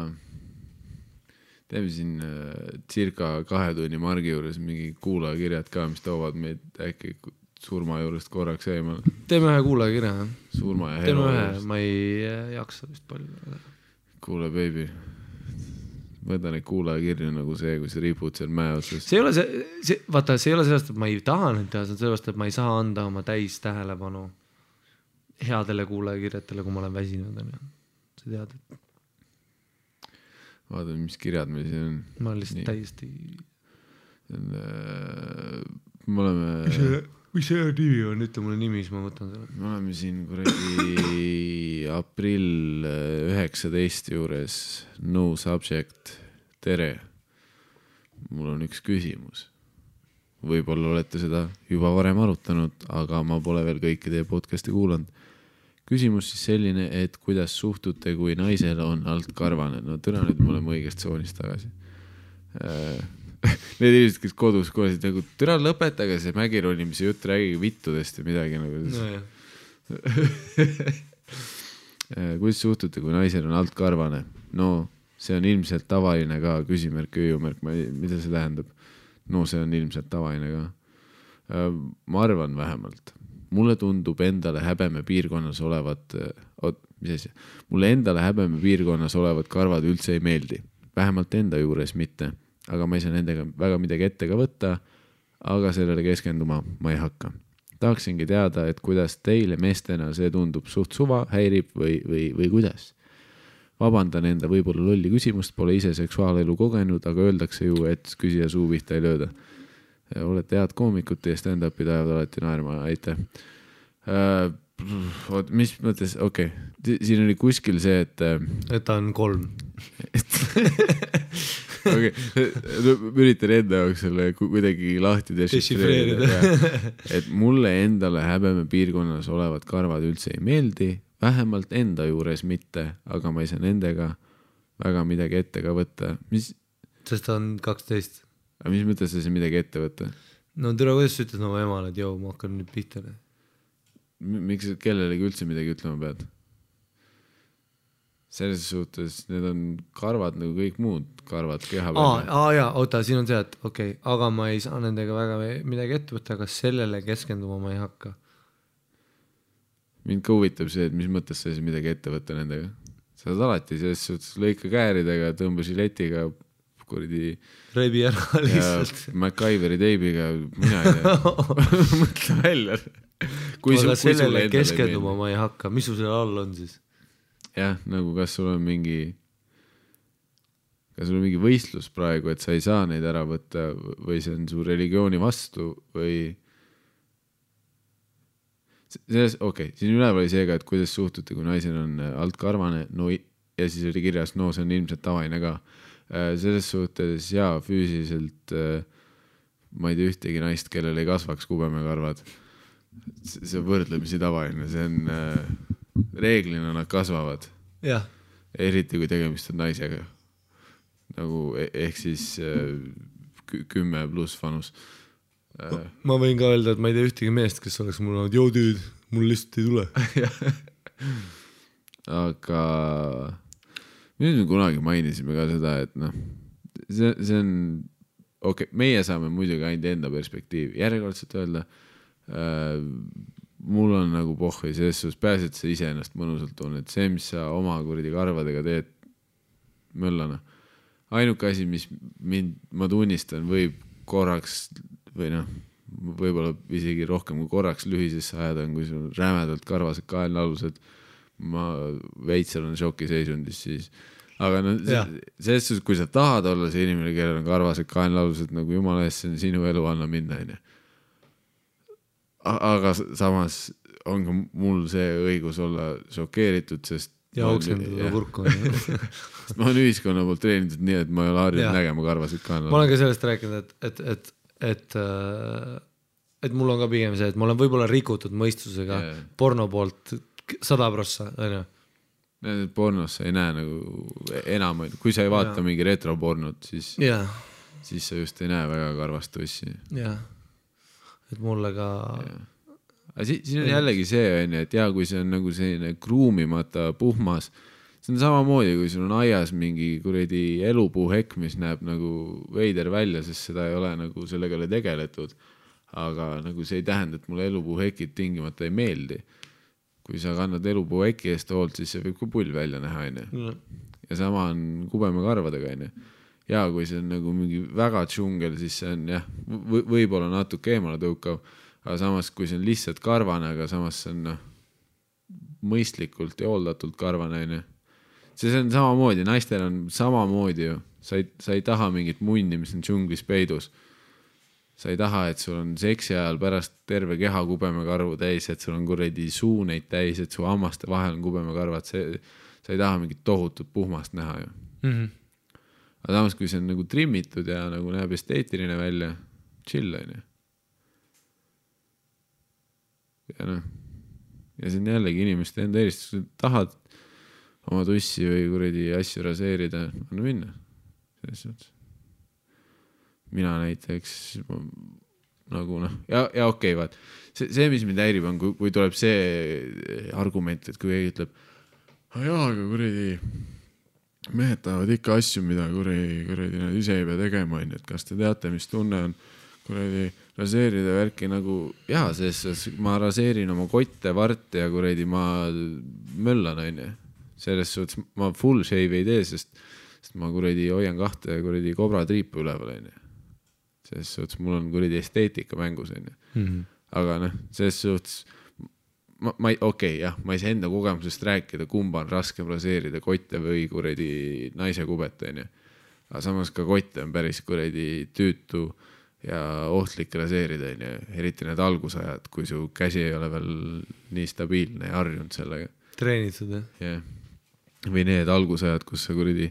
teeme siin circa 2 tunni margi juures mingi kuulajakirjad ka, mis toovad meid äkki surma juurest korraks eemal. Teeme ühe kuulajakirja. Surma ja hero. Teeme ühe, ma ei jaksa vist palju. Kuule, baby. Võta neid kuulajakirju nagu see, kui sa ripud seal mäe otsast. See ei ole vaata, see ei ole sellest, et ma ei taha nüüd teha, see on sellest, et ma ei saa anda oma täis tähelepanu headele kuulajakirjatele, kui ma olen väsinud. Sa tead, et vaatame, mis kirjad meil siin on. Ma olen lihtsalt täiesti... Me oleme... Mis see nimi on? Ütle mulle nimi, siis ma võtan selle. Me oleme siin kuradi aprill 19 juures. No subject. Tere. Mul on üks küsimus. võib-olla olete seda juba varem arutanud, aga ma pole veel kõiki teie podcasti kuulanud. Küsimus siis selline, et kuidas suhtute, kui naisel on alt karvane? No tõna nüüd me oleme õigest soonist tagasi. Need inimesed, kes kodus kuulasid nagu, tõna lõpetage see mägironimise jutt, räägige vittudest ja midagi nagu. No, kuidas suhtute, kui naisel on alt karvane? No see on ilmselt tavaline ka, küsimärk, ööjumärk, mida see tähendab? No see on ilmselt tavaline ka. Ma arvan vähemalt. Mulle tundub endale häbeme piirkonnas olevat, mulle endale häbeme piirkonnas olevat karvad üldse ei meeldi. Vähemalt enda juures mitte, aga ma ei saa nendega väga midagi ette ka võtta, aga sellele keskenduma ma ei hakka. Tahaksingi teada, et kuidas teile meestena see tundub suht suva, häirib või kuidas? Vabandan enda võib-olla lolli küsimust, pole ise seksuaalelu kogenud, aga öeldakse ju, et küsija suu pihta ei lööda. Olete head koomikut ja stand-up'i tajavad alati naerma, aitäh. Mis mõttes, okei. Siin oli kuskil see, et ta on 3. Okei, üritan enda jaoks selle kuidagi lahti dešifreerida. Et mulle endale häbeme piirkonnas olevad karvad üldse ei meeldi, vähemalt enda juures mitte, aga ma ei saa nendega väga midagi ette ka võtta. Sest ta on 12. Aga mis mõttes see midagi ette võtta? No tere, kuidas sa ütles oma emale, et joo, ma hakkan nüüd pihta. Miks kellelegi üldse midagi ütlema pead? Selles suhtes need on karvad nagu kõik muud karvad keha peal. Jaa, oota, siin on see, et okei, aga ma ei saa nendega väga midagi ette võtta, aga sellele keskenduma ma ei hakka. Mind ka huvitab see, et mis mõttes sa midagi ette võtta nendega. Sa oled alati selles suhtes lõika kääridega, tõmba žiletiga, kuridi reibi ära lihtsalt. MacGyveri teibiga, mina ei tea. Mõtle välja. Aga sellele keskenduma ma ei hakka. Mis su selle all on siis? Jah, nagu kas sul on mingi võistlus praegu, et sa ei saa neid ära võtta või see on su religiooni vastu või selles, okei, siin üleval oli seega, et kuidas suhtute, kui naisel on alt karvane, no ja siis oli kirjas, no see on ilmselt tavaline ka. Selles suhtes, jaa, füüsiliselt ma ei tea ühtegi naist, kellel ei kasvaks kubemekarvad. See võrdlemisi tavaline, see on reeglina nad kasvavad. Jah. Eriti kui tegemist on naisega. Nagu ehk siis 10 pluss vanus. Ma võin ka öelda, et ma ei tea ühtegi meest, kes oleks mul olnud, joo tüüd, mul lihtsalt ei tule. Aga nüüd me kunagi mainisime ka seda, et noh, see on, okei, meie saame muidugi ainult enda perspektiivi. Järjekordselt öelda, mul on nagu pohhi selles suhtes, pääs, et sa ise ennast mõnusalt tunned. See, mis sa oma kuridi karvadega teed möllana. Ainuke asi, mis ma tunnistan, võib korraks või noh, võib-olla isegi rohkem kui korraks lühisesse ajada on, kui sul on rämedalt karvased kaelnalused, ma veits olen šokiseisundis siis. Aga no, selles suhtes, kui sa tahad olla see inimene, kellel on karvased kaelnalused, nagu jumala eest, see on sinu elu anna minna. Aga samas on ka mul see õigus olla šokeeritud, sest ja oksendada kurku. Ma olen ühiskonna poolt treenitud nii, et ma ei ole harjunud nägema karvased kaelnalused. Ma olen ka sellest rääkinud, et mul on ka pigem see, et ma olen võib-olla rikutud mõistusega porno poolt 100%, on ju? Pornos sa ei näe nagu enam, kui sa ei vaata mingi retropornot, siis sa just ei näe väga karvast tossi. Jah, et mulle ka... Aga siin on jällegi see, et kui see on nagu selline kruumimata puhmas, see on samamoodi, kui sul on aias mingi kuredi elupuuhekk, mis näeb nagu veider välja, sest seda ei ole nagu sellega tegeletud. Aga nagu see ei tähenda, et mulle elupuuhekid tingimata ei meeldi. Kui sa kannad elupuuhekki eest hoolt, siis see võib ka pull välja näha. Ja sama on kubemekarvadega. Ja kui see on nagu mingi väga džungel, siis see on võib-olla natuke eemale tõukav, aga samas kui see on lihtsalt karvane, aga samas see on mõistlikult ja hooldatult karvane. See on samamoodi, naistel on samamoodi ju. Sa ei taha mingit munni, mis on džunglis peidus. Sa ei taha, et sul on seksi ajal pärast terve keha kubemekarvu täis, et sul on kuredi suuneid täis, et su hammaste vahel on kubemekarvad. Sa ei taha mingit tohutut puhmast näha ju. Aga samas, kui see on nagu trimmitud ja nagu näeb esteetiline välja, chill on ju. ja noh, ja see on jällegi inimeste enda eristus, tahad oma tussi või kuradi asju raseerida, anna minna. Selles suhtes. Mina näiteks nagu noh, ja okei, vaat. See, mis mind häirib on, kui tuleb see argument, et kui keegi ütleb, jaa, aga kuradi mehed tahavad ikka asju, mida kuradi nad ise ei pea tegema, et kas te teate, mis tunne on kuradi raseerida värki nagu, jaa, selles ma raseerin oma kotte, varte ja kuradi ma möllan, on ju. Selles suhtes ma full shave ei tee, sest ma kuradi hoian 2 kuradi kobra triipu üleval, on ju. Selles suhtes mul on kuradi esteetika mängus, on ju. Aga noh, selles suhtes ma ei saa enda kogemusest rääkida, kumba on raskem raseerida, kotte või kuradi naise kubet, on ju. Aga samas ka kotte on päris kuradi tüütu ja ohtlik raseerida, on ju. Eriti need algusajad, kui su käsi ei ole veel nii stabiilne ja harjunud sellega. Treenitud, jah? Või need algusajad, kus sa kuradi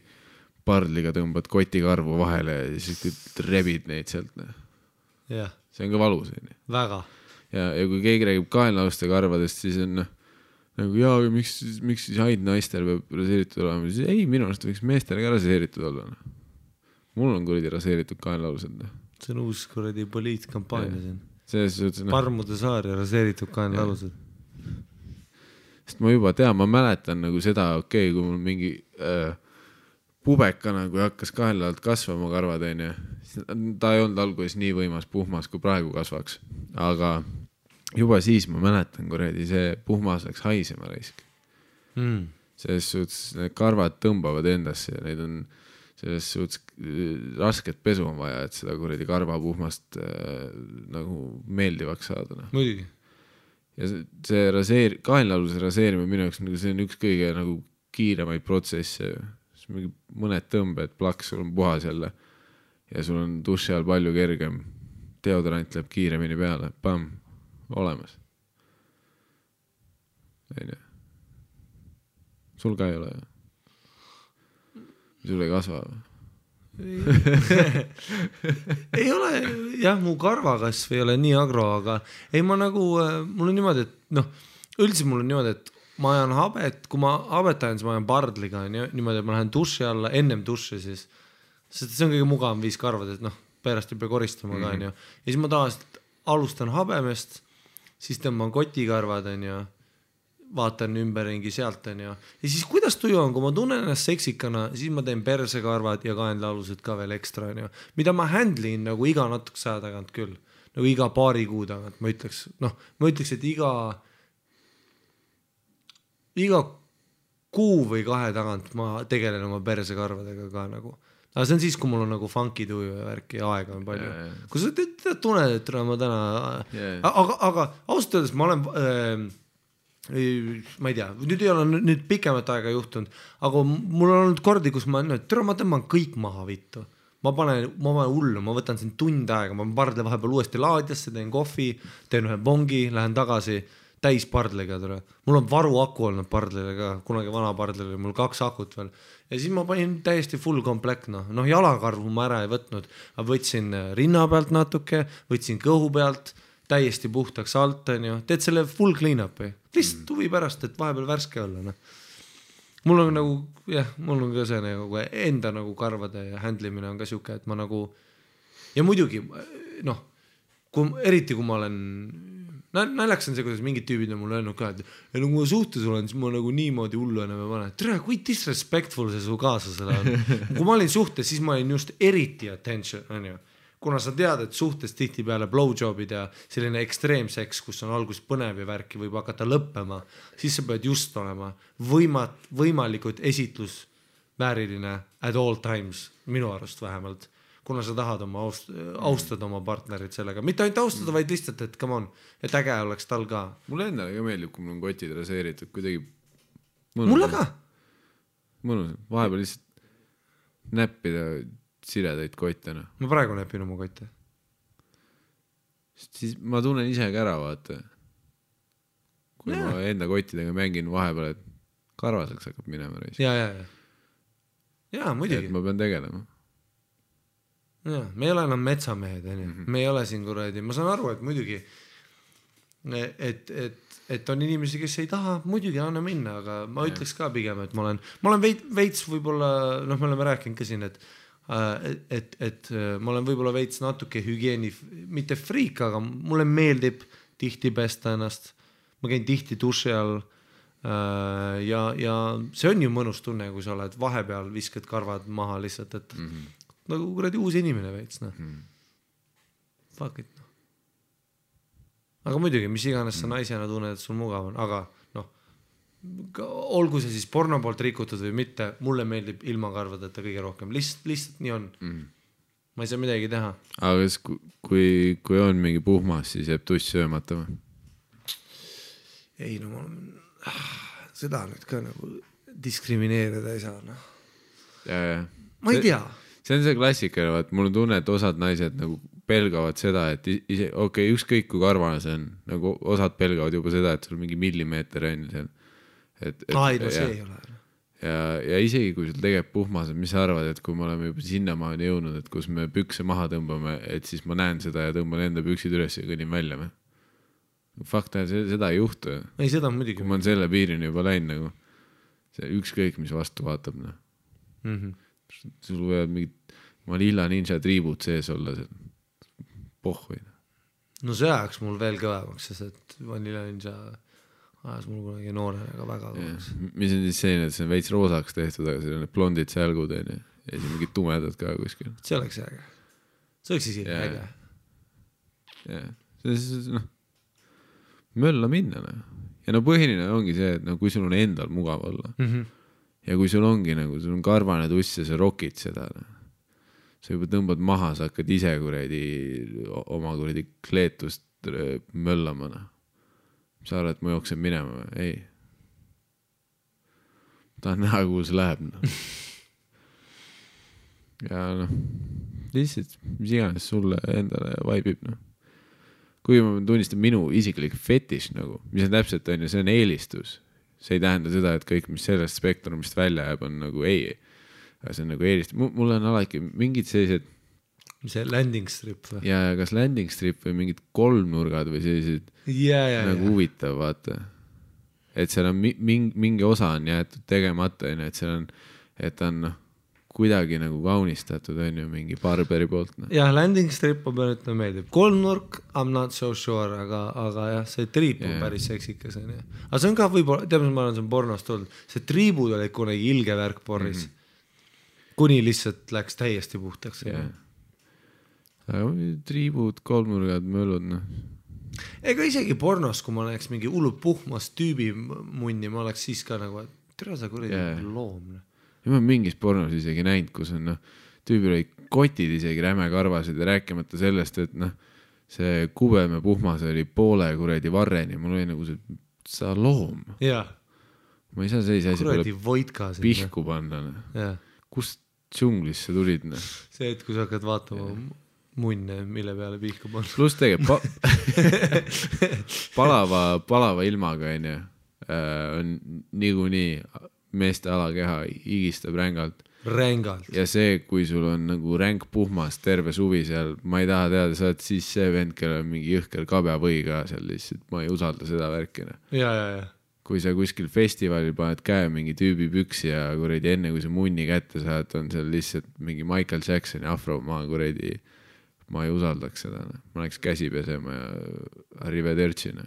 pardliga tõmbad kotikarvu vahele ja siis rebid neid sealt. Jah. See on ka valus. Väga. Ja kui keegi räägib kaenlaaluste karvadest, siis on nagu jaa, miks siis ainult naistel peab raseeritud olema? Siis ei, minu arust võiks meestel ka raseeritud olla. Mul on kuradi raseeritud kaenlaalused. See on uus kuradi poliitkampaania siin. Selles suhtes, Parmude saar ja raseeritud kaenlaalused. Sest ma juba tean, ma mäletan nagu seda, kui mul mingi pubekana, kui hakkas kaenlaalt kasvama karvad, on ju. Ta ei olnud alguses nii võimas puhmas, kui praegu kasvaks. Aga juba siis ma mäletan, kuradi see puhmas läks haisema raisk. Selles suhtes need karvad tõmbavad endasse ja neid on selles suhtes rasket pesu on vaja, et seda kuradi karvapuhmast nagu meeldivaks saada. Muidugi. Ja see kaenlaaluse raseerimine minu jaoks, see on üks kõige nagu kiiremaid protsesse. Mõned tõmbed, plaks, sul on puhas jälle ja sul on duši all palju kergem. Deodorant läheb kiiremini peale. Pam, olemas. Sul ka ei ole. Sul ei kasva. Ei ole, jah, mu karvakasv ei ole nii agro, aga ei, ma nagu, mul on niimoodi, et üldse mul on niimoodi, et ma ajan habet, kui ma habet ajan, siis ma ajan pardliga, niimoodi, et ma lähen duši alla, ennem duši siis, sest see on kõige mugavam viis karvad, et pärast ei pea koristama ka, ja siis ma tavaliselt alustan habemest, siis tõmban kotikarvad, vaatan ümberringi sealt, ja siis kuidas tuju on, kui ma tunnen ennast seksikana, siis ma teen persekarvad ja kaenlaalused ka veel ekstra, mida ma handlin nagu iga natukese aja tagant küll, nagu iga paari kuu tagant, ma ütleks, et iga kuu või 2 tagant ma tegelen oma persekarvadega ka nagu. Aga see on siis, kui mul on nagu funky tuju ja värki ja aega on palju. Kui sa tunned, et ma täna... Aga ausalt öeldes ma olen... ma ei tea, nüüd ei ole nüüd pikemat aega juhtunud, aga mul on olnud kordi, kus ma tõmban kõik maha vittu. Ma panen hullu, ma võtan siin tund aega, ma pardle vahepeal uuesti laadjasse, teen kohvi, teen ühe bongi, lähen tagasi täis pardliga. Mul on varu aku olnud pardlile ka, kunagi vana pardlile, mul 2 akut veel. Ja siis ma panin täiesti full komplekt, jalakarvu ma ära ei võtnud, aga võtsin rinna pealt natuke, võtsin kõhu pealt, täiesti puhtaks alt, teed selle full clean-upi. Lihtsalt huvi pärast, et vahepeal värske olla. Mul on nagu, mul on ka see nagu enda nagu karvade ja handlimine on ka siuke, et ma nagu, ja muidugi, eriti kui ma olen, naljaks on see, kuidas mingid tüübid on mulle öelnud ka, et kui ma suhtes olen, siis ma nagu niimoodi hullu enam ei pane. Tere, kui disrespectful see su kaaslasele on. Kui ma olin suhtes, siis ma olin just eriti attention, kuna sa tead, et suhtes tihti peale blowjobid ja selline ekstreemseks, kus on algus põnev ja värki võib hakata lõppema, siis sa pead just olema võimalikult esitlusvääriline at all times, minu arust vähemalt, kuna sa tahad austada oma partnerit sellega. Mitte ainult austada, vaid lihtsalt, et come on, et äge oleks tal ka. Mulle endale ka meeldib, kui mul on kotid raseeritud, kuidagi mulle ka. Mõnus, vahepeal lihtsalt näppida siredaid kottena. Ma praegu näpin oma kotte. Siis ma tunnen ise ka ära, vaata. Kui ma enda kottidega mängin vahepeal, et karvaseks hakkab minema. Ja, muidugi. Et ma pean tegelema. Ja, me ei ole enam metsamehed, me ei ole siin kuradi. Ma saan aru, et muidugi et on inimesi, kes ei taha, muidugi anna minna, aga ma ütleks ka pigem, et ma olen veits võib-olla, me oleme rääkinud ka siin, et ma olen võib-olla veits natuke hügieeni, mitte friik, aga mulle meeldib tihti pesta ennast, ma käin tihti duši all ja see on ju mõnus tunne, kui sa oled vahepeal, viskad karvad maha lihtsalt, et nagu kuradi uus inimene veits, fuck it. Aga muidugi, mis iganes sa naisena tunned, et sul mugav on, aga olgu see siis porno poolt rikutud või mitte, mulle meeldib ilma karvadeta kõige rohkem, lihtsalt nii on. Ma ei saa midagi teha. Aga kui on mingi puhmas, siis jääb tuss söömata või? Ei, seda nüüd ka nagu diskrimineerida ei saa. Ma ei tea. See on see klassika, et mul on tunne, et osad naised nagu pelgavad seda, et ükskõik kui karvane see on, nagu osad pelgavad juba seda, et sul mingi millimeeter on seal. See ei ole. Ja isegi kui sul tegeb puhmas, mis sa arvad, et kui me oleme juba sinnamaani jõudnud, et kus me pükse maha tõmbame, et siis ma näen seda ja tõmban enda püksid üles ja kõnin välja. Fakt on, seda ei juhtu. Ei, seda muidugi. Kui ma on selle piirini juba läinud, nagu see ükskõik, mis vastu vaatab. Sul võivad mingid Manila Ninja triibud sees olla seal. Pohhui. No see ajaks mul veel kõvemaks, sest et Vanilla Ninja ajas mul kunagi noorena ka väga kõvemaks. Mis on siis selline, et see on veits roosaks tehtud, aga seal on blondid sälgud ja siis mingid tumedad ka kuskil. See oleks äge. See oleks isegi äge. Ja mölla minna. Ja põhiline ongi see, et kui sul on endal mugav olla ja kui sul ongi sul on karvane tuss ja sa rokid seda, sa juba tõmbad maha, sa hakkad ise oma kleetust möllama. Sa arvad, et ma jooksen minema? Ei. Tahan näha, kuhu see läheb. Ja lihtsalt, mis iganes sulle endale vaibib. Kui ma tunnistan minu isiklik fetiš, mis on täpselt, see on eelistus. See ei tähenda seda, et kõik, mis sellest spektrumist välja jääb, on ei. Aga see on eelist. Mul on alati mingid sellised... Mis see landing strip või? Ja kas landing strip või mingid kolmnurgad või sellised huvitav, vaata. Et seal on mingi osa on jäetud tegemata, et seal on, et on kuidagi kaunistatud, on ju, mingi barberi poolt. Jah, landing strip on peal, et meeldib. Kolmnurk, I'm not so sure, aga jah, see triip on päris seksikas. Aga see on ka võib-olla, tead, ma olen siin pornost tulnud, see triibud oli kunagi ilge värk porris. Kuni lihtsalt läks täiesti puhtaks. Triibud, kolmnurgad, möllud. Ega isegi pornos, kui ma näeks mingi hullu puhmas tüübi munni, ma oleks siis ka et tere sa kuradi loom. Ja ma mingis pornos isegi näinud, kus on tüübil oli kotid isegi räme karvasid ja rääkimata sellest, et see kubem ja puhmas oli poole kuradi varreni. Mul oli see, sa loom. Ma ei saa sellise asi pole pihku panna. Kust džunglisse tulid? See, et kui sa hakkad vaatama munne, mille peale pihku panna. Plus tegelikult palava ilmaga on niikuinii meeste alakeha higistab rängalt. Ja see, kui sul on ränk puhmas terve suvi seal, ma ei taha teada, sa oled siis see vend, kellel on mingi jõhker kabjavõi ka seal lihtsalt, ma ei usalda seda värkina. Ja. Kui sa kuskil festivalil paned käe mingi tüübi püksi ja kuredi enne, kui sa munni kätte saad, on seal lihtsalt mingi Michael Jacksoni afro, ma ei usaldaks seda. Ma läheks käsi pesema ja arrivedercina.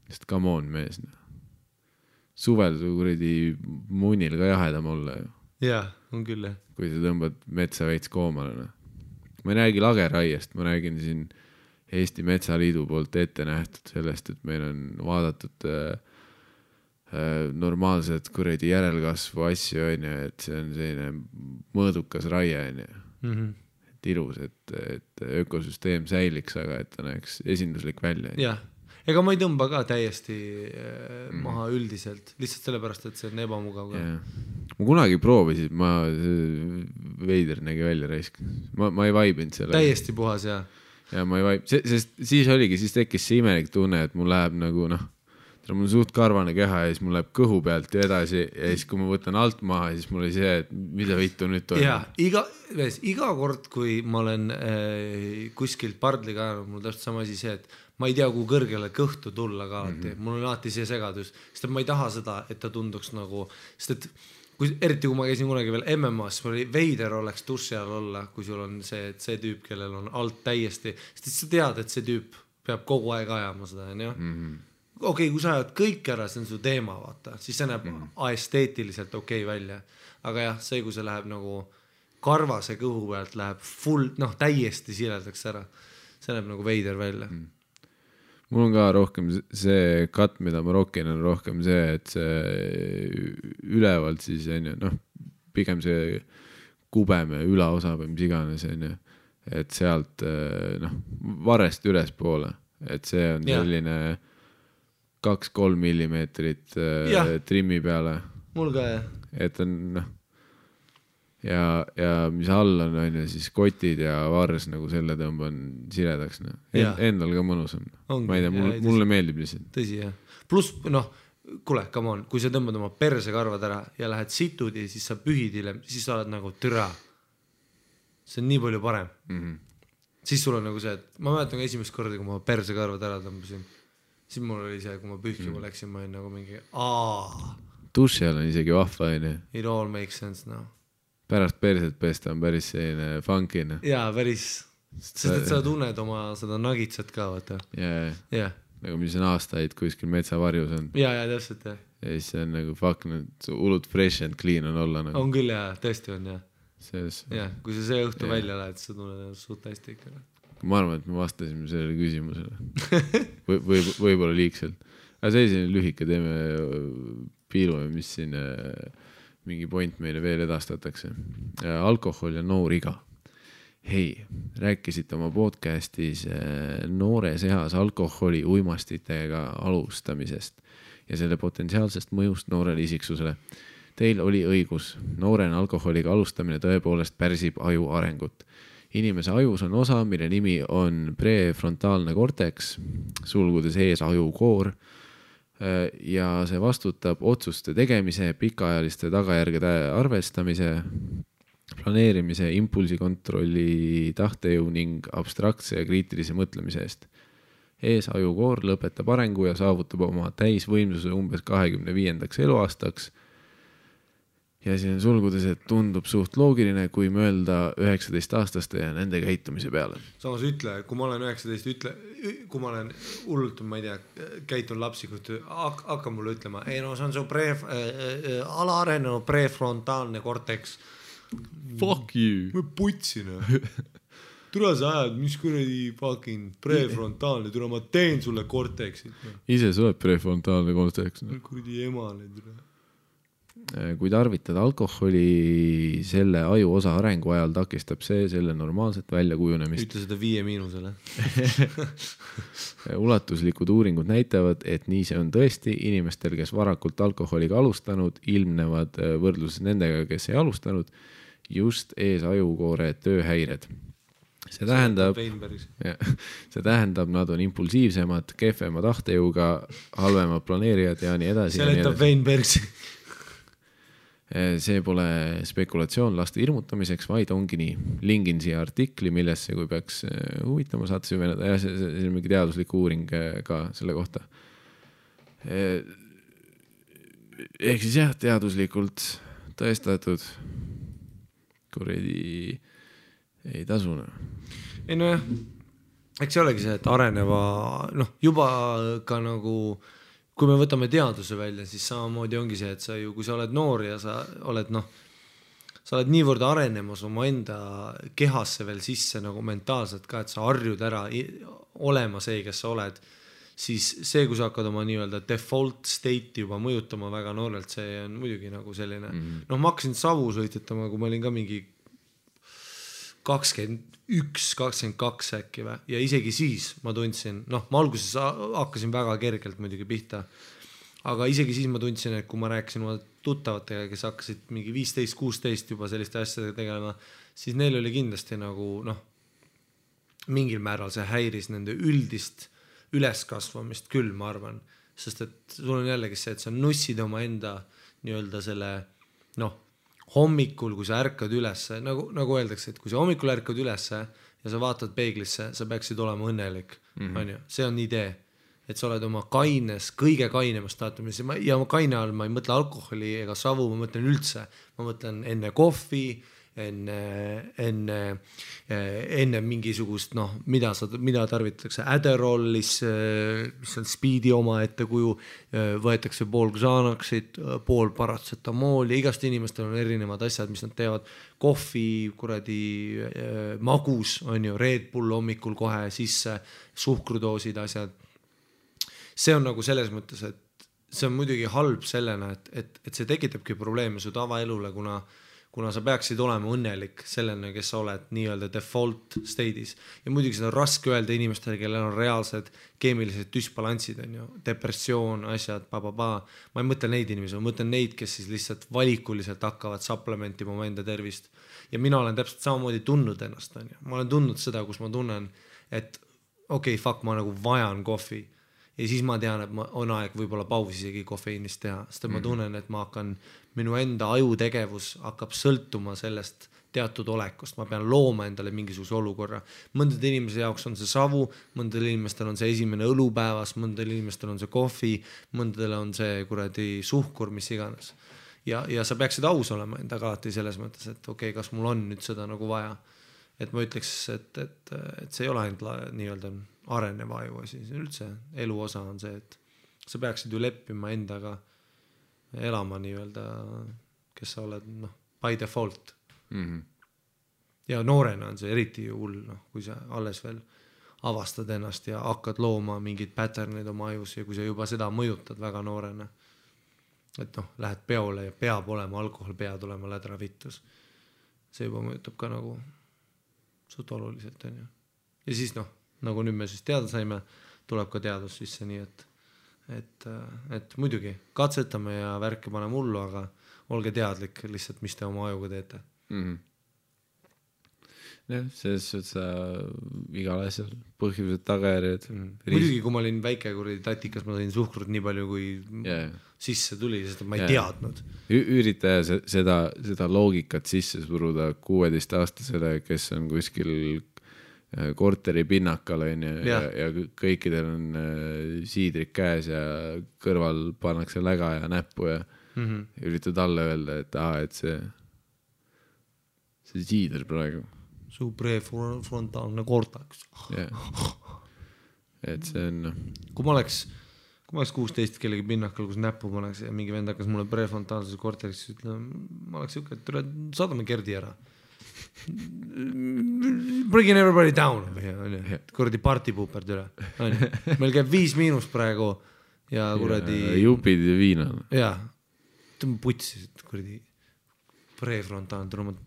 Sest come on, mees. Suvel kuredi munnil ka jahedam olla. Jah, on küll. Kui sa tõmbad metsa veits koomale. Ma ei räägi lageraiest, ma räägin siin Eesti Metsaliidu poolt ette nähtud sellest, et meil on vaadatud normaalset kuredi järelkasvu asju, et see on selline mõõdukas raie, et ilus, et ökosüsteem säiliks, aga et ta näeks esinduslik välja. Jah, ega ma ei tõmba ka täiesti maha üldiselt, lihtsalt sellepärast, et see on ebamugav. Ma kunagi proovisin, veider nägi välja raisk. Ma ei vaibinud selle. Täiesti puhas, jah. Ja ma ei vaib, sest siis tekkis see imelik tunne, et mul läheb mul on suht karvane keha ja siis mul läheb kõhu pealt ja edasi ja siis kui ma võtan alt maha, siis mul oli see, et mida vittu nüüd toimub. Ja, iga kord, kui ma olen kuskilt pardliga ajanud, mul täpselt sama asi see, et ma ei tea, kui kõrgele kõhtu tulla ka alati, mul on alati see segadus, sest et ma ei taha seda, et ta tunduks nagu, sest et eriti kui ma käisin kunagi veel MMA-s, oli veider oleks duši all olla, kui sul on see, et see tüüp, kellel on alt täiesti, sest et sa tead, et see tüüp peab kogu aeg ajama seda, on ju? Okei, kui sa ajad kõik ära, see on su teema, vaata, siis see näeb esteetiliselt okei välja. Aga jah, see, kui see läheb nagu karvase kõhu pealt, läheb full, täiesti siledaks ära. See näeb nagu veider välja. Mul on ka rohkem see cut, mida ma rokin, on rohkem see, et see ülevalt siis on ju, pigem see kubeme ülaosa või mis iganes on ju, et sealt varest ülespoole, et see on selline 2-3 millimeetrit trimmi peale. Mul ka jah. Et on ja mis all on ju, siis kotid ja vars nagu selle tõmban siledaks. Endal ka mõnus on. Ma ei tea, mulle meeldib lihtsalt. Tõsi jah. Plus, kuule, come on, kui sa tõmbad oma persekarvad ära ja lähed situdi, siis sa pühid hiljem, siis sa oled nagu türa. See on nii palju parem. Siis sul on nagu see, et ma mäletan ka esimest korda, kui ma persekarvad ära tõmbasin. Siis mul oli see, kui ma pühkima läksin, ma olin nagu mingi duši all on isegi vahva, on ju. It all makes sense now. Pärast perset pesta on päris selline funkina. Jaa, päris. Sest et sa tunned oma seda nagitsat ka, vaata. Jaa. Nagu mis on aastaid kuskil metsavarjus on. Jaa, täpselt, jah. Ja siis on nagu fuck, hullud fresh and clean on olla nagu. On küll, jaa, tõesti on, jah. Selles. Jah, kui sa see õhtu välja lähed, sa tunned suht hästi ikka. Ma arvan, et me vastasime sellele küsimusele. Võib-olla liigselt. Aga see selline lühike, teeme piilume, mis siin mingi point meile veel edastatakse. Alkohol ja noor iga. Hei, rääkisite oma podcastis noores eas alkoholi uimastitega alustamisest ja selle potentsiaalsest mõjust noorele isiksusele. Teil oli õigus. Noorena alkoholiga alustamine tõepoolest pärsib aju arengut. Inimese ajus on osa, mille nimi on prefrontaalne korteks, sulgudes ees ajukoor, ja see vastutab otsuste tegemise, pikaajaliste tagajärgede arvestamise, planeerimise, impulsikontrolli, tahtejõu ning abstraktse ja kriitilise mõtlemise eest. Ees ajukoor lõpetab arengu ja saavutab oma täisvõimsuse umbes 25. eluaastaks. Ja siin on sulgudes, et tundub suht loogiline, kui mõelda 19-aastaste ja nende käitumise peale. Samas ütle, kui ma olen 19, kui ma olen hullult, ma ei tea, käitun lapsikult, hakka mulle ütlema, ei see on su alaarenenud prefrontaalne korteks. Fuck you. Ma putsin. Tule sa ajad, mis kuradi fucking prefrontaalne, tule ma teen sulle korteksit. Ise sa oled prefrontaalne korteks. Kuradi emale tule. Kui tarvitada alkoholi selle aju osa arengu ajal takistab see selle normaalset välja kujunemist. Ütle seda 5-. Ulatuslikud uuringud näitavad, et nii see on tõesti inimestel, kes varakult alkoholiga alustanud, ilmnevad võrdluses nendega, kes ei alustanud, just ees ajukoore tööhäired. See tähendab, nad on impulsiivsemad, kehvema tahtejõuga, halvemad planeerijad ja nii edasi. Seletab Weinbergsi. See pole spekulatsioon laste hirmutamiseks, vaid ongi nii. Lingin siia artikli, millesse, kui peaks huvitama, saate süveneda. Ja see on mingi teaduslik uuring ka selle kohta. Ehk siis jah, teaduslikult tõestatud. Kuredi ei tasuna. Ei no jah, eks see olegi see, et areneva, juba ka nagu... Kui me võtame teaduse välja, siis samamoodi ongi see, et sa ju, kui sa oled noor ja sa oled niivõrd arenemas oma enda kehasse veel sisse nagu mentaalselt ka, et sa harjud ära olema see, kes sa oled, siis see, kui sa hakkad oma nii-öelda default state juba mõjutama väga noorelt, see on muidugi nagu selline, ma hakkasin savu sõitetama, kui ma olin ka mingi 21-22 äkki või, ja isegi siis ma tundsin, ma alguses hakkasin väga kergelt muidugi pihta, aga isegi siis ma tundsin, et kui ma rääkisin oma tuttavatega, kes hakkasid mingi 15-16 juba selliste asjadega tegelema, siis neil oli kindlasti nagu mingil määral see häiris nende üldist üleskasvamist küll, ma arvan, sest et sul on jällegi see, et sa nussid oma enda nii-öelda selle, hommikul, kui sa ärkad ülesse, nagu öeldakse, et kui sa hommikul ärkad ülesse ja sa vaatad peeglisse, sa peaksid olema õnnelik, on ju, see on idee, et sa oled oma kõige kainemas staatumis ja kaine all ma ei mõtle alkoholi ega savu, ma mõtlen üldse, ma mõtlen enne kohvi, enne mingisugust, noh, mida tarvitatakse Adderallis, mis on speedi oma ette kuju, võetakse pool Xanaxit, pool paratsetamooli, igast inimestel on erinevad asjad, mis nad teevad, kohvi, kuradi magus, on ju, Red Bull hommikul kohe sisse, suhkrudoosid, asjad. See on nagu selles mõttes, et see on muidugi halb sellena, et see tekitabki probleeme su tavaelule, kuna sa peaksid olema õnnelik sellena, kes sa oled nii-öelda default state'is. Ja muidugi seda on raske öelda inimestele, kellel on reaalsed keemilised düsbalanssid, on ju, depressioon, asjad, Ma ei mõtle neid inimesi, ma mõtlen neid, kes siis lihtsalt valikuliselt hakkavad supplementima oma enda tervist. Ja mina olen täpselt samamoodi tundnud ennast, on ju. Ma olen tundnud seda, kus ma tunnen, et okei, fuck, ma nagu vajan kohvi. Ja siis ma tean, et on aeg võib-olla pausi isegi kofeiinist teha, sest ma tunnen, et ma hakkan, minu enda ajutegevus hakkab sõltuma sellest teatud olekust, ma pean looma endale mingisuguse olukorra. Mõndade inimese jaoks on see savu, mõndadel inimestel on see esimene õlupäevas, mõndadel inimestel on see kohvi, mõndadel on see kuradi suhkur, mis iganes. Ja sa peaksid aus olema endaga alati selles mõttes, et okei, kas mul on nüüd seda nagu vaja. Et ma ütleks, et see ei ole ainult nii-öelda areneva aju asi, see üldse elu osa on see, et sa peaksid ju leppima endaga elama nii-öelda, kes sa oled, noh, by default. Ja noorena on see eriti hull, noh, kui sa alles veel avastad ennast ja hakkad looma mingid patternid oma ajus ja kui sa juba seda mõjutad väga noorena, et noh, lähed peole ja peab olema alkohol, pead olema lädra vittus. See juba mõjutab ka nagu suht oluliselt, on ju. Ja siis noh, nagu nüüd me siis teada saime, tuleb ka teadus sisse, nii et muidugi katsetame ja värke paneme hullu, aga olge teadlik lihtsalt, mis te oma ajuga teete. Selles suhtes igal asjal põhjused, tagajärjed. Muidugi, kui ma olin väike kuradi tatikas, ma sain suhkrut nii palju, kui sisse tuli, sest ma ei teadnud. Ürita seda loogikat sisse suruda 16-aastasele, kes on kuskil korteri pinnakal ja kõikidel on siidrik käes ja kõrval pannakse läga ja näppu ja üritad alla öelda, et see siider praegu. Su prefrontaalne kortaks. Et see on... Kui ma oleks 16 kellegi pinnakal, kus näppu pannakse ja mingi vend hakkas mulle prefrontaalses korteriks ütlema, ma oleks siuke, et saadame Gerdi ära. Bringing everybody down kuradi partipuuperd üle meil käib 5- praegu ja kuradi jupid ja viina ja tõmba putsi kuradi prefrontaan tuleb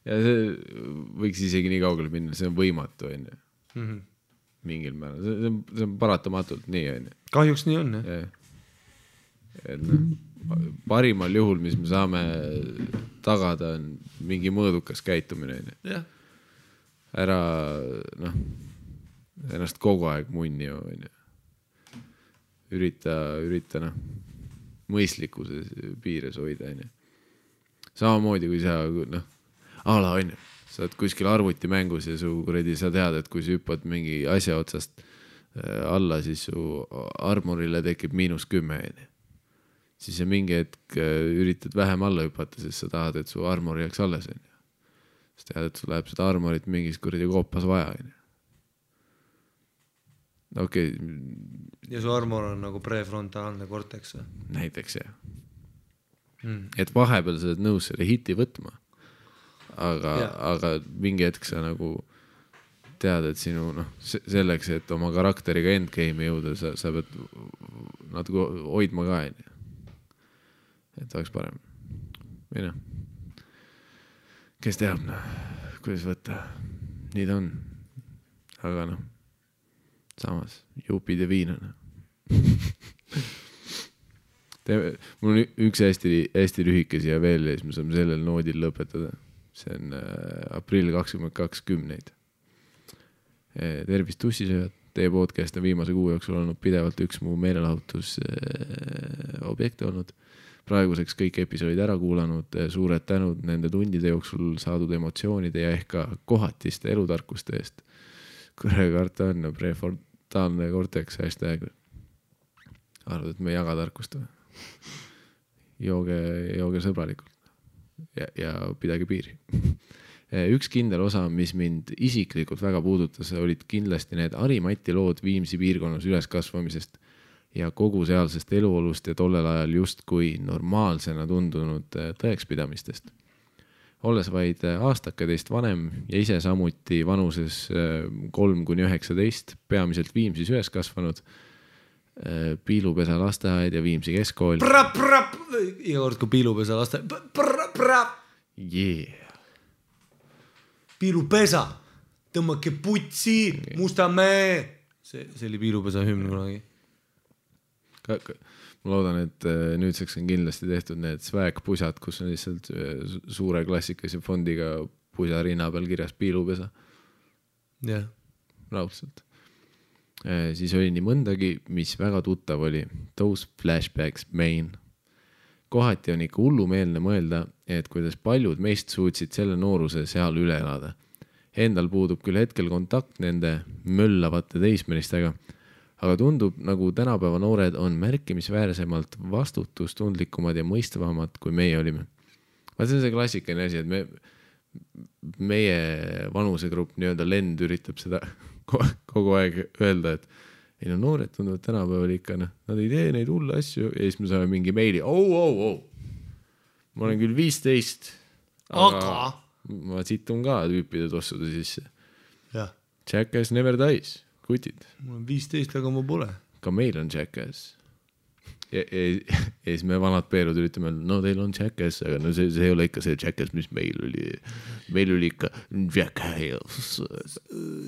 ja see võiks isegi nii kaugele minna, see on võimatu mingil määral, see on paratamatult nii kahjuks nii on et parimal juhul, mis me saame tagada, on mingi mõõdukas käitumine. Ära ennast kogu aeg munni. Ürita mõistlikkuse piires hoida. Samamoodi, kui sa sa oled kuskil arvutimängus ja sa tead, et kui sa hüppad mingi asja otsast alla, siis su armorile tekib -10. Siis sa mingi hetk üritad vähem alla hüpata, sest sa tahad, et su armor jääks alles. Siis tead, et sul läheb seda armorit mingis kuradi koopas vaja. Okei. Ja su armor on nagu prefrontaalne korteks? Näiteks, jah. Et vahepeal sa oled nõus selle hiti võtma, aga mingi hetk sa nagu tead, et sinu, selleks, et oma karakteriga endgame'i jõuda, sa pead natuke hoidma ka, et oleks parem. Või kes teab, kuidas võtta, nii ta on. Aga samas, jupid ja viinana. Mul on üks hästi lühike siia veel ja siis me saame sellel noodil lõpetada. See on aprill 2020. Tervist tussisööjad. Teie podcast on viimase kuu jooksul olnud pidevalt üks mu meelelahutus objekte olnud. praeguseks kõik episoodid ära kuulanud, suured tänud nende tundide jooksul saadud emotsioonide ja ehk ka kohatiste elutarkuste eest. Kurre karta on prefrontaalne cortex hashtag. Arvad, et me ei jaga tarkust või? Jooge sõbralikult ja pidage piiri. Üks kindel osa, mis mind isiklikult väga puudutas, olid kindlasti need Harimati lood Viimsi piirkonnas üles kasvamisest ja kogu sealsest eluolust ja tollel ajal justkui normaalsena tundunud tõekspidamistest. Olles vaid aastaketeist vanem ja ise samuti vanuses 3–19, peamiselt Viimsis üles kasvanud, Piilupesa lasteaed ja Viimsi keskkool. Iga kord, kui Piilupesa lasteaed. Yeah. Piilupesa, tõmmake putsi, Mustamäe. See oli Piilupesa hümn kunagi. Ma loodan, et nüüdseks on kindlasti tehtud need swag-pusad, kus on lihtsalt suure klassikalise fondiga pusa rinna peal kirjas Piilupesa. Jah. Raudselt. Siis oli nii mõndagi, mis väga tuttav oli. Those flashbacks main. Kohati on ikka hullumeelne mõelda, et kuidas paljud meist suutsid selle nooruse seal üle elada. Endal puudub küll hetkel kontakt nende möllavate teismelistega, aga tundub, nagu tänapäeva noored on märkimisväärsemalt vastutustundlikumad ja mõistvamad, kui meie olime. See on see klassikaline asi, et meie vanusegrupp nii-öelda lend üritab seda kogu aeg öelda, et ei no noored tunduvad tänapäeval ikka, nad ei tee neid hulle asju ja siis me saame mingi meili, ma olen küll 15, aga ma situn ka tüüpide tossude sisse. Jackass never dies, kutid. Mul on 15, aga ma pole. Ka meil on Jackass. Ja siis me vanad peerud üritame, no teil on Jackass, aga no see ei ole ikka see Jackass, mis meil oli ikka Jackass.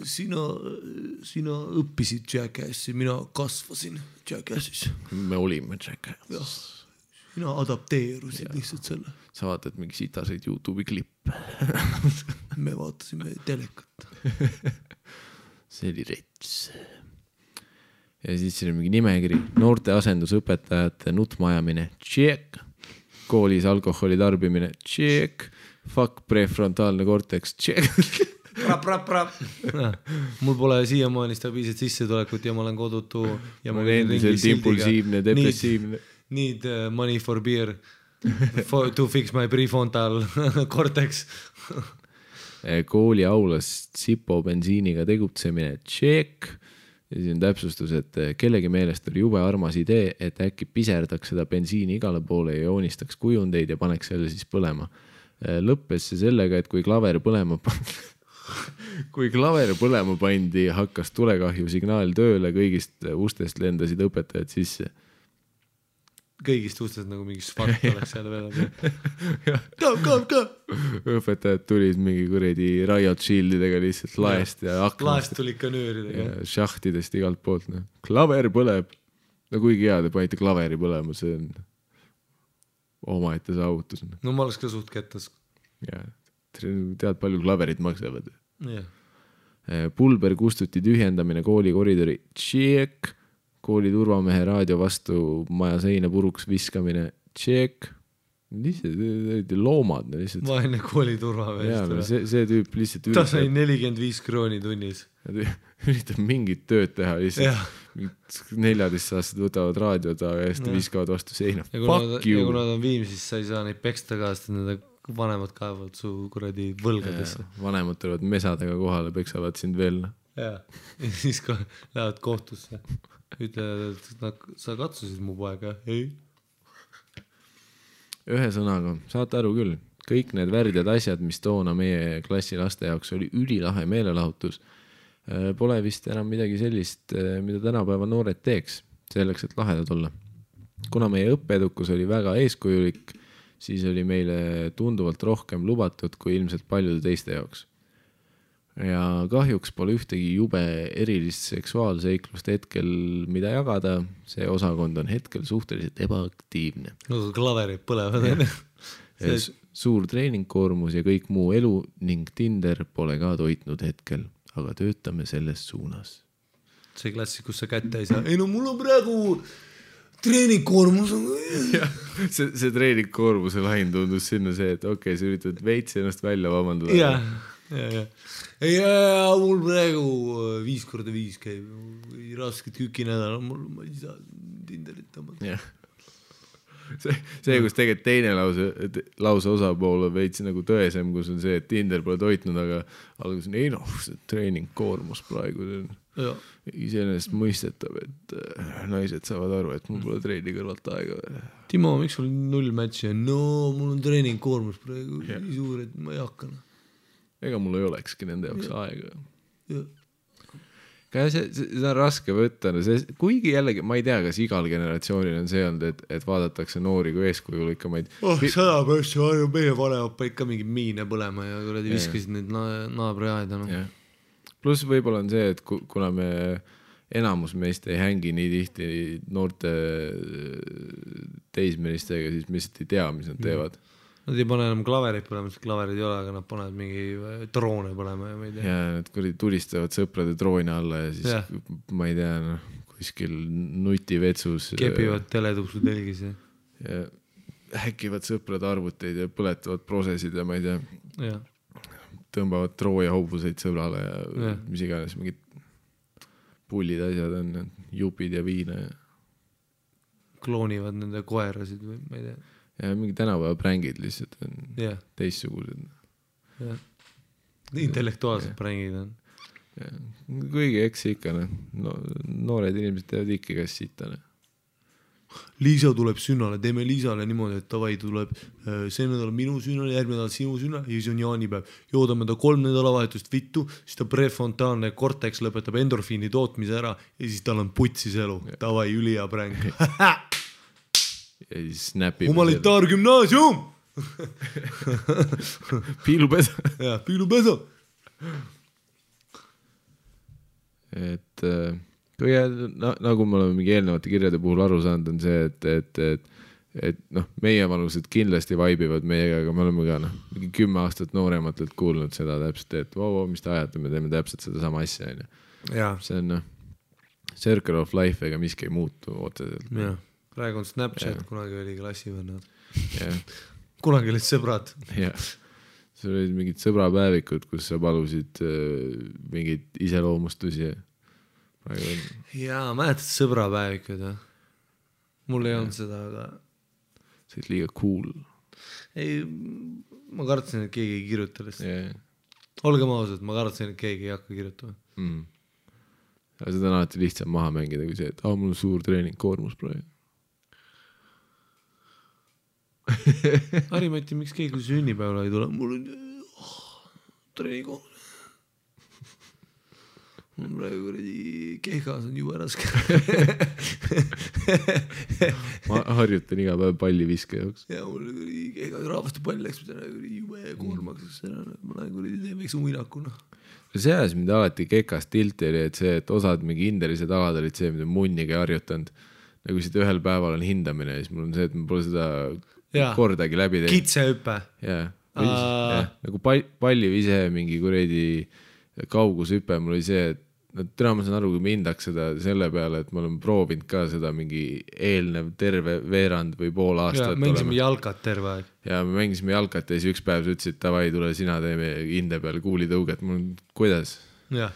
Sina õppisid Jackassi, mina kasvasin Jackassis. Me olime Jackass. Sina adapteerusid lihtsalt selle. Sa vaatad mingi sitaseid YouTube'i klippe. Me vaatasime telekat. See oli rets. Ja siis siin on mingi nimekiri, noorte asendusõpetajate nutmajamine, check, koolis alkoholi tarbimine, check, fuck prefrontaalne cortex, check. Mul pole siiamaani stabiilset sissetulekut ja ma olen kodutu. Ja ma olen endiselt impulsiivne, depressiivne. Need money for beer to fix my prefrontal cortex. Kooli aulas Sipo bensiiniga tegutsemine, check. Ja siis on täpsustus, et kellegi meelest oli jube armas idee, et äkki piserdaks seda bensiini igale poole ja joonistaks kujundeid ja paneks selle siis põlema. Lõppes see sellega, et kui klaver põlema pandi, hakkas tulekahju signaal tööle, kõigist ustest lendasid õpetajad sisse. Kõigist ustest nagu mingi svart oleks seal veel. Ka. Õpetajad tulid mingi kuredi riot shieldidega lihtsalt laest ja aknast. Laest tulid ka nööridega. Ja šahtidest igalt poolt. Klaver põleb. No kuigi hea, te panite klaveri põlema, see on omaette saavutus. No ma oleks ka suht kettas. Ja, tead palju klaverid maksavad. Yeah. Pulber kustuti tühjendamine kooli koridori. Check. Kooli turvamehe raadio vastu maja seina puruks viskamine, check, lihtsalt loomad. Vaene kooli turvamehe. See tüüp lihtsalt ta sai 45 krooni tunnis. Üritab mingit tööd teha, lihtsalt 14-aastased võtavad raadiod ja viskavad vastu seina. Ja kui nad on Viimsis, sa ei saa neid peksta ka, sest nende vanemad kaevavad su kuradi võlgadesse. Vanemad tulevad mesadega kohale, peksavad sind veel. Ja siis lähevad kohtusse. Ütlevad, et sa katsusid mu poega, ei? Ühe sõnaga, saate aru küll, kõik need värdjad asjad, mis toona meie klassi laste jaoks oli ülilahe meelelahutus, pole vist enam midagi sellist, mida tänapäeva noored teeks, selleks, et lahedad olla. Kuna meie õppeedukus oli väga eeskujulik, siis oli meile tunduvalt rohkem lubatud kui ilmselt paljude teiste jaoks. Ja kahjuks pole ühtegi jube erilist seksuaalseiklust hetkel, mida jagada. See osakond on hetkel suhteliselt ebaaktiivne. No klaverid põlevad. Suur treeningkoormus ja kõik muu elu ning Tinder pole ka toitnud hetkel, aga töötame selles suunas. See klassi, kus sa kätte ei saa. Ei no mul on praegu treeningkoormus on see treeningkoormuse lahin tundus sinna see, et okei, sa üritad veits ennast välja vabandada. ja. Ei, mul praegu 5x5 käib rasket küki nädal, ma ei saa Tinderit tõmmata. See, kus tegelikult teine lause osapool on veits nagu tõesem, kus on see, et Tinder pole toitnud, aga alguses on, ei noh, see treeningkoormus praegu iseenesest mõistetav, et naised saavad aru, et mul pole treeni kõrvalt aega. Timo, miks sul 0 matchi on? No, mul on treeningkoormus praegu nii suur, et ma ei hakka. Ega mul ei olekski nende jaoks aega. See on raske võtta, kuigi jällegi ma ei tea, kas igal generatsioonil on see olnud, et vaadatakse noori kui eeskujul ikka maid 100% meie vanemad ikka mingi miine põlema ja kuradi viskasid neid naabri aeda pluss võib-olla on see, et kuna me enamus meist ei hängi nii tihti noorte teismelistega, siis me lihtsalt ei tea, mis nad teevad. Nad ei pane enam klaverit põlema, sest klaverid ei ole, aga nad panevad mingi droone põlema ja ma ei tea. Ja nad tulistavad sõprade droone alla ja siis ma ei tea, kuskil nutivetsus. Kepivad teletupsu telgis ja häkivad sõprade arvuteid ja põletavad prosesid ja ma ei tea. Ja. Tõmbavad Trooja hobuseid sõbrale ja mis iganes mingid pullid asjad on, jupid ja viina. Ja. Kloonivad nende koerasid või ma ei tea. Ja mingi tänapäeva prängid lihtsalt on teistsugused. Intellektuaalsed prängid on. Kuigi eks ikka, noored inimesed teevad ikka kas sita. Liisa tuleb sünnale, teeme Liisale niimoodi, et tavai tuleb see nädal minu sünnale, järgmine nädal sinu sünnale ja siis on jaanipäev. Joodame ta 3 nädalavahetust vittu, siis ta prefrontaalne korteks lõpetab endorfiini tootmise ära ja siis tal on putsis elu. Tavai, ülija präng. Ja siis snapib humanitaargümnaasium piilupesa ja piilupesa et nagu me oleme mingi eelnevate kirjade puhul aru saanud on see, et noh, meie vanused kindlasti vaibivad meiega, aga me oleme ka mingi 10 aastat noorematelt kuulnud seda täpselt, et mis te ajate, me teeme täpselt seda sama asja see on circle of life ega miski ei muutu otseselt praegu on Snapchat, kunagi oli klassivõnnad. Kunagi olid sõbrad. See olid mingid sõbrapäevikud, kus sa palusid mingid iseloomustusi. Mäletad sõbrapäevikud? Mul ei olnud seda, aga... See oli liiga cool. Ei, ma kartsin, et keegi ei kirjuta lihtsalt. Olgem ausad, ma kartsin, et keegi ei hakka kirjutama. Ja seda on alati lihtsam maha mängida kui see, et mul on suur treeningkoormus praegu. Harimati, miks keegi sünnipäevale ei tule? Mul on treenikoormus. Mul praegu kehkas on juba raske. Ma harjutan iga päev palli viske jaoks. Ja mul kehkas rahvaste pall läks jube koormaks. Ma teen väikse uinakuna. See ajas mind alati kekas tilti oli, et see, et osad mingi hindelised alad olid see, mida munniga harjutanud. Nagu siit ühel päeval on hindamine ja siis mul on see, et ma pole seda kordagi läbi teinud. Kitsehüppe. Nagu pallivise mingi kuredi kaugushüpe, mul oli see, et täna ma saan aru, kui ma hindaks seda selle peale, et ma olen proovinud ka seda mingi eelnev terve veerand või pool aastat. Mängisime jalkat terve aeg. Ja me mängisime jalkat ja siis üks päev sa ütlesid, tavai, tule sina teeme hinde peal kuulitõuget. Mul on, kuidas? Ja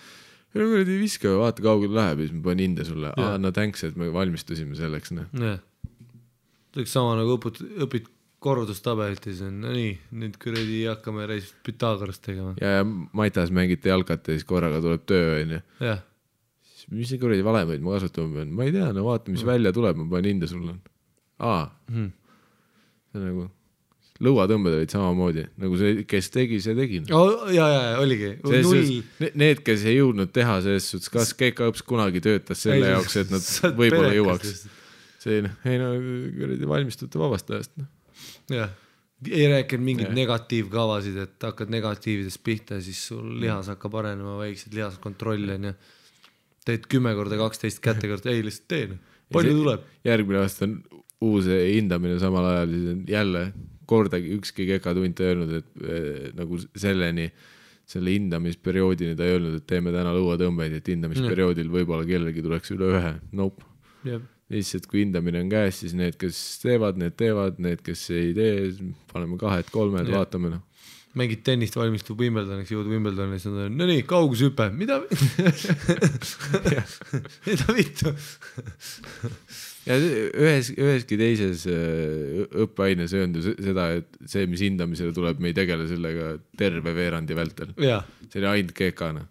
kuredi viske, vaata kaugel läheb ja siis ma panen hinde sulle. No thanks, et me valmistusime selleks. Tõeks sama nagu õpid korrutustabelit ja siis on nii, nüüd kuredi hakkame reisist Pythagorast tegema. Ja Maitas mängite jalkat ja siis korraga tuleb töö. Mis see kuredi valemeid ma kasutama pean? Ma ei tea, no vaata, mis välja tuleb, ma panen hinde sulle. See on nagu lõuatõmbed olid samamoodi, nagu see, kes tegi, see tegi. Oligi. Need, kes ei jõudnud teha selles suhtes, kas Keika õps kunagi töötas selle jaoks, et nad võib-olla jõuaks. See valmistute vabastajast. Ei rääkinud mingid negatiivkavasid, et hakkad negatiividest pihta ja siis sul lihas hakkab arenema väiksed lihaskontroll ja teed 10x12 kätekord, ei lihtsalt teen. Palju tuleb? Järgmine aasta on uus hindamine samal ajal, siis on jälle kordagi ükski kekatunt ei öelnud, et nagu selle hindamisperioodini ta ei öelnud, et teeme täna lõuatõmbeid, et hindamisperioodil võib-olla kellelgi tuleks üle 1. Nope. lihtsalt kui hindamine on käes, siis need, kes teevad, need, kes ei tee, paneme 2-3, vaatame noh. Mängid tennist, valmistub Wimbledoniks, jõud Wimbledoni, siis on no nii, kaugushüpe, mida vittu? Ja üheski teises õppeaines ei öelnud seda, et see, mis hindamisele tuleb, me ei tegele sellega terve veerandi vältel. See oli ainult kekana.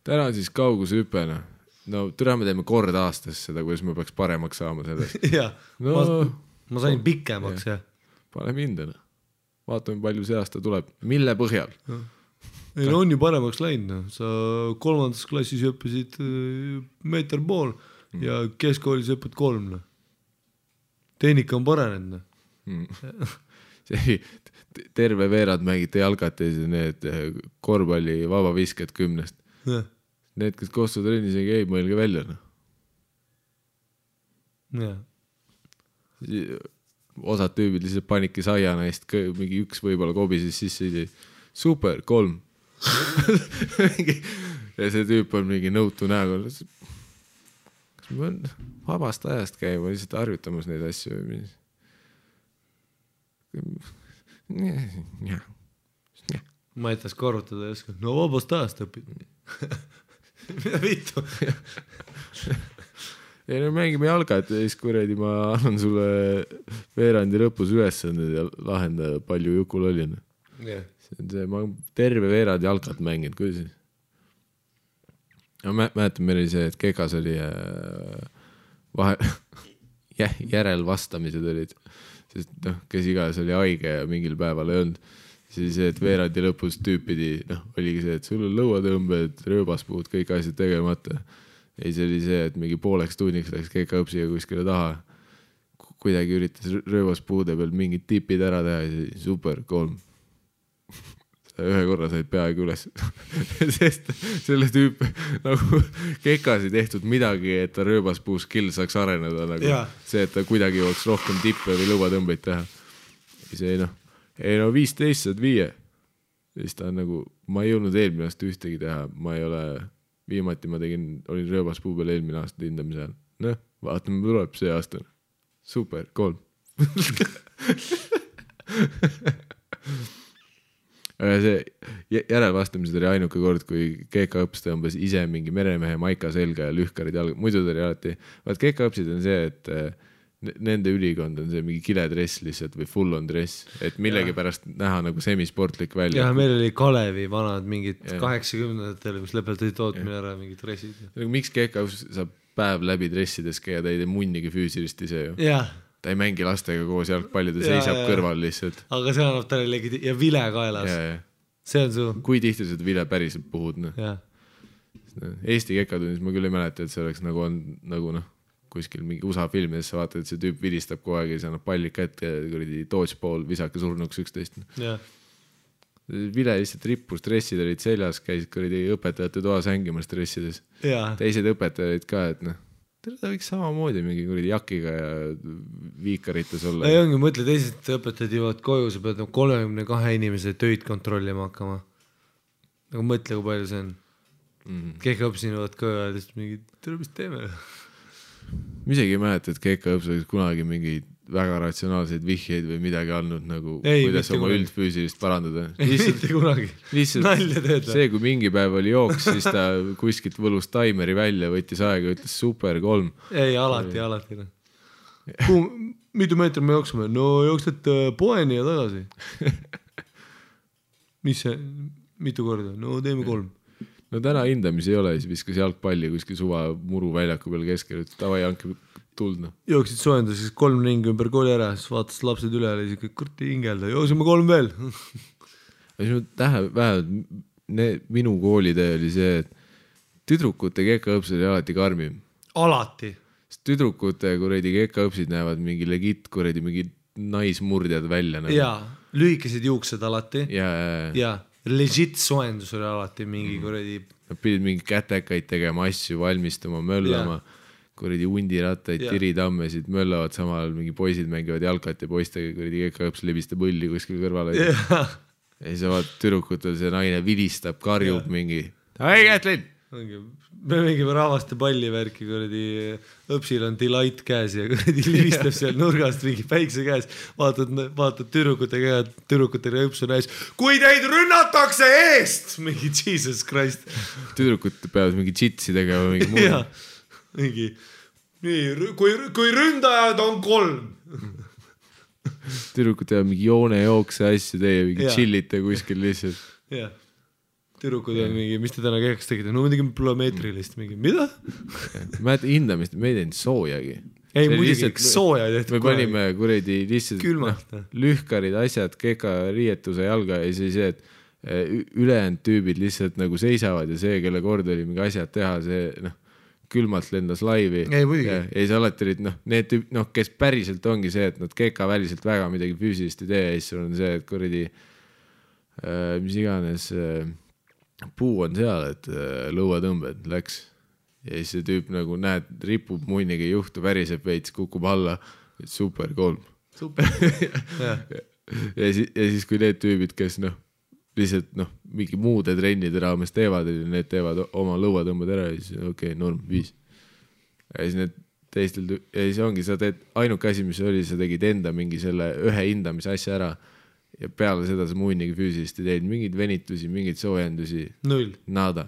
Täna siis kaugushüpena. No türa me teeme kord aastas seda, kuidas me peaks paremaks saama sellest. Ma sain pikemaks, jah. Pane hindana. Vaatame, palju see aasta tuleb. Mille põhjal? Ei, no on ju paremaks läinud. Sa 3. klassis õppisid meeter pool ja keskkoolis õppid 3. Tehnika on paranenud. Terve veerad mängite jalgates ja need korvpalli vabavisked 10. Need, kes koostud trennis ei mõelge välja. Osad tüübid lihtsalt panidki saiana eest, mingi üks võib-olla kobises sisse, super, 3. Ja see tüüp on mingi nõutu näoga. Kas ma on vabast ajast käima lihtsalt harjutamas neid asju või mis? Ma etas korrutada ja oska, no vabast ajast õpid. Mida vittu? Ja no mängime jalgat ja siis kuredi ma annan sulle veerandi lõpus ülesanded ja lahenda palju jukul oli. Ma terve veerand jalgat mängin, kuidas? Ma mäletan, meil oli see, et kekas oli järelvastamised olid, sest kes iganes oli haige ja mingil päeval ei olnud. Siis see, et veerandi lõpus tüüpidi, oligi see, et sul on lõuatõmbed, rööbaspuud, kõik asjad tegemata. Ei, see oli see, et mingi pooleks tunniks läks kekaõpsiga kuskile taha. Kuidagi üritas rööbaspuude peal mingid tipid ära teha ja siis super, 3. Ühe korra said peaaegu üles. Sest selle tüüp nagu kekas ei tehtud midagi, et ta rööbaspuu skill saaks areneda. Nagu see, et ta kuidagi jooks rohkem tippe või lõuatõmbeid teha. See ei 15 saad 5. Siis ta on nagu, ma ei jõudnud eelmine aasta ühtegi teha, ma ei ole... Viimati ma olin rööbaspuu peal eelmine aasta hindamise ajal. Noh, vaatame, tuleb see aasta. Super, 3. See järelvastamised oli ainuke kord, kui kekaõpsed tõmbas ise mingi meremehe maika selga ja lühkarid jalga. Muidu ta oli alati, vaat kekaõpsid on see, et nende ülikond on see mingi kiledress lihtsalt või full on dress, et millegi pärast näha nagu semisportlik välja. Ja meil oli Kalevi vanad mingid 80-ndatel, kus lõpetati tootmine ära mingid dressid. Miks kekaõps saab päev läbi dressides käia, ta ei tee munnigi füüsilist ise ju. Ta ei mängi lastega koos jalgpalli, ta seisab kõrval lihtsalt. Aga see annab talle ja vile kaelas. See on su... Kui tihti seda vile päriselt puhud? Eesti kekatunnis ma küll ei mäleta, et see oleks nagu kuskil mingi USA filmides sa vaatad, et see tüüp vilistab kogu aeg ja see annab pallid kätte ja kuradi dodgeball visake surnuks 11. Vile lihtsalt rippus, stressid olid seljas, käisid kuradi õpetajate toas hängimas stressides. Teised õpetajad ka, et ta võiks samamoodi mingi kuradi jakiga ja viikarites olla. Ei ongi, mõtle, teised õpetajad jõuavad koju, sa pead 32 inimese töid kontrollima hakkama. Nagu mõtle, kui palju see on. Kekaõpsin jõuavad koju ja mingi, tere, mis teeme? Ma isegi ei mäleta, et kekaõps oleks kunagi mingi väga ratsionaalseid vihjeid või midagi andnud, nagu kuidas oma üldfüüsilist parandada. Mitte kunagi. Nalja teed. See, kui mingi päev oli jooks, siis ta kuskilt võlus taimeri välja, võttis aega ja ütles super, 3. Ei, alati. Mitu meetrit me jooksime? No jooksed poeni ja tagasi. Mis see? Mitu korda? No teeme 3. No täna hindamis ei ole, siis viskas jalgpalli kuskil suva muru väljaku peal keskel, et tavai hanke tuld. Jooksid soendas, siis 3 ringi ümber kooli ära, siis vaatas lapsed üle ja siis kurti hingelda, jooksime 3 veel. Vähemalt minu koolitee oli see, et tüdrukute kekaõpsed oli alati karmim. Alati. Tüdrukute kuredi kekaõpsid näevad mingi legit kuredi mingi naismurdjad välja. Jaa, lühikesed juuksed alati. Jaa. Legit soendus oli alati mingi kuredi. Nad pidid mingi kätekaid tegema, asju valmistama, möllama, kuredi undirattaid, tiritammesid, möllavad samal, mingi poisid mängivad jalkat ja poistega kuredi kekaõps lebistab õlli kuskil kõrvale. Ja siis vaat tüdrukutel see naine vilistab, karjub mingi. Ei, Kätlin, me mängime rahvaste pallivärki, kuradi õpsil on delight käes ja kuradi livistab seal nurgast mingi päikse käes, vaatad tüdrukutega õps on äis, kui teid rünnatakse eest, mingi Jesus Christ. Tüdrukud peavad mingi jitsi tegema, mingi muu. Ja, mingi, nii, kui ründajad on 3. Tüdrukud teevad mingi joonejookse asju, teie mingi chillite kuskil lihtsalt. Jah. Tüdrukud on mingi, mis te täna kehaks tegite? No muidugi plüomeetrilist mingi, mida? Ma hindamist, me ei teinud soojagi. Ei, muidugi sooja tehtud. Me panime kuredi lihtsalt lühkarid asjad, keka riietuse jalga ja siis see, et ülejäänud tüübid lihtsalt nagu seisavad ja see, kelle kord oli mingi asjad teha, see külmalt lendas laivi. Ei, muidugi. Ja see alati olid, need tüüb, kes päriselt ongi see, et nad keka väliselt väga midagi füüsilist ei tee ja siis on see, et kuredi mis iganes puu on seal, et lõuatõmbed läks ja siis see tüüp nagu näed, ripub munnigi juhtu, väriseb veits, kukub alla, super 3. Super. ja siis kui need tüübid, kes lihtsalt mingi muude trennide raames teevad ja need teevad oma lõuatõmbed ära ja siis okei, norm 5. Ja siis need teistel, ja siis ongi, sa teed ainuke asi, mis oli, sa tegid enda mingi selle ühe hindamise asja ära ja peale seda sa muinigi füüsilist ei teed, mingid venitusi, mingid soojendusi. 0. Nada.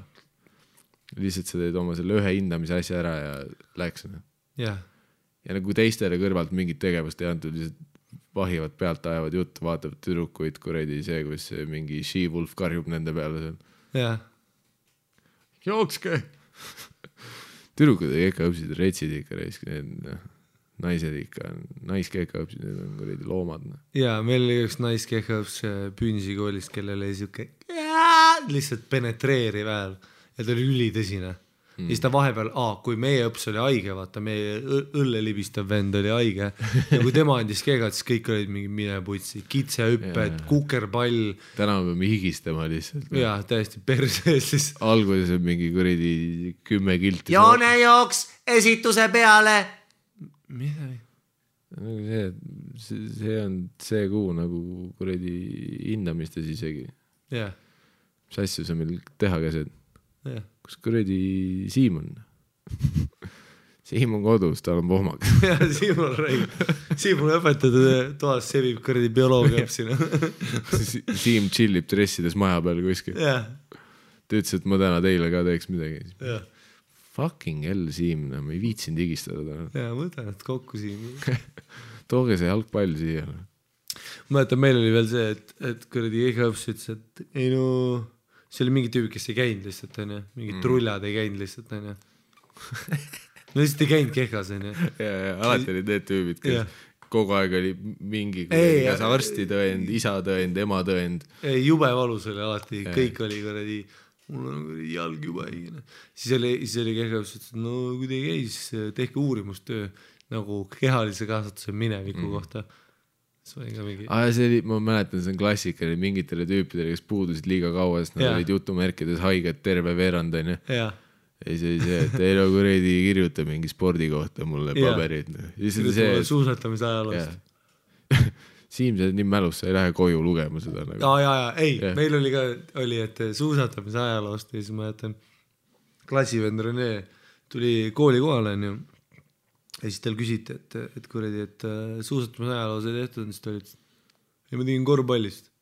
Lihtsalt sa teed oma selle ühe hindamise asja ära ja läks. Yeah. Ja nagu teistele kõrvalt mingit tegevust ei antud, lihtsalt vahivad pealt, ajavad juttu, vaatavad tüdrukuid, kuredi see, kus mingi She-Wolf karjub nende peale seal. Yeah. Jookske! Tüdrukud ei ikka õpsid, retsid ikka reisk, need naised ikka, naiskeka õpsid, need on kuredi loomad. Jaa, meil oli üks naiskeka õps Püünsi koolist, kellel oli siuke lihtsalt penetreeriv hääl ja ta oli ülitõsine. Ja siis ta vahepeal, kui meie õps oli haige, vaata, meie õllelibistav vend oli haige ja kui tema andis keegad, siis kõik olid mingi mineputsi, kitsehüpped, kukerpall. Täna me peame higistama lihtsalt. Jaa, täiesti perses siis. Alguses on mingi kuredi 10 kilti. Joonejooks esituse peale. Mida? See on see kuu nagu kuredi hindamistes isegi. Jah. Mis asju sa meil teha käsed? Jah. Kus kuredi Siim on? Siim on kodus, tal on pohmak. Jah, Siim on räig. Siim on õpetatud toas, sevib kuredi bioloogia õpsina. Siim chillib dressides maja peal kuskil. Jah. Ta ütles, et ma täna teile ka teeks midagi. Jah. Fucking hell, Siim, ma ei viitsin digistada. Jaa, mõtlen, et kokku Siim. Tooge see jalgpall siia. Mõtlen, meil oli veel see, et kuradi EGA-õps ütles, et ei no, see oli mingi tüübi, kes ei käinud lihtsalt, on ju. Mingid trullad ei käinud lihtsalt, on ju. No lihtsalt ei käinud kehkas, on ju. Ja, alati olid need tüübid, kes kogu aeg oli mingi arsti tõend, isa tõend, ema tõend. Ei, jube valus oli alati, kõik oli kuradi mul on jalg juba hingine. Siis oli kehkaus, et no kui te ei käi, siis tehke uurimustöö nagu kehalise kasvatuse mineviku kohta. See oli ka mingi... see oli, ma mäletan, see on klassikaline mingitele tüüpidele, kes puudusid liiga kaua, sest nad olid jutumärkides haiged terve veerand, on ju. Ja see oli see, et ei no kuredi kirjuta mingi spordi kohta mulle paberid. Kirjuta suusatamise ajaloost. Siim, see on nii mälus, sa ei lähe koju lugema seda. Ei, meil oli ka, et suusatamise ajaloost ja siis ma jätan klassivend Rene tuli kooli kohale ja siis tal küsiti, et kuredi, et suusatamise ajaloos ei tehtud, siis ta oli, et ma tegin korvpallist.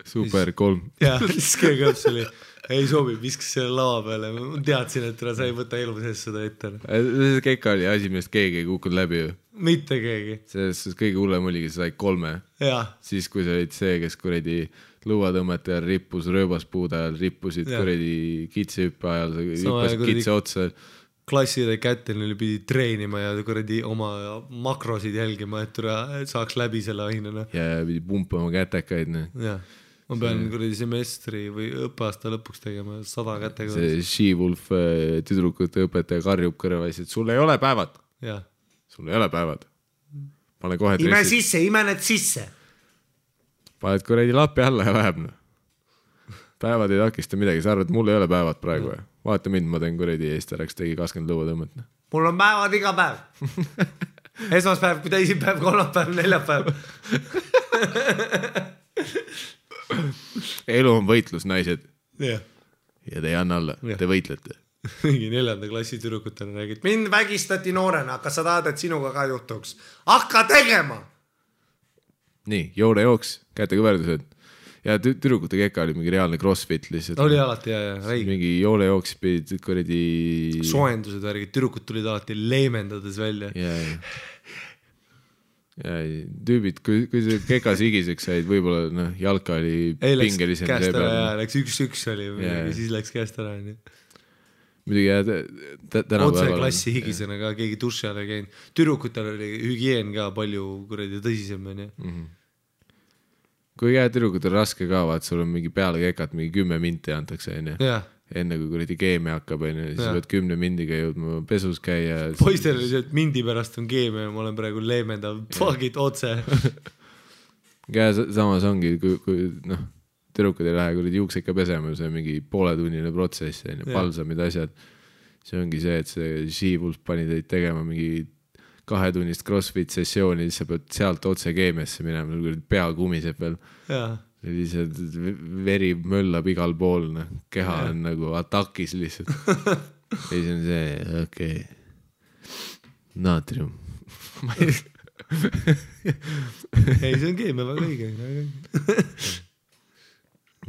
Super, 3. Ja, siis keegi õps oli, ei sobi, viskas selle lava peale. Ma teadsin, et sa ei võta elu sees seda ette. See keka oli asi, millest keegi ei kukkunud läbi ju. Mitte keegi. Selles kõige hullem oligi, sa said 3. Ja. Siis kui sa olid see, kes kuredi lõuatõmmete ajal rippus, rööbaspuude ajal rippusid kuredi kitsehüppe ajal, sa hüppasid kitse otsa. Klasside kätel neil pidi treenima ja kuradi oma makrosid jälgima, et saaks läbi selle ainena. Ja pidi pumpama kätekaid. Jah. Ma pean kuradi semestri või õppeaasta lõpuks tegema 100 kätega. See She-Wolf tüdrukute õpetaja karjub kõrvais, et sul ei ole päevad. Jah. Sul ei ole päevad. Pane kohe ime sisse, ime need sisse. Paned kuradi lapi alla ja läheb. Päevad ei takista midagi, sa arvad, mul ei ole päevad praegu. Vaata mind, ma teen kuradi eestaraks, tegi 20 lõuatõmmet. Mul on päevad iga päev. Esmaspäev, teisipäev, kolmapäev, neljapäev. Elu on võitlus, naised. Ja te ei anna alla, te võitlete. mingi 4. klassi tüdrukutele räägid, mind vägistati noorena, kas sa tahad, et sinuga ka juhtuks? Hakka tegema! Nii, joonejooks, kätekõverdused. Ja tüdrukute keka oli mingi reaalne crossfit lihtsalt. Oli alati ja räig. Mingi joonejooks pidid kuradi... Soendused värgid, tüdrukud tulid alati leemendades välja. Ja tüübid, kui see kekas higiseks said, võib-olla jalka oli pingelisem. Läks käest ära, läks 1-1 oli, siis läks käest ära. Muidugi tänapäeval... Otse klassi higisena ka, keegi duši all ei käinud. Tüdrukutel oli hügieen ka palju kuradi tõsisem. Kui tüdrukutel raske ka, vaat sul on mingi peale kekat, mingi 10 minti antakse. Enne kui kuradi keemia hakkab, siis võid 10 mindiga jõudma pesus käia. Poistel oli see, et mindi pärast on keemia ja ma olen praegu leemendav, fuck it, otse. Samas ongi, kui tüdrukud ei lähe kuradi juukse ikka pesema, see on mingi pooletunnine protsess, palsamid asjad. See ongi see, et see She-Wolf pani teid tegema mingi 2-tunnist crossfit sessiooni, siis sa pead sealt otse keemiasse minema, pea kumiseb veel. Lihtsalt veri möllab igal pool, keha on nagu atakis lihtsalt. Ja siis on see, okei. Naatrium. Ei, see on keemia väga õige.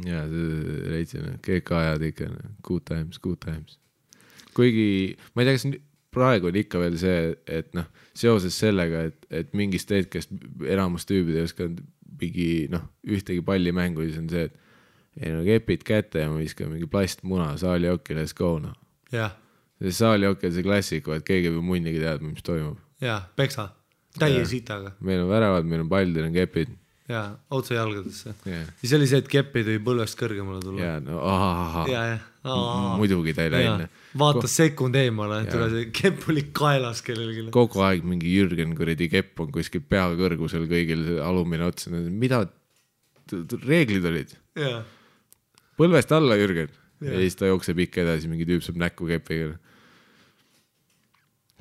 Jaa, see reitsin, keeka ajad ikka, good times. Kuigi, ma ei tea, kas praegu on ikka veel see, et seoses sellega, et mingist hetkest enamus tüübid ei oska mingi, ühtegi pallimängu, siis on see, et kepid kätte ja ma viskan mingi plastmuna saali okki, let's go, See saali okki on see klassik, et keegi või munnigi teadma, mis toimub. Peksa, täie sitaga. Meil on väravad, meil on pall, teil on kepid. Otse jalgadesse. Siis oli see, et kepid või põlvest kõrgemale tulla. Muidugi ta ei läinud. Vaatas sekund eemale, tule see kepp oli kaelas kellelgi. Kogu aeg mingi Jürgen kuradi kepp on kuskil pea kõrgusel kõigil alumine otsa. Mida reeglid olid? Põlvest alla Jürgen. Ja siis ta jookseb ikka edasi, mingi tüüp saab näkku kepiga.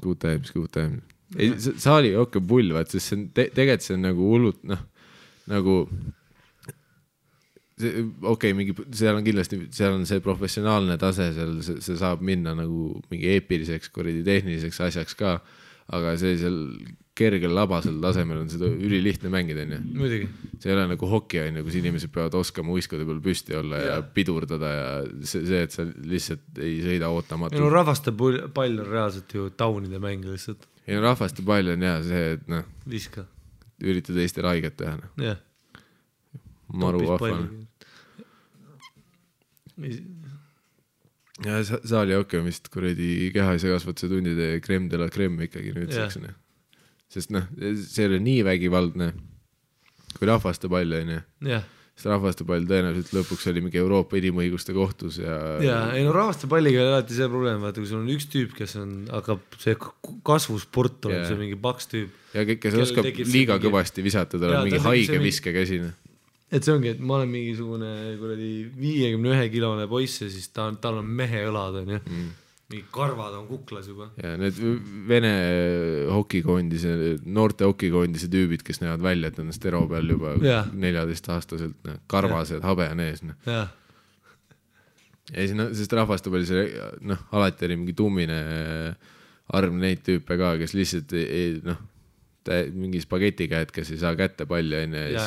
Good times. Saali okka pull, vaat, sest tegelikult see on nagu hullult, nagu mingi, seal on kindlasti, seal on see professionaalne tase, see saab minna nagu mingi eepiliseks, tehniliseks asjaks ka, aga sellisel kergel labasel tasemel on seda ülilihtne mängida. Muidugi. See ei ole nagu hoki, kus inimesed peavad oskama uiskade peal püsti olla ja pidurdada ja see, et sa lihtsalt ei sõida ootamatu. Rahvaste pall on reaalselt ju taunide mäng lihtsalt. Rahvaste pall on see, et viska. Üritada teistel haiget teha. Maru vahvan. Ja saali okei on vist kuradi kehaise kasvatuse tundide crème de la crème ikkagi nüüd seksine. Sest see oli nii vägivaldne kui rahvaste pall on. Sest rahvaste pall tõenäoliselt lõpuks oli mingi Euroopa inimõiguste kohtus. Rahvaste palliga oli alati see probleem, vaata kui sul on üks tüüp, kes hakkab see kasvusport on see mingi paks tüüp. Ja kes oskab liiga kõvasti visata, tal on mingi haige viskekäsine. Et see ongi, et ma olen mingisugune 51-kilone poiss ja siis tal on mehe õlad on mingi karvad on kuklas juba. Ja need Vene hokikoondise, noorte hokikoondise tüübid, kes näevad välja, et on stero peal juba 14-aastaselt, karvased, habe on ees. Ja siis, sest rahvaste peal see, alati oli mingi tummine arv neid tüüpe ka, kes lihtsalt mingi spageti käed, kes ei saa kätte palli ja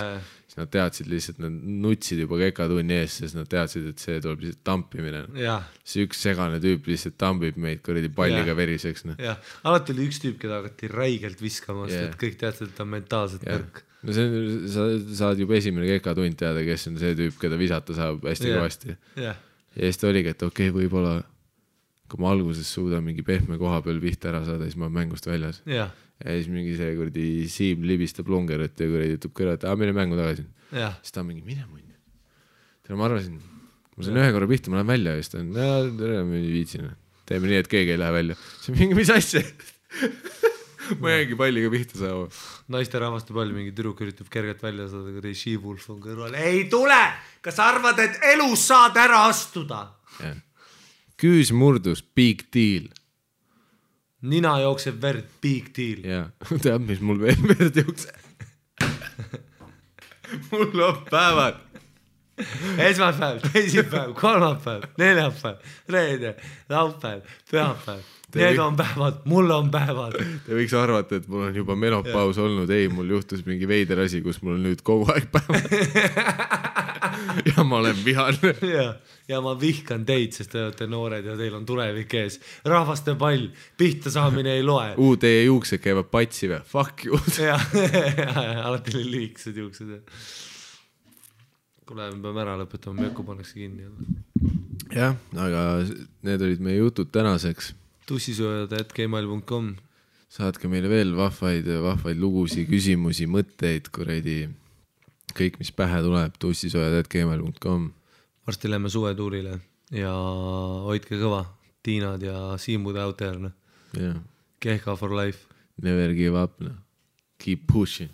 siis nad teadsid lihtsalt, nad nutsid juba kekatunni ees, sest nad teadsid, et see tuleb lihtsalt tampimine. See üks segane tüüp lihtsalt tampib meid kuradi palliga veriseks. Alati oli üks tüüp, keda hakati räigelt viskama, et kõik teadsid, et ta on mentaalselt nõrk. Sa saad juba esimene kekatund teada, kes on see tüüp, keda visata saab hästi kõvasti. Ja siis ta oligi, et okei, võib-olla kui ma alguses suudan mingi pehme koha peal pihta ära saada, siis ma olen mängust väljas. Ja siis mingi see kuradi Siim libistab longerut ja kuradi ütleb kõrva, et mine mängu tagasi. Siis ta on mingi, mine munn. Ma arvasin, ma saan ühe korra pihta, ma lähen välja ja siis ta on, tere, ma viitsin. Teeme nii, et keegi ei lähe välja. See on mingi, mis asja? Ma jäängi palliga pihta saama. Naiste rahvaste pall, mingi tüdruk üritab kergelt välja saada, kui She-Wolf on kõrval. Ei tule! Kas arvad, et elus saad ära astuda? Küüs murdus, big deal. Nina jookseb verd, big deal. Tead, mis mul veel verd jookseb? Mul on päevad. esmaspäev, teisipäev, kolmapäev, neljapäev, reede, laupäev, pühapäev. Need on päevad, mul on päevad. Te võiks arvata, et mul on juba menopaus olnud. Ei, mul juhtus mingi veider asi, kus mul on nüüd kogu aeg päevad. Ja ma olen vihane. Ja ma vihkan teid, sest te olete noored ja teil on tulevik ees. Rahvaste pall, pihta saamine ei loe. Teie juuksed käivad patsi või? Fuck you. Alati oli lühikesed juuksed. Kuule, me peame ära lõpetama, Möku pannakse kinni. Jah, aga need olid meie jutud tänaseks. tussisööjad@gmail.com. Saatke meile veel vahvaid lugusi, küsimusi, mõtteid, kuradi kõik, mis pähe tuleb, tussisööjad@gmail.com. Varsti lähme suvetuurile ja hoidke kõva. Tiinad ja Siimud out there. Yeah. Kehka for life. Never give up. Keep pushing.